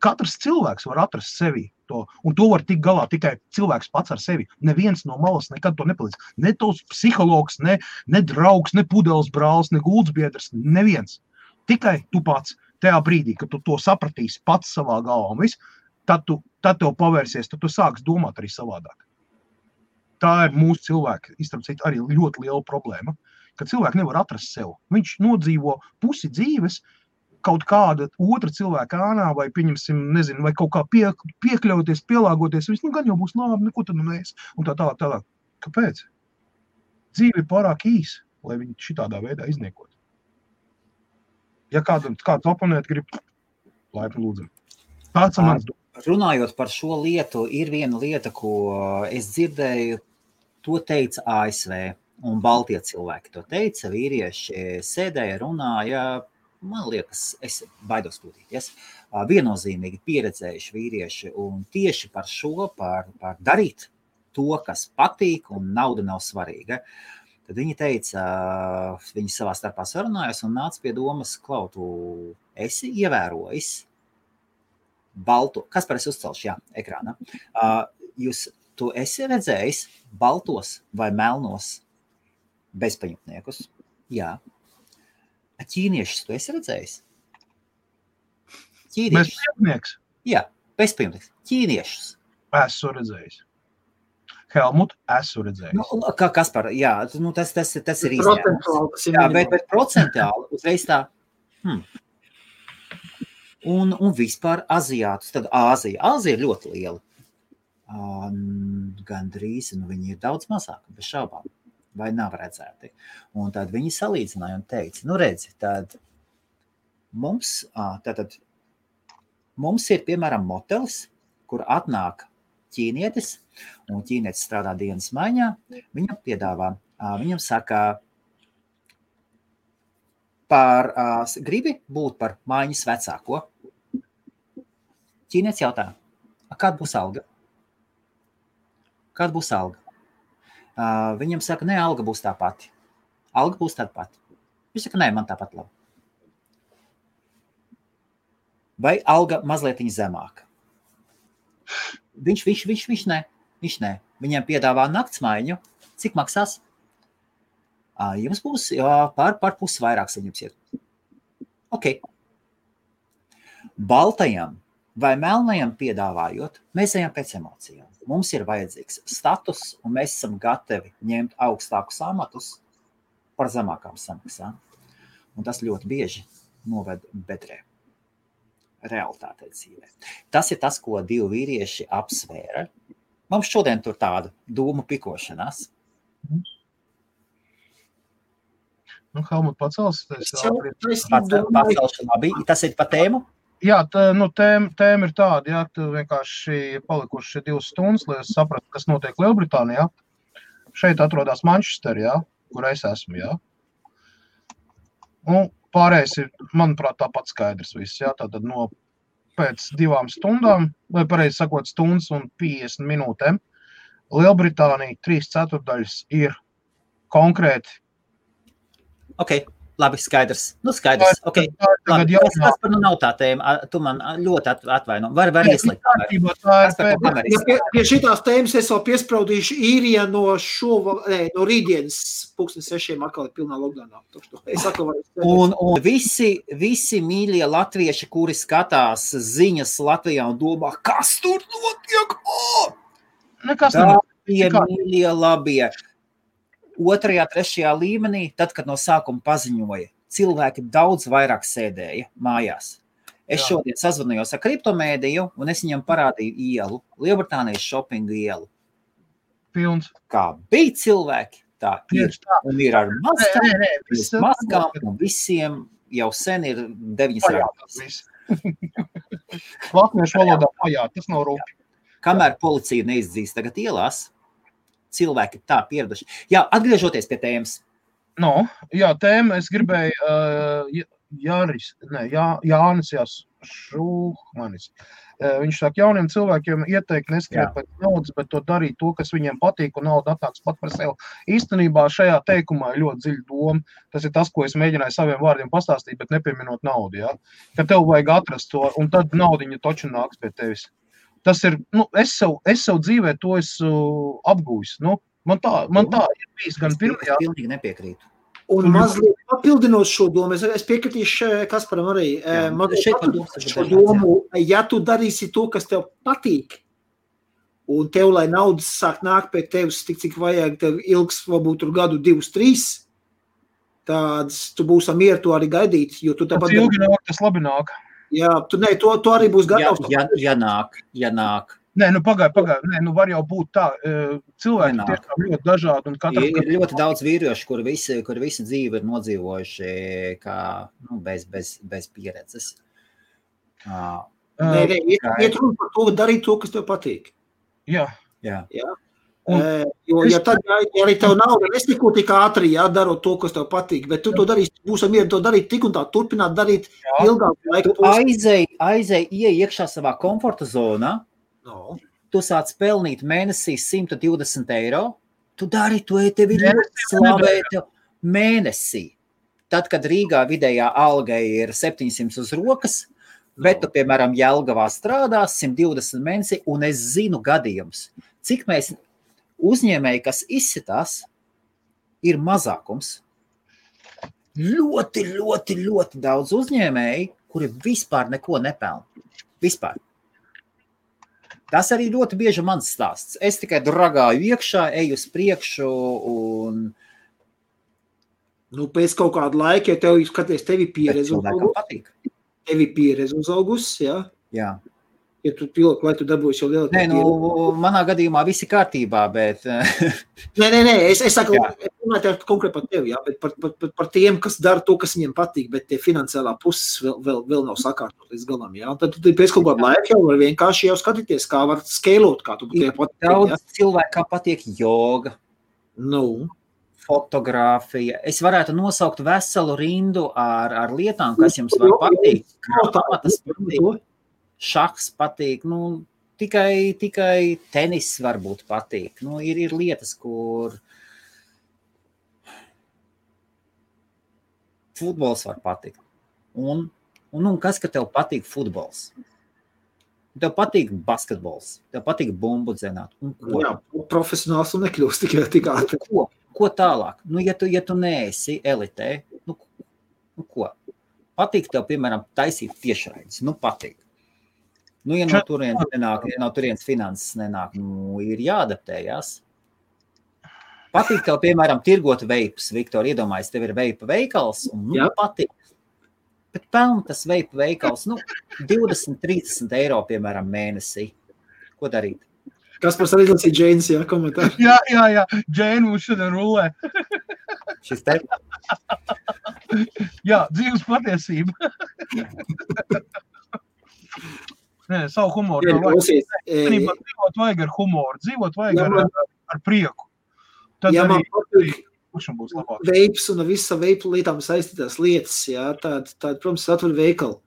Katrs cilvēks var atrast sevi to, un to var tikt galā tikai cilvēks pats ar sevi. Neviens no malas nekad to nepalīdz. Ne tos psihologs, ne draugs, ne pudeles brālis, ne guldsbiedrs, neviens. Tikai tu pats tajā brīdī, kad tu to sapratīsi pats savā galvā un viss, tad tev pavērsies, tad tu sāks domāt arī savādāk. Tā ir mūsu cilvēka, izstrādāt arī ļoti liela problēma, ka cilvēki nevar atrast sev. Viņš nodzīvo pusi dzīves kaut kāda otra cilvēka ānā vai, pieņemsim, nezinu, vai kaut kā piekļauties, pielāgoties. Viss, gan jau būs labi, neko tad mēs. Un tā tālāk. Kāpēc? Dzīve ir pārāk īsa, lai viņi šitādā veidā izniekot. Ja kāds oponēt grib, laipni lūdzam. Tāds ir mans. Runājot par šo lietu, ir viena lieta, ko es dzirdēju, to teica ASV, un Baltie cilvēki to teica, vīrieši sēdēja, runāja, man liekas, es baidos kļūdīties, viennozīmīgi pieredzējuši vīrieši, un tieši par šo, par darīt to, kas patīk, un nauda nav svarīga. Tad viņi teica, viņi savā starpā sarunājas un nāca pie domas, Klau, tu esi ievērojis balto, kas par es uzcelšu, jā, ekrānā. Tu esi redzējis baltos vai melnos bezpajumtniekus? Jā. Ķīniešus tu esi redzējis? Bezpajumtnieks? Jā, bezpajumtnieks. Ķīniešus. Esmu redzējis. Helmut, esmu redzējis. Kas par, jā, tas ir izņēmums. Jā, bet procentuāli uzreiz tā, Un vispār aziātus, tad Āzija ir ļoti liela. Gandrīz, viņi ir daudz mazāki, bez šaubām, vai nav redzēti. Un tad viņi salīdzināja un teica, redzi, tad mums ir, piemēram, motelis, kur atnāk ķīnietis, un ķīnietis strādā dienas maiņā, viņam piedāvā, viņam saka, gribi būt par maiņas vecāko. Ķīnietis jautā, kāda būs alga? Kāda būs alga? Viņam saka, ne, alga būs tā pati. Alga būs tāda pati. Viņš saka, nē, man tāpat labi. Vai alga mazlietiņa zemāka? Viņš nē. Viņam piedāvā naktsmaiņu. Cik maksās? Jums būs par pusi vairāk saņems iet. Ok. Baltajam vai melnajam piedāvājot, mēs ejam pēc emocijām. Mums ir vajadzīgs status, un mēs esam gatavi ņemt augstākus amatus par zemākām samaksām. Un tas ļoti bieži noved bedrē. Realitātē dzīvē. Tas ir tas, ko divi vīrieši apsvēra. Mums šodien tur tāda dūmu pikošanās. Helmut, pacels. Tas ir pa tēmu? Jā, tēma ir tāda, jā, tu vienkārši palikuši 2 stundas, lai es sapratu, kas notiek Lielbritānijā. Šeit atrodas Manchester, jā, kur es esmu, jā. Un pārējais ir, manuprāt, tāpat skaidrs viss, jā, tātad pēc 2 stundām, vai pareizi sakot, stundas un 50 minūtēm, Lielbritānija 3/4 ir konkrēti Labi, skaidrs. Skaidrs. Okay. Labi, kas par nav tā tēma? Tu man ļoti atvaino. Var ieslēgt kameru. Pie šitās tēmas es vēl piespraudīšu īrija no rītdienas 6:00 atkal ir pilnā lockdownā. Un visi mīļie latvieši, kuri skatās ziņas Latvijā un domā, kas tur notiek? Tā bija mīļie labie. 2., 3. līmenī, tad, kad no sākuma paziņoja, cilvēki daudz vairāk sēdēja mājās. Es šodien sazvanījos ar kriptomēdiju, un es viņam parādīju ielu, Lielbritānijas shoppingu ielu. Pilns. Kā bija cilvēki, tā ir. Un ir ar maskām, un visiem jau sen ir 9 rāpjas. Latviešu valodā pajāt, tas nav rūpi. Kamēr policija neizdzīs tagad ielās, cilvēki tā pieraduši. Jā, atgriežoties pie tēmas. Tēma, es gribēju Jānis Šūmanis. Viņš saka, jauniem cilvēkiem ieteikt neskriet pēc naudas, bet to darīt to, kas viņiem patīk, un nauda atnāks pat par sevi. Īstenībā šajā teikumā ir ļoti dziļa doma. Tas ir tas, ko es mēģināju saviem vārdiem pastāstīt, bet nepieminot naudu. Ja? Ka tev vajag atrast to, un tad naudiņa toču nāks pie tevis. Tas ir, es savu dzīvē to esmu apgūjis. Man tā ir bijis gan pirmajā. Pilnīgi nepiekrītu. Un mazliet papildinot šo domu, es piekritīšu Kasparam arī. Šo domu, ja tu darīsi to, kas tev patīk, un tev, lai naudas sāk nākt pie tevis, cik vajag, tev ilgs, varbūt tur gadu 2, 3, tāds tu būsi mieru to arī gaidīt, jo tu tāpat... Tas ilgi nāk, tas labi nāk. Jā, to arī būs gatavs. Ja nāk. Nē, pagaid. Nē, var jau būt tā. Cilvēki tiešām ļoti dažādi. Ir ļoti daudz vīriešu, kuri visi dzīvi ir nodzīvojuši kā, bez pieredzes. Nē, iet runa par to, darīt to, kas tev patīk. Jā. Jo arī tev nauda nesiko tik ātri, darot to, kas tev patīk, bet tu to darīsi, būs mieru to darīt tik un tā, turpināt darīt ilgāku laiku. Tu aizēj iekšā savā komforta zonā, tu sāc pelnīt mēnesī 120 €, tu dari to, tevi ļoti slavēt mēnesī. Tad, kad Rīgā vidējā alga ir 700 uz rokas, bet tu, piemēram, Jelgavā strādās 120 mēnesī, un es zinu gadījumus, cik mēs uzņēmēji, kas izsitās, ir mazākums. Ļoti, ļoti, ļoti daudz uzņēmēji, kuri vispār neko nepelna. Vispār. Tas arī ļoti bieži mans stāsts. Es tikai dragāju iekšā, eju uz priekšu un... Pēc kaut kāda laika, ja tev skaties, tevi pieredze uzaugus, jā? Jā. Ja tu pilot, lai tu dabūsi jau lielāku pieredzi. Manā gadījumā visi kārtībā, bet... Nē, es saku, runāju konkrēti par tevi, jā, bet par tiem, kas dara to, kas viņiem patīk, bet tie finansiālā puses vēl nav sakārtot līdz galam, jā. Un tad tu pēc kaut kādu laiku jau var vienkārši jau skatīties, kā var skeilot, kā tu patīk. Daudz cilvēkam patīk joga. Fotogrāfija. Es varētu nosaukt veselu rindu ar lietām, kas jums var patīk. Tas patīk. Šahs patīk, tikai tenis varbūt patīk. Ir lietas, kur futbols var patikt. Un kas, ka tev patīk futbols? Tev patīk basketbols, tev patīk bumbu dzenāt. Jā, profesionāls un nekļūst tik ātri. Ko tālāk? Ja tu neesi elitē, ko? Patīk tev, piemēram, taisīt tiešraides. Patīk. Ja no turienes nenāk, ja no turienes finanses nenāk, ir jāadaptējās. Patīk tev, piemēram, tirgot veipus, Viktor, iedomājies, tev ir veipa veikals, un patīk. Bet pelna tas veipa veikals, 20-30 €, piemēram, mēnesī. Ko darīt? Kaspars arī lasīja Džēnas, komentāru. Jā, Džēna mums šodien rulē. Šis te? Jā, dzīves patiesība. Nē, savu humoru. Dzīvot vajag ar humoru, dzīvot vajag ar prieku. Tad man patīk būs labāk. Veips un visa veipu lietām saistītās lietas, tāda, protams, atver veikalu.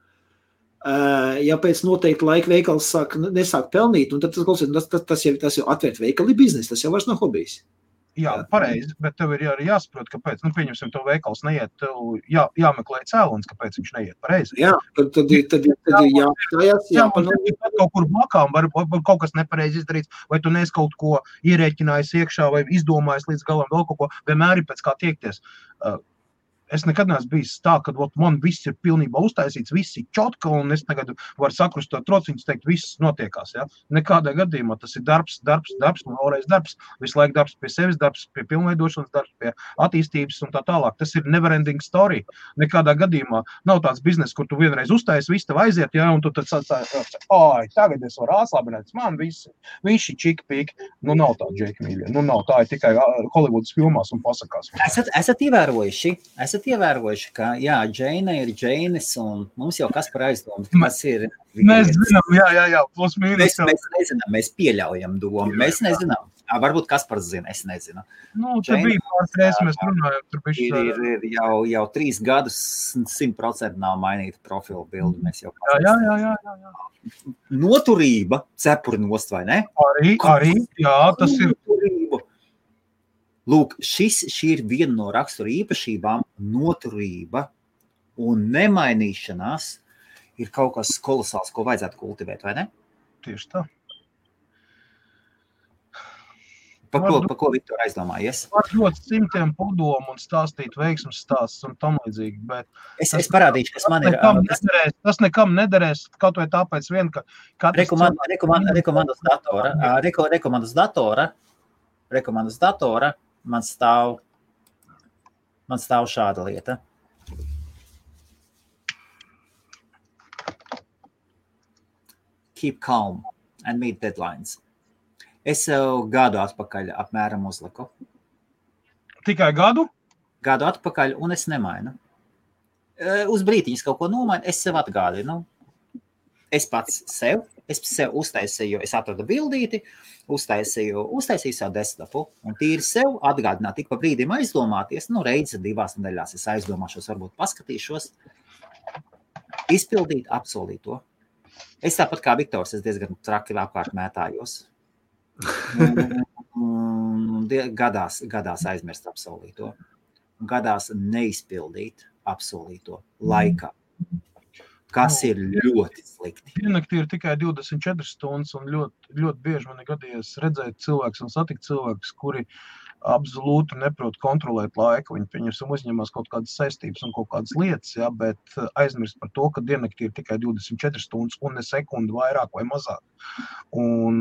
Ja pēc noteikti laika veikals nesāk pelnīt, un tad tas jau atvērt veikali biznesi, tas jau vairs nav hobijs. Jā, pareizi, bet tev ir arī jāsaprot, kāpēc, pieņemsim, tev veikals neiet, tev jāmeklē cēlonis, kāpēc viņš neiet pareizi. Jā, tad ir jāstājās, kaut kur blakām, var kaut kas nepareizi izdarīts, vai tu neesi kaut ko ierēķinājis iekšā, vai izdomājis līdz galam vēl kaut ko, vienmēr ir pēc kā tiekties. Es nekad neesmu bijis tā, ka man viss ir pilnībā uztaisīts, viss ir čotka, un es tagad varu sakrustot trociņus, teikt, viss notiekās. Ja? Nekādā gadījumā tas ir darbs, un vēlreiz darbs, visu laiku darbs pie sevis, darbs pie pilnveidošanas, darbs pie attīstības un tā tālāk. Tas ir never-ending story. Nekādā gadījumā nav tāds biznes, kur tu vienreiz uztaisi, viss tev aiziet, ja? Un tu tad tagad es varu atslābināt, man visi ir čiki-piki. Nav tā, Džeki mīļie. Nav tā, ir tikai Hollywoodas filmās un pasakās. Esat ievērojuši, ka, jā, Džeina ir Džeinis, un mums jau kas par aizdomu, kas ir... Mēs zinām, jā, plus mīnus. Mēs nezinām, mēs pieļaujam domu, mēs nezinām. Varbūt kas par zina, es nezinu. Te bija pāris reizes, mēs runājam, tur bišķi... Ir jau 3 gadus 100% nav mainīta profila bildi, mēs jau... Jā. Noturība, cepuri nost, vai ne? Arī, jā, tas ir... Noturība. Lūk, šī ir viena no rakstura īpašībām, noturība un nemainīšanās ir kaut kas kolosāls, ko vajadzētu kultivēt, vai ne? Tieši tā. Par ko Viktor aizdomājies? Var ļoti simtiem padomu un stāstīt veiksmes stāsts un tam līdzīgi, bet... Es parādīšu, kas man ir... Tas nekam nederēs, kaut vai tāpēc vien, ka... Rekomandas datora, man stāv šāda lieta. Keep calm and meet deadlines. Es jau gadu atpakaļ apmēram uzliku. Tikai gadu? Gadu atpakaļ, un es nemainu. Uz brītiņas kaut ko nomainu, es sev atgādinu. Es sev uztaisīju, es atradu bildīti, uztaisīju savu desktopu, un tīri sev atgādināt, tik pa brīdim aizdomāties, reizi 2 nedēļās es aizdomāšos, varbūt paskatīšos, izpildīt, apsolīto. Es tāpat kā Viktors, es diezgan traki apkārt mētājos. Gadās aizmirst apsolīto, gadās neizpildīt apsolīto laikā. Kas ir ļoti slikti. Diennaktī ir tikai 24 stundas, un ļoti bieži man ir gadījies redzēt cilvēkus un satikt cilvēkus, kuri absolūti neprot kontrolēt laiku. Viņi, pieņemsim, uzņemās kaut kādas saistības un kaut kādas lietas, ja, bet aizmirst par to, ka diennaktī ir tikai 24 stundas un ne sekundi vairāk vai mazāk. Un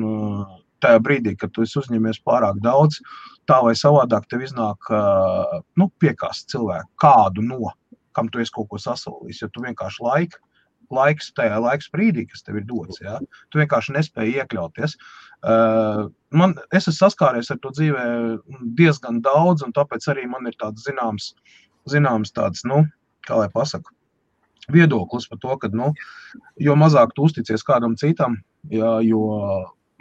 tajā brīdī, kad tu esi uzņemies pārāk daudz, tā vai savādāk tev iznāk piekāst cilvēku kādu kam tu esi kaut ko sasolījis, jo tu vienkārši tajā laiks brīdī, kas tev ir dots, ja? Tu vienkārši nespēji iekļauties. Es esmu saskāries ar to dzīvē diezgan daudz, un tāpēc arī man ir tāds zināms tāds, kā lai pasaku, viedoklis par to, ka, jo mazāk tu uzticies kādam citam, ja, jo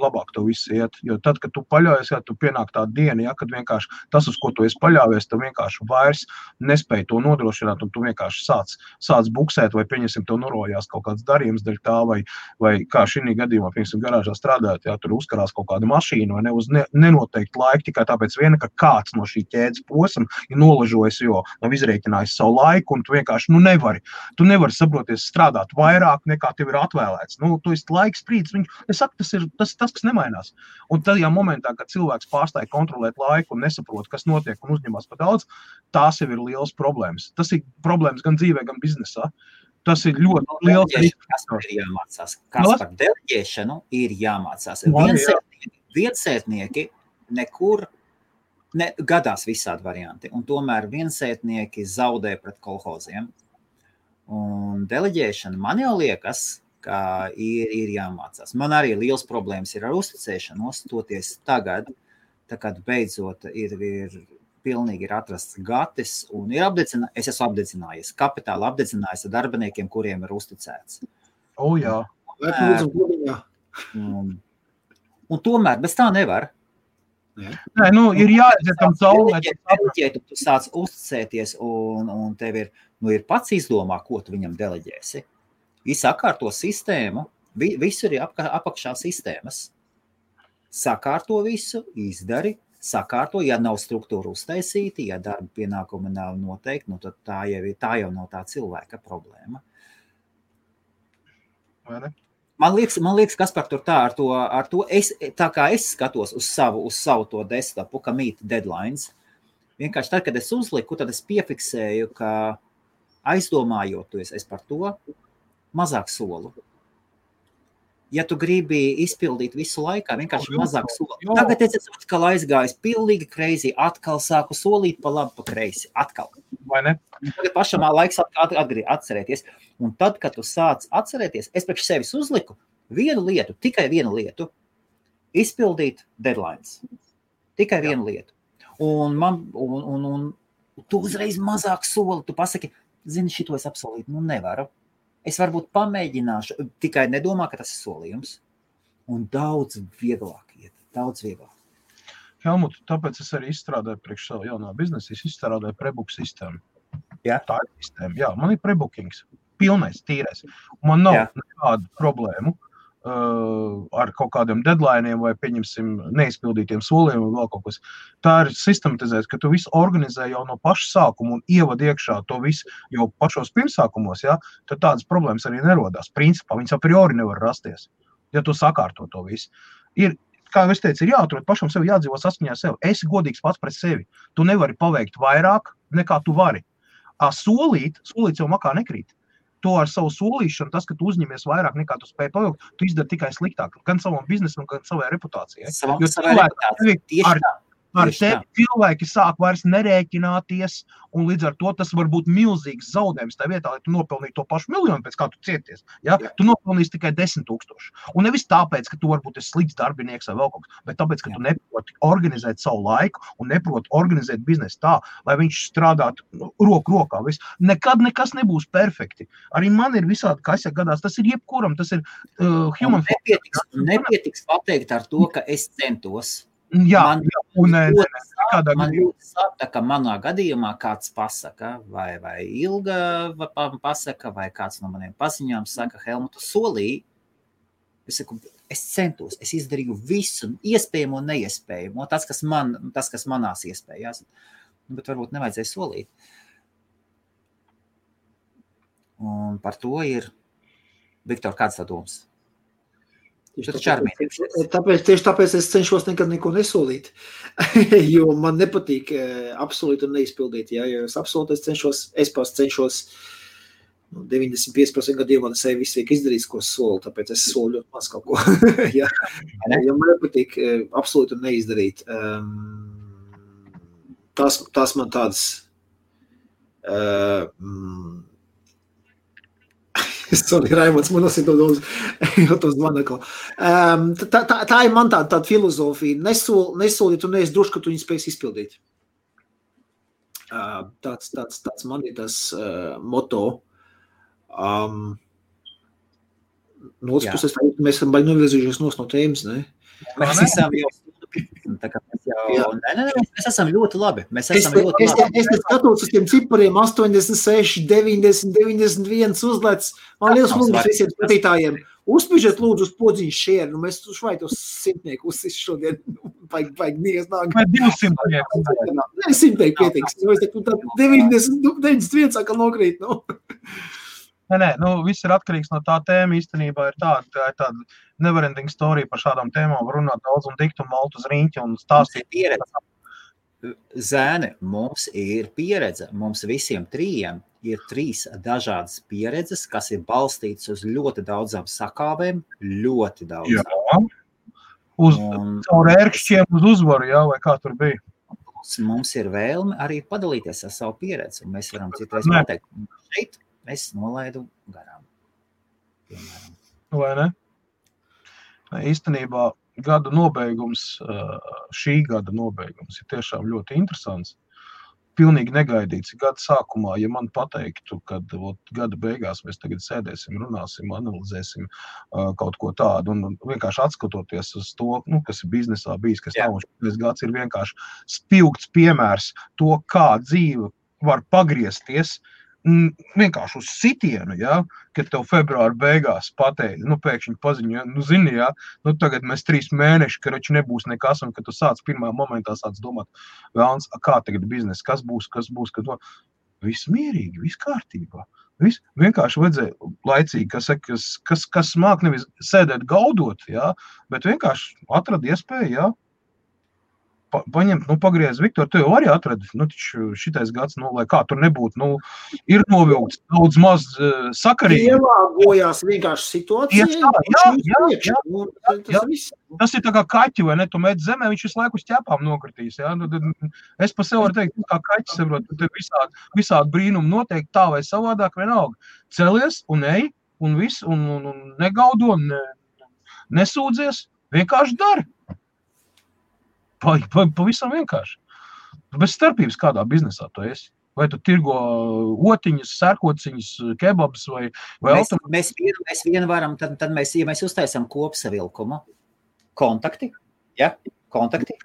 labāk tev viss iet, jo tad, kad tu paļaujies, ja tu pienāk tā diena, ja, kad vienkārši tas, uz ko tu esi paļāvies, tu vienkārši vairs nespēji to nodrošināt, un tu vienkārši sāc buksēt, vai pieņemsim, tev norojās kaut kāds darījums daļ tā, vai kā šī gadījumā, pieņemsim, garāžā strādājot, ja, tur uzkarās kaut kāda mašīna, vai ne, uz nenoteikti laiku, tikai tāpēc viena, ka kāds no šī ķēdes posma ir nolažojis, jo nav izrēķinājis savu laiku, un tu vienkārši, tu nevari saproties strādāt vairāk, nekā tev ir atvēlēts. Tu esi laiks sprīdis, es saku, tas ir tas, kas nemainās. Un tajā momentā, kad cilvēks pārstāja kontrolēt laiku un nesaprot, kas notiek un uzņemās par daudz, tās jau ir liels problēmas. Tas ir problēmas gan dzīvē, gan biznesā. Tas ir ļoti liels. Kas par jāmācās? Kas par deleģēšanu ir jāmācās? Viensētnieki nekur gadās visādi varianti, un tomēr viensētnieki zaudē pret kolhoziem. Un deleģēšana man jau liekas, ka ir jāmācās. Man arī liels problēmas ir ar uzticēšanos, toties tagad, kad beidzot ir pilnīgi atrasts gatis, un es esmu apdedzinājies, kapitāli apdedzinājies ar darbiniekiem, kuriem ir uzticēts. Jā. Un tomēr bez tā nevar. Nē, ir jāaiziet tam cauri. Tu sāc uzticēties, un tev ir pats izdomā, ko tu viņam deleģēsi. Sakārto sistēmu, visur ir apakšā sistēmas. Sakārto visu, izdari, sakārto, ja nav struktūra uztaisīti, ja darba pienākumi nav noteikti, nu tad tā jau nav tā cilvēka problēma. Vai ne? Man liekas, Kaspar, tur tā ar to tā kā es skatos uz savu to desktopu, ka meet deadlines, vienkārši tad, kad es uzliku, tad es piefiksēju, ka aizdomājoties es par to, mazāk solu. Ja tu gribi izpildīt visu laikā, vienkārši mazāk soli. Tagad es esmu atkal aizgājis pilnīgi crazy, atkal sāku solīt pa labi, pa kreisi, atkal. Vai ne? Tagad pašam laiks atcerēties. Un tad, kad tu sāc atcerēties, es priekš sevis uzliku tikai vienu lietu, izpildīt deadlines. Tikai vienu lietu. Un tu uzreiz mazāk soli, tu pasaki, zini, šito es apsolīt, nevaru. Es varbūt pamēģināšu, tikai nedomā, ka tas ir solījums. Un daudz vieglāk iet, daudz vieglāk. Helmut, tāpēc es arī izstrādāju priekš savu jaunā biznesa, es izstrādāju prebook sistēmu. Jā. Tā ir sistēma, jā, man ir prebookings, pilnais, tīrais. Man nav nekādu problēmu ar kaut kādiem deadlineiem vai, pieņemsim, neizpildītiem soliem vai vēl kaut kas. Tā ir sistematizēts, ka tu visu organizē jau no paša sākuma un ievad iekšā to visu jau pašos pirmsākumos, ja, tad tādas problēmas arī nerodās. Principā viņas a priori nevar rasties, ja tu sakārto to visu. Kā es teicu, ir jāatrod pašam sevi, jādzīvo saskaņā sev. Esi godīgs pats pret sevi. Tu nevari paveikt vairāk, nekā tu vari. Solīt jau makā nekrīt. To ar savu solīšanu, tas, ka tu uzņemies vairāk nekā tu spēj paveikt, tu izdari tikai sliktāk. Gan savam biznesam, gan savai reputācijai. Savai reputācijai, tieši tā. Ar tevi cilvēki sāk vairs nerēķināties, un līdz ar to tas var būt milzīgs zaudējums. Tā vietā, lai tu nopelnītu to pašu miljonu, pēc kā tu cieties, ja? Tu nopelnīsi tikai 10 000. Un nevis tāpēc, ka tu varbūt esi slikts darbinieks vai vēl kaut kas, bet tāpēc, ka tu neproti organizēt savu laiku un neproti organizēt biznesu tā, lai viņš strādātu roku rokā. Nekad nekas nebūs perfekti. Arī man ir visādi, kas gadās, tas ir jebkuram, tas ir human. Nepietiks pateikt ar to, ka es centos. Man ļoti sāpta, ka manā gadījumā kāds pasaka, vai Ilga pasaka, vai kāds no maniem paziņām saka, Helmutu solīja. Es saku, es centos, es izdarīju visu, iespējamo un neiespējamo, tas, kas manās iespējās. Bet varbūt nevajadzēja solīt. Un par to ir, Viktor, kāds tā domas? Tieši tāpēc es cenšos nekad neko nesolīt, jo man nepatīk apsolīt un neizpildīt. Ja es apsolītu, es cenšos 95% gadījumā sevi visu izdarīt, ko solu, tāpēc es solu ļoti maz kaut ko. Ja man nepatīk apsolīt un neizdarīt. Tas man tāds sorry, Raimonds, man tas ir to zvanakla. Tā ir man tāda filozofija. Nesolīt un neesi droši, ka tu viņu spēs izpildīt. Tāds man ir tas moto. No otras puses, mēs esam baigi novirzījušies no tēmas, ne? Mēs esam jau mēs esam ļoti labi. Es skatos uz tiem cipariem 86, 90, 91 uzlēc. Man liels lūdzu visiem skatītājiem. Uzspižiet lūdzu uz podziņu share. Mēs švai tos 100 uzsis šodien. Vajag nies nāk. Vai 200? Ne, 100 pietiks. 91 sākam nokrīt. Nē, viss ir atkarīgs no tā tēma. Īstenībā ir tāda neverending story par šādām tēmām. Var runāt daudz un dikt un malt uz riņķi un stāstīt. Zēni, mums ir pieredze. Mums visiem trījiem ir 3 dažādas pieredzes, kas ir balstītas uz ļoti daudzām sakāvēm. Ļoti daudzām. Jā. Caur ērkšķiem uz uzvaru, jā, vai kā tur bija. Mums ir vēlme arī padalīties ar savu pieredzi. Un mēs varam citreiz pateikt, šeit es nolaidu garām. Piemēram. Vai ne? Īstenībā gada nobeigums, šī gada nobeigums ir tiešām ļoti interesants. Pilnīgi negaidīts. Gada sākumā, ja man pateiktu, kad gada beigās mēs tagad sēdēsim, runāsim, analizēsim kaut ko tādu un vienkārši atskatoties uz to, kas ir biznesā bijis, kas nav un šis gads ir vienkārši spilgts piemērs to, kā dzīve var pagriezties vienkārši uz sitienu, ja, kad tev februāra beigās pateica, pēkšņi paziņoja, zini, ja, tagad mēs 3 mēneši, ka rači nebūs nekas, un kad tu sāc pirmā momentā sāc domāt, vēlns, kā tagad biznes, kas būs, kad viss mierīgi, viss kārtībā. Viss vienkārši vajadzēja laicīgi, kas māk nevis sēdēt gaudot, ja, bet vienkārši atrada iespēju, ja, paņemt, pagriez, Viktor, tu jau arī atradi, taču šitais gads, lai kā tur nebūtu, ir novilkts daudz maz sakarīgi. Ielāgojās vienkārši situācija. Tas ir tā kā kaķi, vai ne, tu met zemē, viņš visu laiku uz ķepām nokritīs, ja, es pa sev varu teikt, kā kaķis, saprot, tu te visādi brīnumi noteikti tā vai savādāk vienalga. Celies un ej, un viss, un negaudo, nesūdzies, vienkārši dari. Pavisam vienkārši. Bez starpības kādā biznesā tu esi. Vai tu tirgo otiņas, sērkociņas, kebabs vai mēs vienu varam, tad mēs uztaisam kopsavilkumu. Kontakti, ja? Kontakti.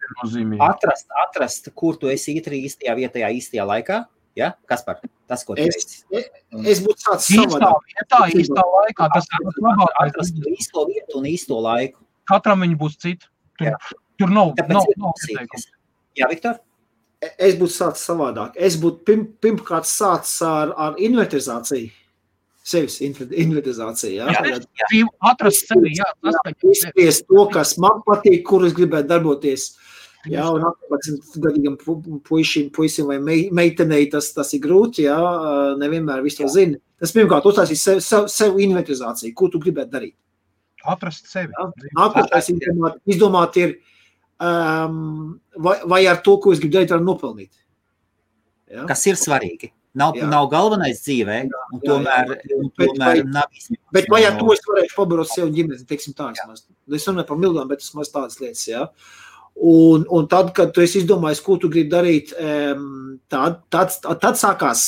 Atrast, kur tu esi īstajā vietā, īstajā laikā. Ja? Kaspar, tas, ko tu esi. Es būtu sācis savādāk. Īstā laikā. Tas ir labāk. Atrast īsto vietu un īsto laiku. Katram viņi būs citi. Tur nav ieteikums. Jā, Viktor? Es būtu sācis savādāk. Es būtu pirmkārt sācis ar inventarizāciju. Sevis inventarizāciju, jā. Atrast sevi, jā. Izspiest to, kas man patīk, kur es gribētu darboties. Jā, un 18-gadīgam puisim vai meitenei tas ir grūti, jā. Nevienmēr visu to zina. Tas pirmkārt uztaisīt sev inventarizāciju, ko tu gribētu darīt. Atrast sevi. Nākošais izdomāt ir, vai ar to, ko es gribu darīt, varam nopelnīt. Ja? Kas ir svarīgi. Nav galvenais dzīvē, un tomēr nav izņemts. Bet vai ar to es varēšu pabarot sev ģimeni, teiksim tā. Es runāju par mildām, bet tas maz tādas lietas, ja. Un tad, kad tu esi izdomājis, ko tu gribi darīt, tad sākās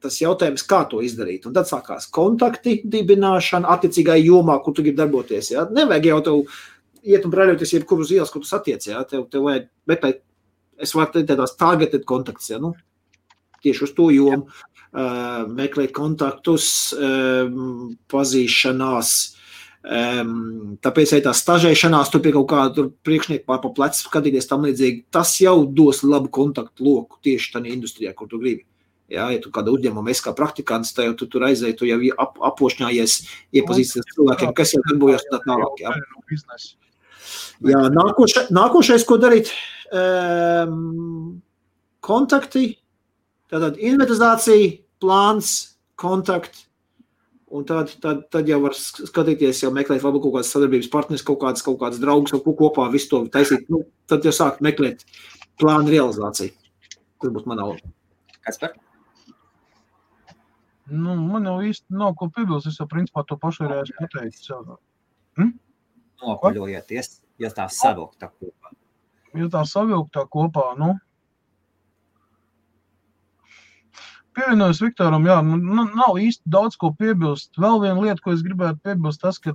tas jautājums, kā to izdarīt. Un tad sākās kontakti dibināšana attiecīgai jomā, kur tu gribi darboties. Ja? Nevajag jau tev iet un brēļoties jebkur uz ielas, kur tu satiec. Ja? Tev vajag, bet es varu teikt tādās targeted kontakts, ja? Tieši uz to jomu. Meklēt kontaktus, pazīšanās. Tāpēc arī tā stažēšanās, tur pie kaut kāda priekšnieku pār pa plecu skatīties tam līdzīgi. Tas jau dos labu kontaktu loku tieši tādā industrijā, kur tu gribi. Ja tu kāda uzņēmuma esi kā praktikants, tad tu tur aizēji, tu jau apošņājies, iepazīsties cilvēkiem, kas jau darbojas tā tālāk. Ja. Jā, nākošais, ko darīt, kontakti, tātad inventarizācija, plāns, kontakti, un tad jau var skatīties, jau meklēt varbūt kaut kādas sadarbības partneris, kaut kādas draugus, kaut ko kopā visu to taisīt. Tad jau sāk meklēt plānu realizāciju. Tas būtu manā loma. Kaspar? Man jau īsti nav ko piebilst, es jau principā to pašreiz pateicu. Nopaļojieties, ja tā savilktā kopā. Ja tā savilktā kopā, pievienojos Viktoram, jā, nav īsti daudz ko piebilst. Vēl viena lieta, ko es gribētu piebilst, tas, ka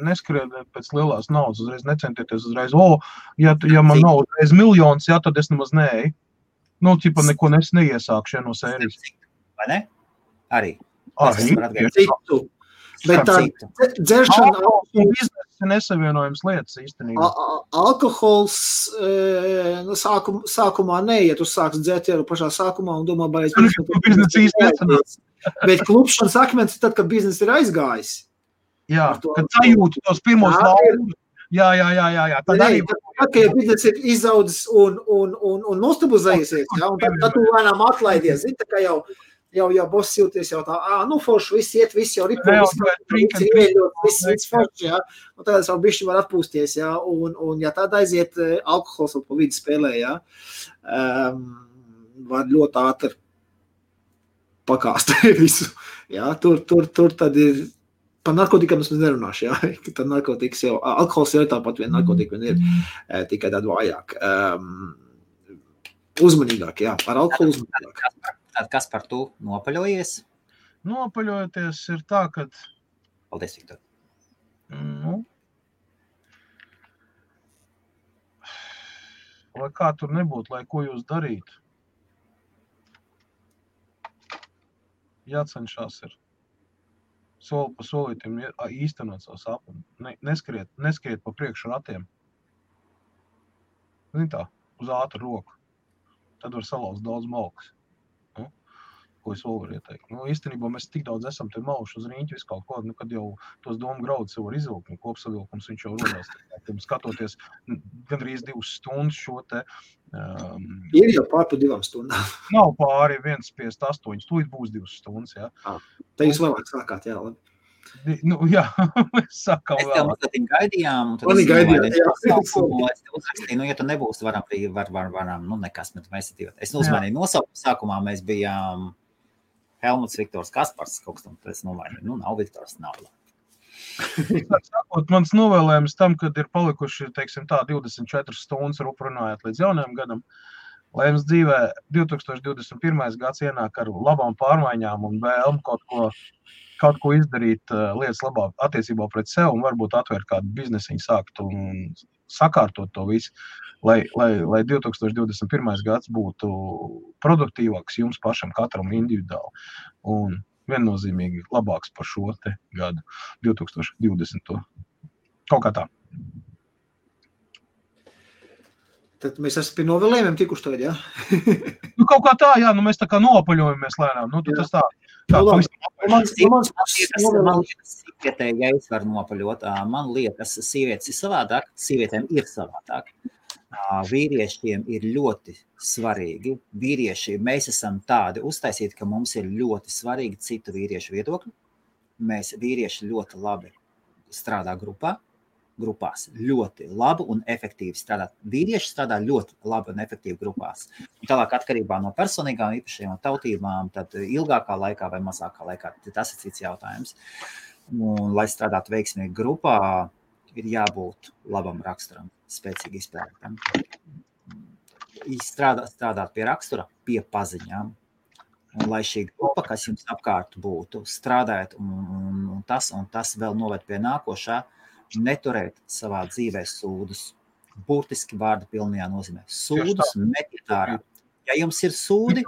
neskriediet pēc lielās naudas, uzreiz necentieties uzreiz, ja man nav uzreiz miljons, jā, tad es nemaz neeju. Ķipa neko neiesākšu no sērijas. Vai ne? Arī. Citu. Bet tā dzeršana biznesa nesavienojums lietas īstenībā. Alkohols sākumā neiet, tu sāks dzert jau pašā sākumā un domā, vai biznesa īsti nesanāks. Bet klupšanas akmens tad, kad biznesa ir aizgājis. Jā, kad sajūti tos pirmos laurus. Jā. Tad arī... Tad, ja biznesa ir izaudzis un nostabilizējies, ja, un tad tu lēnām atlaidies. Zini, tā kā jau boss jūties jau tā, forši, viss iet, viss jau ripo, viss ieļot, viss forši, ja. Un tad es vēl bišķi var atpūsties, ja. Un ja tad aiziet alkohols un pa vidu spēlē, ja, var ļoti ātri pakāst visu. Ja. Tur tad ir, par narkotikām es nerunāšu, ja. Tad narkotikas jau, alkohols jau ir tāpat vien narkotika, vien ir tikai tāda vājāk. Uzmanīgāk, jā, par alkoholu uzmanīgāk. Tad kas par to nopaļojies? Nopaļojoties ir tā, ka... Paldies, Viktor. Lai kā tur nebūtu, lai ko jūs darītu. jācenšās ir soli pa solītim īstenot savu sapni. Neskriet pa priekšu ratiem. Tā, uz ātru roku. Tad var salauzt daudz malkas. Ko es vēl varu ieteikt. Īstenībā mēs tik daudz esam te mauši uz rīņķi visu kaut ko, kad jau tos domu graudus var izvilkt, kopsavilkums viņš jau rodās. Skatoties gandrīz 2 stundas šo te... Ir jau pār pa 2 stundām. Nav pāri 1,58, tūlīt būs 2 stundas, jā. Te jūs vēlāk sākāt, jā, labi. Jā, mēs sākām vēl. Mēs tev mazliet gaidījām, un tad es uzrakstīju, ja tu nebūs, varam, nekas, bet mēs ir es uzmanīju nosaukumu, sākumā mēs bijām Helmuts, Viktors, Kaspars, kaut kas tam, es nomainīju, nav Viktors, nav. Sakot, mans novēlējums tam, kad ir palikuši, teiksim tā, 24 stundas runājot līdz jaunajam gadam, lai jums dzīvē 2021. gads ienāk ar labām pārmaiņām un vēlmu kaut ko izdarīt lietas labāk attiecībā pret sev un varbūt atvērt kādu biznesiņu sākt un sakārtot to visu, lai 2021. gads būtu produktīvāks jums pašam katram individuāli un viennozīmīgi labāks par šo te gadu 2020. Kaut kā tā. Tad mēs esam pie novēlējumiem tikuši tagad, jā? Kaut kā tā, jā, mēs tā kā nopaļojamies lēnām. Tas tā. Man liekas, ja es varu nopaļot, man liekas, sievietes ir savādāk, sievietēm ir savādāk. Vīriešiem ir ļoti svarīgi. Vīrieši, mēs esam tādi uztaisīti, ka mums ir ļoti svarīgi citu vīriešu viedokļi. Mēs vīrieši ļoti labi strādā grupās ļoti labi un efektīvi strādāt. Vīrieši strādā ļoti labi un efektīvi grupās. Un tālāk atkarībā no personīgām īpašajām tautībām, tad ilgākā laikā vai mazākā laikā, tas ir cits jautājums. Un, lai strādātu veiksmīgi grupā, ir jābūt labam raksturam, spēcīgi izpētam. Strādāt pie rakstura, pie paziņām. Un lai šī grupa, kas jums apkārt būtu, strādājot un tas vēl noved pie nākošā, neturēt savā dzīvē sūdus. Burtiski vārda pilnajā nozīmē. Sūdus metiet ārā. Ja jums ir sūdi,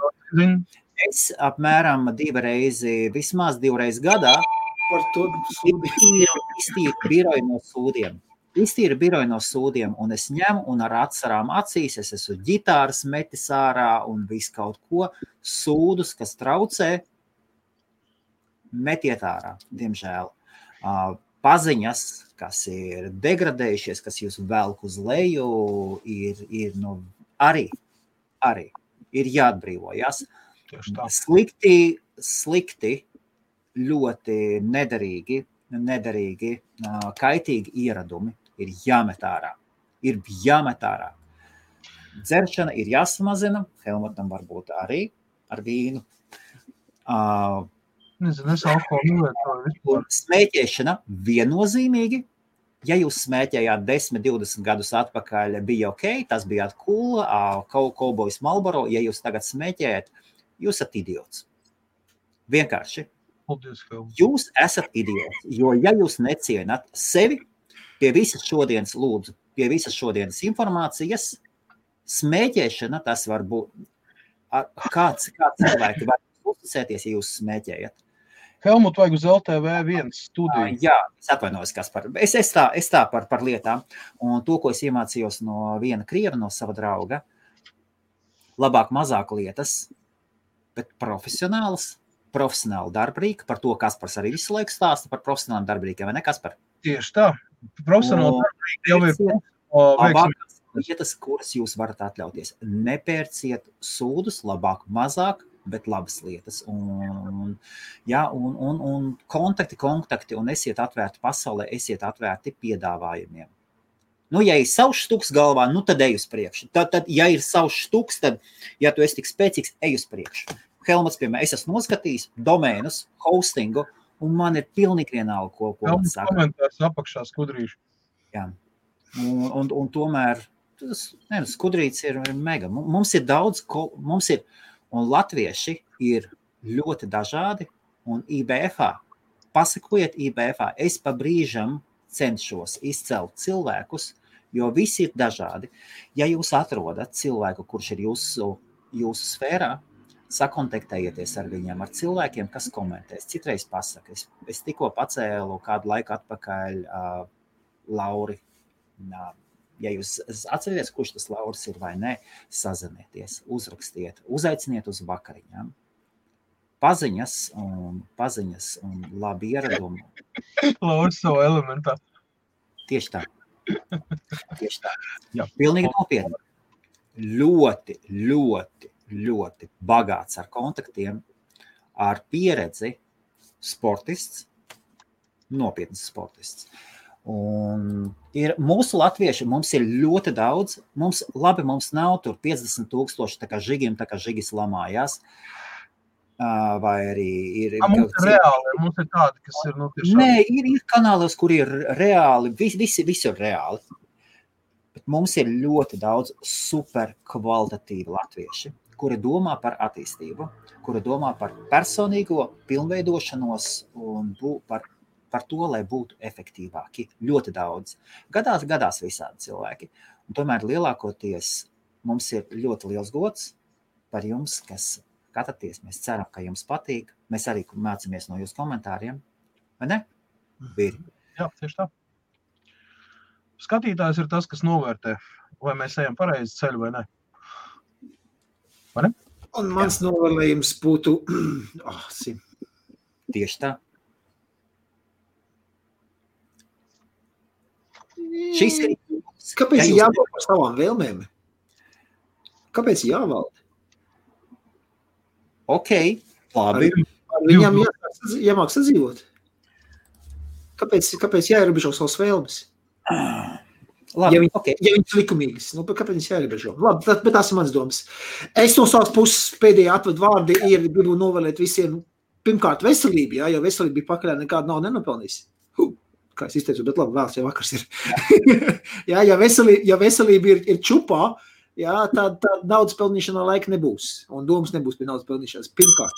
es apmēram vismaz 2 reizes gadā iztīru biroju no sūdiem. Iztīru biroju no sūdiem, un es ņemu un ar atsarām acīs, es esmu ģitāras metis ārā un visu kaut ko sūdus, kas traucē, metiet ārā, diemžēl. Paziņas, kas ir degradējušies, kas jūs velk uz leju, ir arī ir jāatbrīvojas. Slikti, ļoti nederīgi, kaitīgi ieradumi ir jāmet ārā. Dzeršana ir jāsamazina, Helmutam varbūt arī ar vīnu. Smēķēšana viennozīmīgi. Ja jūs smēķējāt 10, 20 gadus atpakaļ, bija ok, tas bija cool, Cowboys Marlboro. Ja jūs tagad smēķējat, jūs esat idiots. Vienkārši. Jūs esat idiots, jo ja jūs necienat sevi, pie visas šodienas informācijas, smēķēšana, tas var būt, kāds cilvēki var uzticēties, ja jūs smēķējat. Helmut, vajag uz LTV1 studiju. Jā, es atvainojos, Kaspar. Es tā par lietām. Un to, ko es iemācījos no viena krieva, no sava drauga, labāk mazāk lietas, bet profesionāli darbrīki, par to Kaspars arī visu laiku stāsta par profesionāliem darbrīkiem, vai ne, Kaspar? Tieši tā. Profesionāli darbrīki jau ir lietas, kuras jūs varat atļauties. Nepērciet sūdus, labāk mazāk, bet labas lietas. Un kontakti, un esiet atvērti pasaulē, esiet atvērti piedāvājumiem. Ja ir savs štuks galvā, tad ej uz priekšu. Tad, ja ir savs štuks, tad, ja tu esi tik spēcīgs, ej uz priekšu. Helmuts, piemēram, es esmu noskatījis domēnus, hostingu, un man ir pilnīgi vienalga, ko man saka. Komentārs apakšā skudrīšu. Jā. Un tomēr skudrīts ir mega. Mums ir daudz, un latvieši ir ļoti dažādi, un IBFā, pasakojiet IBFā, es pa brīžam cenšos izcelt cilvēkus, jo visi ir dažādi. Ja jūs atrodat cilvēku, kurš ir jūsu sfērā, sakontaktējieties ar viņiem, ar cilvēkiem, kas komentēs. Citreiz pasaka, es tikko pacēlu kādu laiku atpakaļ Lauri. Ja jūs atcerieties, kurš tas Lauris ir vai ne, sazinieties, uzrakstiet, uzaiciniet uz vakariņām. Paziņas un labi ieradumi. Lauris savu elementā. Tieši tā. Jā. Pilnīgi nopietni. Ļoti, ļoti, ļoti bagāts ar kontaktiem, ar pieredzi sportists, nopietns sportists. Un ir mūsu latvieši, mums ir ļoti daudz, mums nav tur 50,000 tā kā žigiem, tā kā žigis lamājās, vai arī ir... Mums ir reāli, mums ir tādi, kas ir tiešām... Nē, ir kanālos, kur ir reāli, visi ir reāli. Bet mums ir ļoti daudz super kvalitatīvi latvieši, kuri domā par attīstību, kuri domā par personīgo pilnveidošanos un par to, lai būtu efektīvāki. Ļoti daudz. Gadās visādi cilvēki. Un tomēr lielākoties mums ir ļoti liels gods par jums, kas skatāties. Mēs ceram, ka jums patīk. Mēs arī mācāmies no jūsu komentāriem. Vai ne? Vīri? Jā, tieši tā. Skatītājs ir tas, kas novērtē, vai mēs ejam pareizi ceļu vai ne. Vai ne? Un mans novērtējums būtu... Tieši tā. Šis ir... Kāpēc jāvalda par savām vēlmēm? Kāpēc jāvalda? Ok, labi. Viņam jāmāk sadzīvot. Kāpēc jāierobežo savas vēlmes? Labi, ja viņas likumīgas, kāpēc viņas jāierobežo? Labi, bet tās ir mans domas. Es no savas puses pēdējā atvadu vārdi gribu novēlēt visiem, pirmkārt, veselību, jo veselība bija pakaļā nekāda nav nenopelnījis. Kā es izteicu, bet labi, vēls jau vakars ir. ja veselība ir čupā, tad naudas pelnīšanā laika nebūs. Un domas nebūs pie naudas pelnīšanas. Pirmkārt,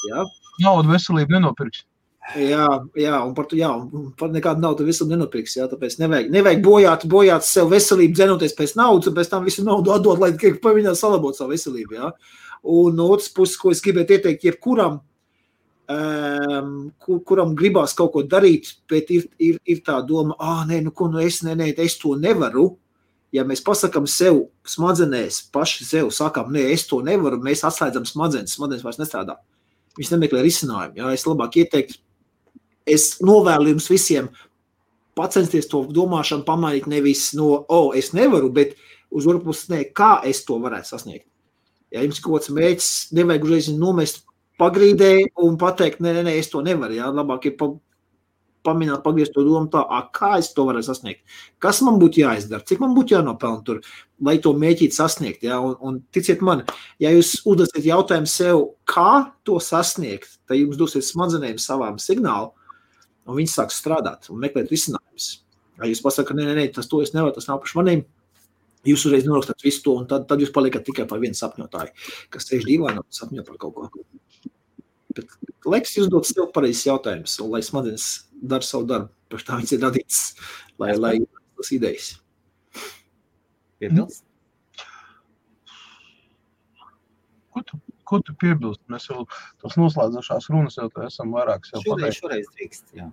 Naudu veselību nenopirks. Un par nekādu naudu veselību nenopirks. Tāpēc nevajag bojāt sev veselību, dzenoties pēc naudas, un pēc tam visu naudu atdot, lai paviņā salabot savu veselību. Un no otras puses, ko es gribētu ieteikt jebkuram, kuram gribās kaut ko darīt, bet ir tā doma, es to nevaru. Ja mēs pasakam sev smadzenēs, paši sev sakam, es to nevaru, mēs atslēdzam smadzenes vairs nestrādā. Viņš nemeklē risinājumu. Es labāk ieteiktu, es novēlu jums visiem pacensties to domāšanu pamainīt nevis no, es nevaru, bet uz otru pusi, kā es to varētu sasniegt. Ja jums kaut kāds mērķis, nevajag uzreiz nomest pagrīdē un pateikt, es to nevaru. Labāk ir pagriezt to domu tā, kā es to varētu sasniegt. Kas man būtu jāizdara, cik man būtu jānopelna tur, lai to mēģīt sasniegt. Un ticiet man, ja jūs uzdosiet jautājumu sev, kā to sasniegt, tad jums dosiet smadzenēm savām signālu, un viņi sāks strādāt un meklēt risinājumus. Ja jūs pasaka, tas to es nevaru, tas nav paši maniem, jūs uzreiz norakstat visu to, un tad jūs paliekat tikai par vienu sapņotāju, kas sēž dīvainā un sapņo par kaut ko. Bet laiks jūs dot sev pareizes jautājumus, un lai smadzenes dara savu darbu, par tā viņas ir radītas, lai tas idejas. Piebilst? Ko tu piebilst? Mēs jau tos noslēdzošās runas jau esam vairākas jau pateikt. Šoreiz drīkst, jā.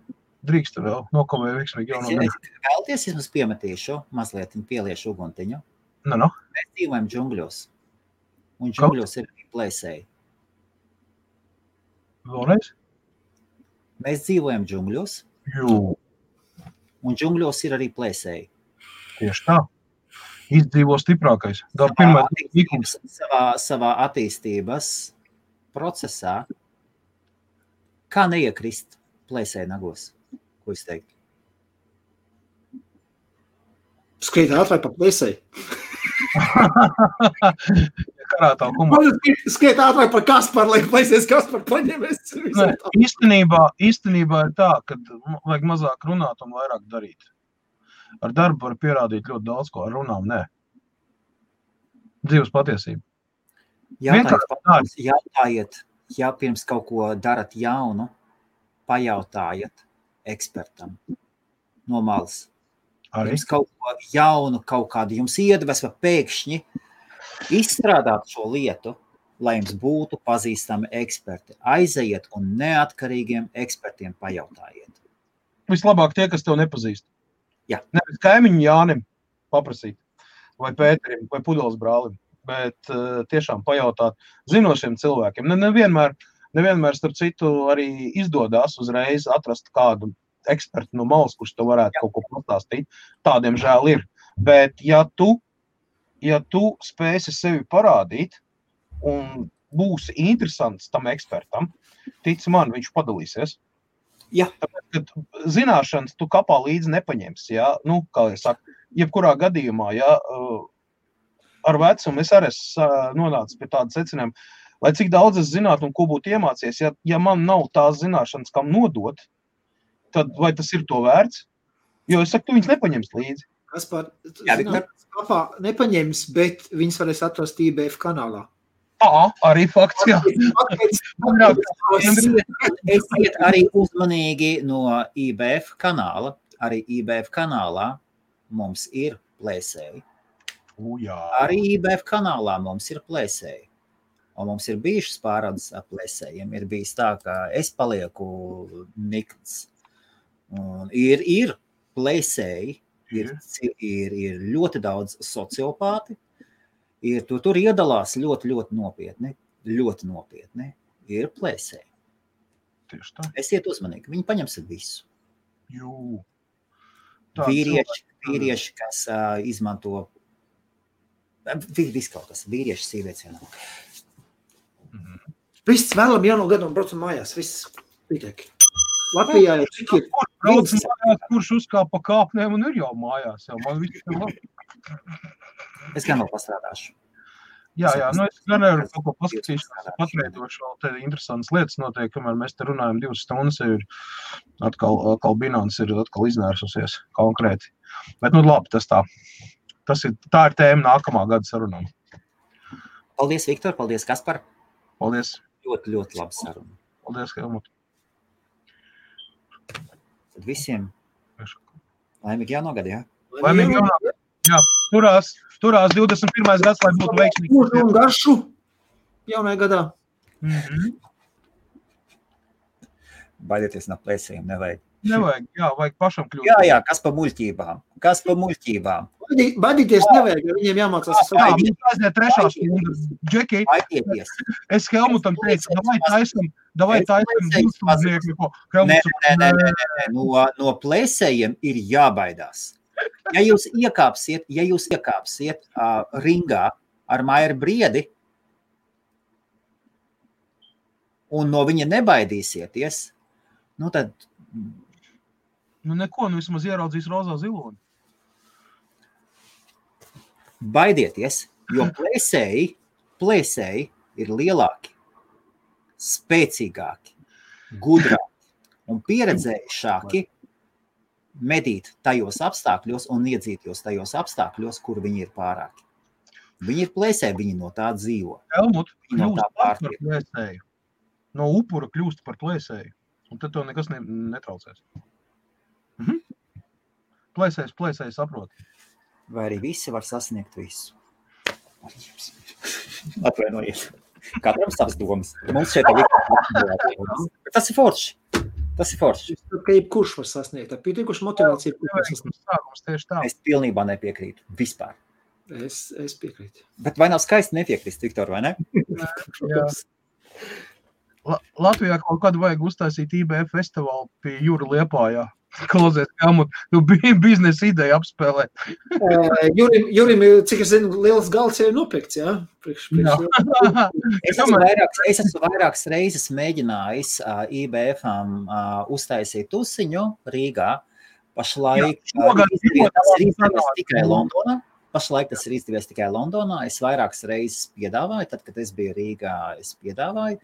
Drīkst vēl, nokavēja veiksmīgi jau no gana. Vēlties, es mums piemetīšu, mazliet pieliešu uguntiņu. Mēs dzīvojam džungļos, un džungļos ir arī plēsēji. Vēlreiz? Mēs dzīvojam džungļos, un džungļos ir arī plēsēji. Tieši tā. Izdzīvo stiprākais. Savā attīstības procesā, kā neiekrist plēsēji nagos? Ko es teiktu? Skriet ātrāk par plēsēji. Skriet ātrāk par Kasparu, lai plēsēs Kasparu paņemies. Īstenībā ir tā, ka vajag mazāk runāt un vairāk darīt. Ar darbu var pierādīt ļoti daudz, ko ar runām, nē. Dzīves patiesība. Jautājiet, ja pirms kaut ko darat jaunu, pajautājiet ekspertam no malas. Pirms kaut ko jaunu, kaut kādu jums iedvesma pēkšņi izstrādāt šo lietu, lai jums būtu pazīstami eksperti. Aizejiet un neatkarīgiem ekspertiem pajautājiet. Vislabāk tie, kas tev nepazīst. Jā. Nevis kaimiņu Jānim paprasīt, vai Pēterim, vai Pudeles brālim, bet tiešām pajautāt zinošiem cilvēkiem. Nevienmēr, starp citu, arī izdodās uzreiz atrast kādu ekspertu no malas, kurš tev varētu kaut ko pastāstīt. Tādiem žēl ir. Bet ja tu spēsi sevi parādīt un būsi interesants tam ekspertam, tic man, viņš padalīsies. Jā. Tāpēc, ka zināšanas tu kapā līdzi nepaņemsi, ja? Nu, kā es saku, jebkurā gadījumā, ja, ar vecumu es arī nonācu pie tāda secinājuma, lai cik daudz es zinātu un ko būtu iemācies, ja man nav tās zināšanas, kam nodot, tad vai tas ir to vērts? Jo es saku, tu viņas nepaņems līdzi. Kaspar, kapā nepaņems, bet viņas varēs atrast IBF kanālā. Arī fakts, jā. Esiet arī uzmanīgi no IBF kanāla. Arī IBF kanālā mums ir plēsēji. Arī IBF kanālā mums ir plēsēji. Un mums ir bijušas pārādes ar plēsējiem. Ir bijis tā, ka es palieku nikns. Un ir plēsēji, ir ļoti daudz sociopāti. Tur iedalās ļoti nopietni, ir plēsēji. Tieši tā. Esiet uzmanīgi, viņi paņems visu. Jū. Vīrieši, kas izmanto, viss kaut kas, vīrieši, sievietes vienā. Viss vēlam jauno gadu un braucam mājās, viss pietiek. Latvijā jau cik ir? Kurš uzkāpa pa kāpnēm un ir jau mājās, man viss ir labi. Es gan vēl pastrādāšu. Jā, es gan arī kaut ko paskatīšu, patveidošu vēl te interesantas lietas notiek, kamēr mēs te runājam 2 stundas, ir atkal Binance ir atkal iznērsusies konkrēti. Bet labi, tā ir tēma nākamā gada sarunām. Paldies, Viktor, paldies, Kaspar. Paldies. Ļoti laba saruna. Paldies, Helmut. Tad visiem laimīgi jānogada, jā? Laimīgi jānogada. Jā, turās 21. gads, lai būtu veiksmīgi. Mūžu un garšu jaunajā gadā. Baidieties no plēsējiem, nevajag. Nevajag, jā, vajag pašam kļūt. Jā, kas pa muļķībām. Baidīties nevajag, jo viņiem jāmācās. Jā, mums aiziet 3. stunda. Džeki, es Helmutam teicu, davai taisam būstūdnieku. Nē, no plēsējiem ir jābaidās. Ja jūs iekāpsiet ringā ar Mairu Briedi un no viņa nebaidīsieties, tad... Neko, vismaz ieraudzīs rozā ziloni. Baidieties, jo plēsēji ir lielāki, spēcīgāki, gudrāki un pieredzējušāki medīt tajos apstākļos un iedzītos tajos apstākļos, kur viņi ir pārāki. Viņi ir plēsēji, viņi no tā dzīvo. Helmut, kļūst par plēsēju. No upura kļūst par plēsēju. Un tad tev nekas netraucēs. Plēsējs saprot. Vai arī visi var sasniegt visu? Atvainojiet. Katram savas domas. Mums šeit ir tas ir forši. Ka jebkurš var sasniegt. Ar pietiekušu motivāciju. Es pilnībā nepiekrītu. Vispār. Es piekrītu. Bet vai nav skaisti nepiekrist, Viktor, vai ne? Jā. Latvijā kaut kādu vajag uztaisīt IBF festivālu pie Jūra Liepājā. Klausies, Helmut, tu biznesa ideja apspēlē. Jurim, cik es zinu, liels galds jau ir nopirkts, jā? Es esmu vairākas reizes mēģinājis IBF-am uztaisīt tusiņu Rīgā. Pašlaik tas ir izdevies tikai Londonā. Es vairākas reizes piedāvāju, tad, kad es biju Rīgā, es piedāvāju.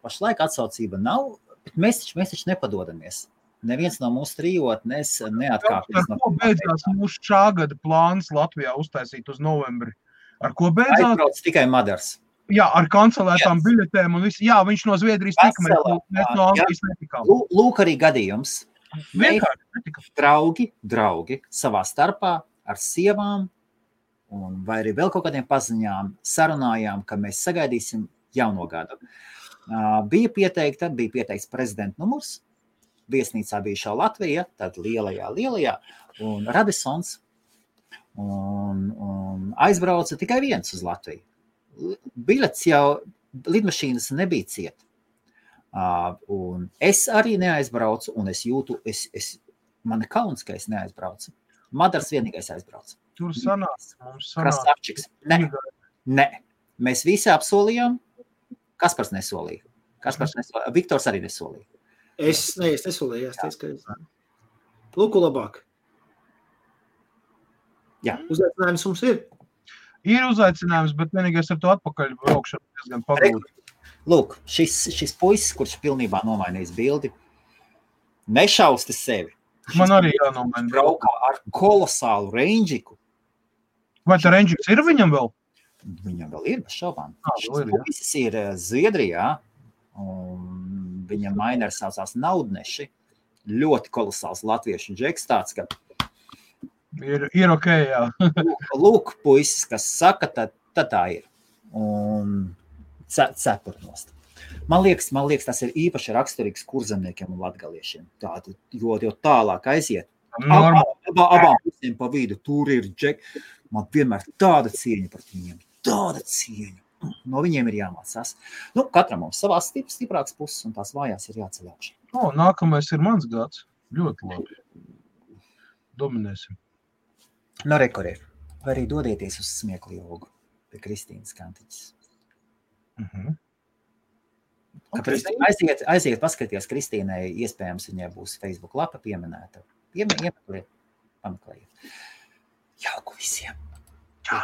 Pašlaik atsaucība nav, bet mēs taču nepadodamies. Neviens no mūsu trijotnes neatkāpjas. Ar ko beidzās mūsu šā gada plāns Latvijā uztaisīt uz novembri? Ar ko beidzās? Aizbrauc tikai Madars. Jā, ar kancelētām biļetēm un visu. Jā, viņš no Zviedrijas tika, mēs no Anglijas netikām. Lūk arī gadījums. Draugi savā starpā ar sievām un vai arī vēl kaut kādiem paziņām sarunājām, ka mēs sagaidīsim jauno gadu. Bija pieteikts prezidenta numurs, viesnīcā bijušā Latvija, tad lielajā, un Radissons, un aizbrauca tikai viens uz Latviju. Bilets jau, lidmašīnas nebija ciet. Un es arī neaizbraucu, un es jūtu, man kauns, ka es neaizbraucu. Madars vienīgais aizbrauca. Tur mums Krasavčiks. Ne. Mēs visi apsolījām. Kaspars nesolīja. Viktors arī nesolīja. Es nesolīju, es teicu, ka Lūku labāk. Jā. Uzaicinājums mums ir. Ir uzaicinājums, bet vienīgais ar to atpakaļ braukšanu diezgan pagūti. Lūk, šis puisis, kurš pilnībā nomainījis bildi, nešausti sevi. Man arī jānomaina. Braukā ar kolosālu reindžiku. Vai tā reindžiks ir viņam vēl? Viņam vēl ir, bez šaubām. Šis puisis ir Zviedrijā, un viņa mainers saucās Naudneši. Ļoti kolosāls latviešu džeks tāds, ka ir ok, jā. Lūk, puisis, kas saka, tad tā ir. Un cepurnost. Man liekas, tas ir īpaši raksturīgs kurzemniekiem un latgaliešiem. Tātad, jo tālāk aiziet. Abām pusēm pa vidu, tur ir džek. Man vienmēr tāda cieņa par viņiem. Tāda cieņa. No viņiem ir jāmācās. Katram mums savās stiprākas puses un tās vājās ir jāceļ augšā. Nākamais ir mans gads. Ļoti labi. Dominēsim. Rekorē. Vai arī dodieties uz smieklu jogu pie Kristīnas Kantiņas. Aiziet paskaties Kristīnai, iespējams viņai būs Facebook lapa pieminēta. Pameklējiet. Jauku visiem. Čau.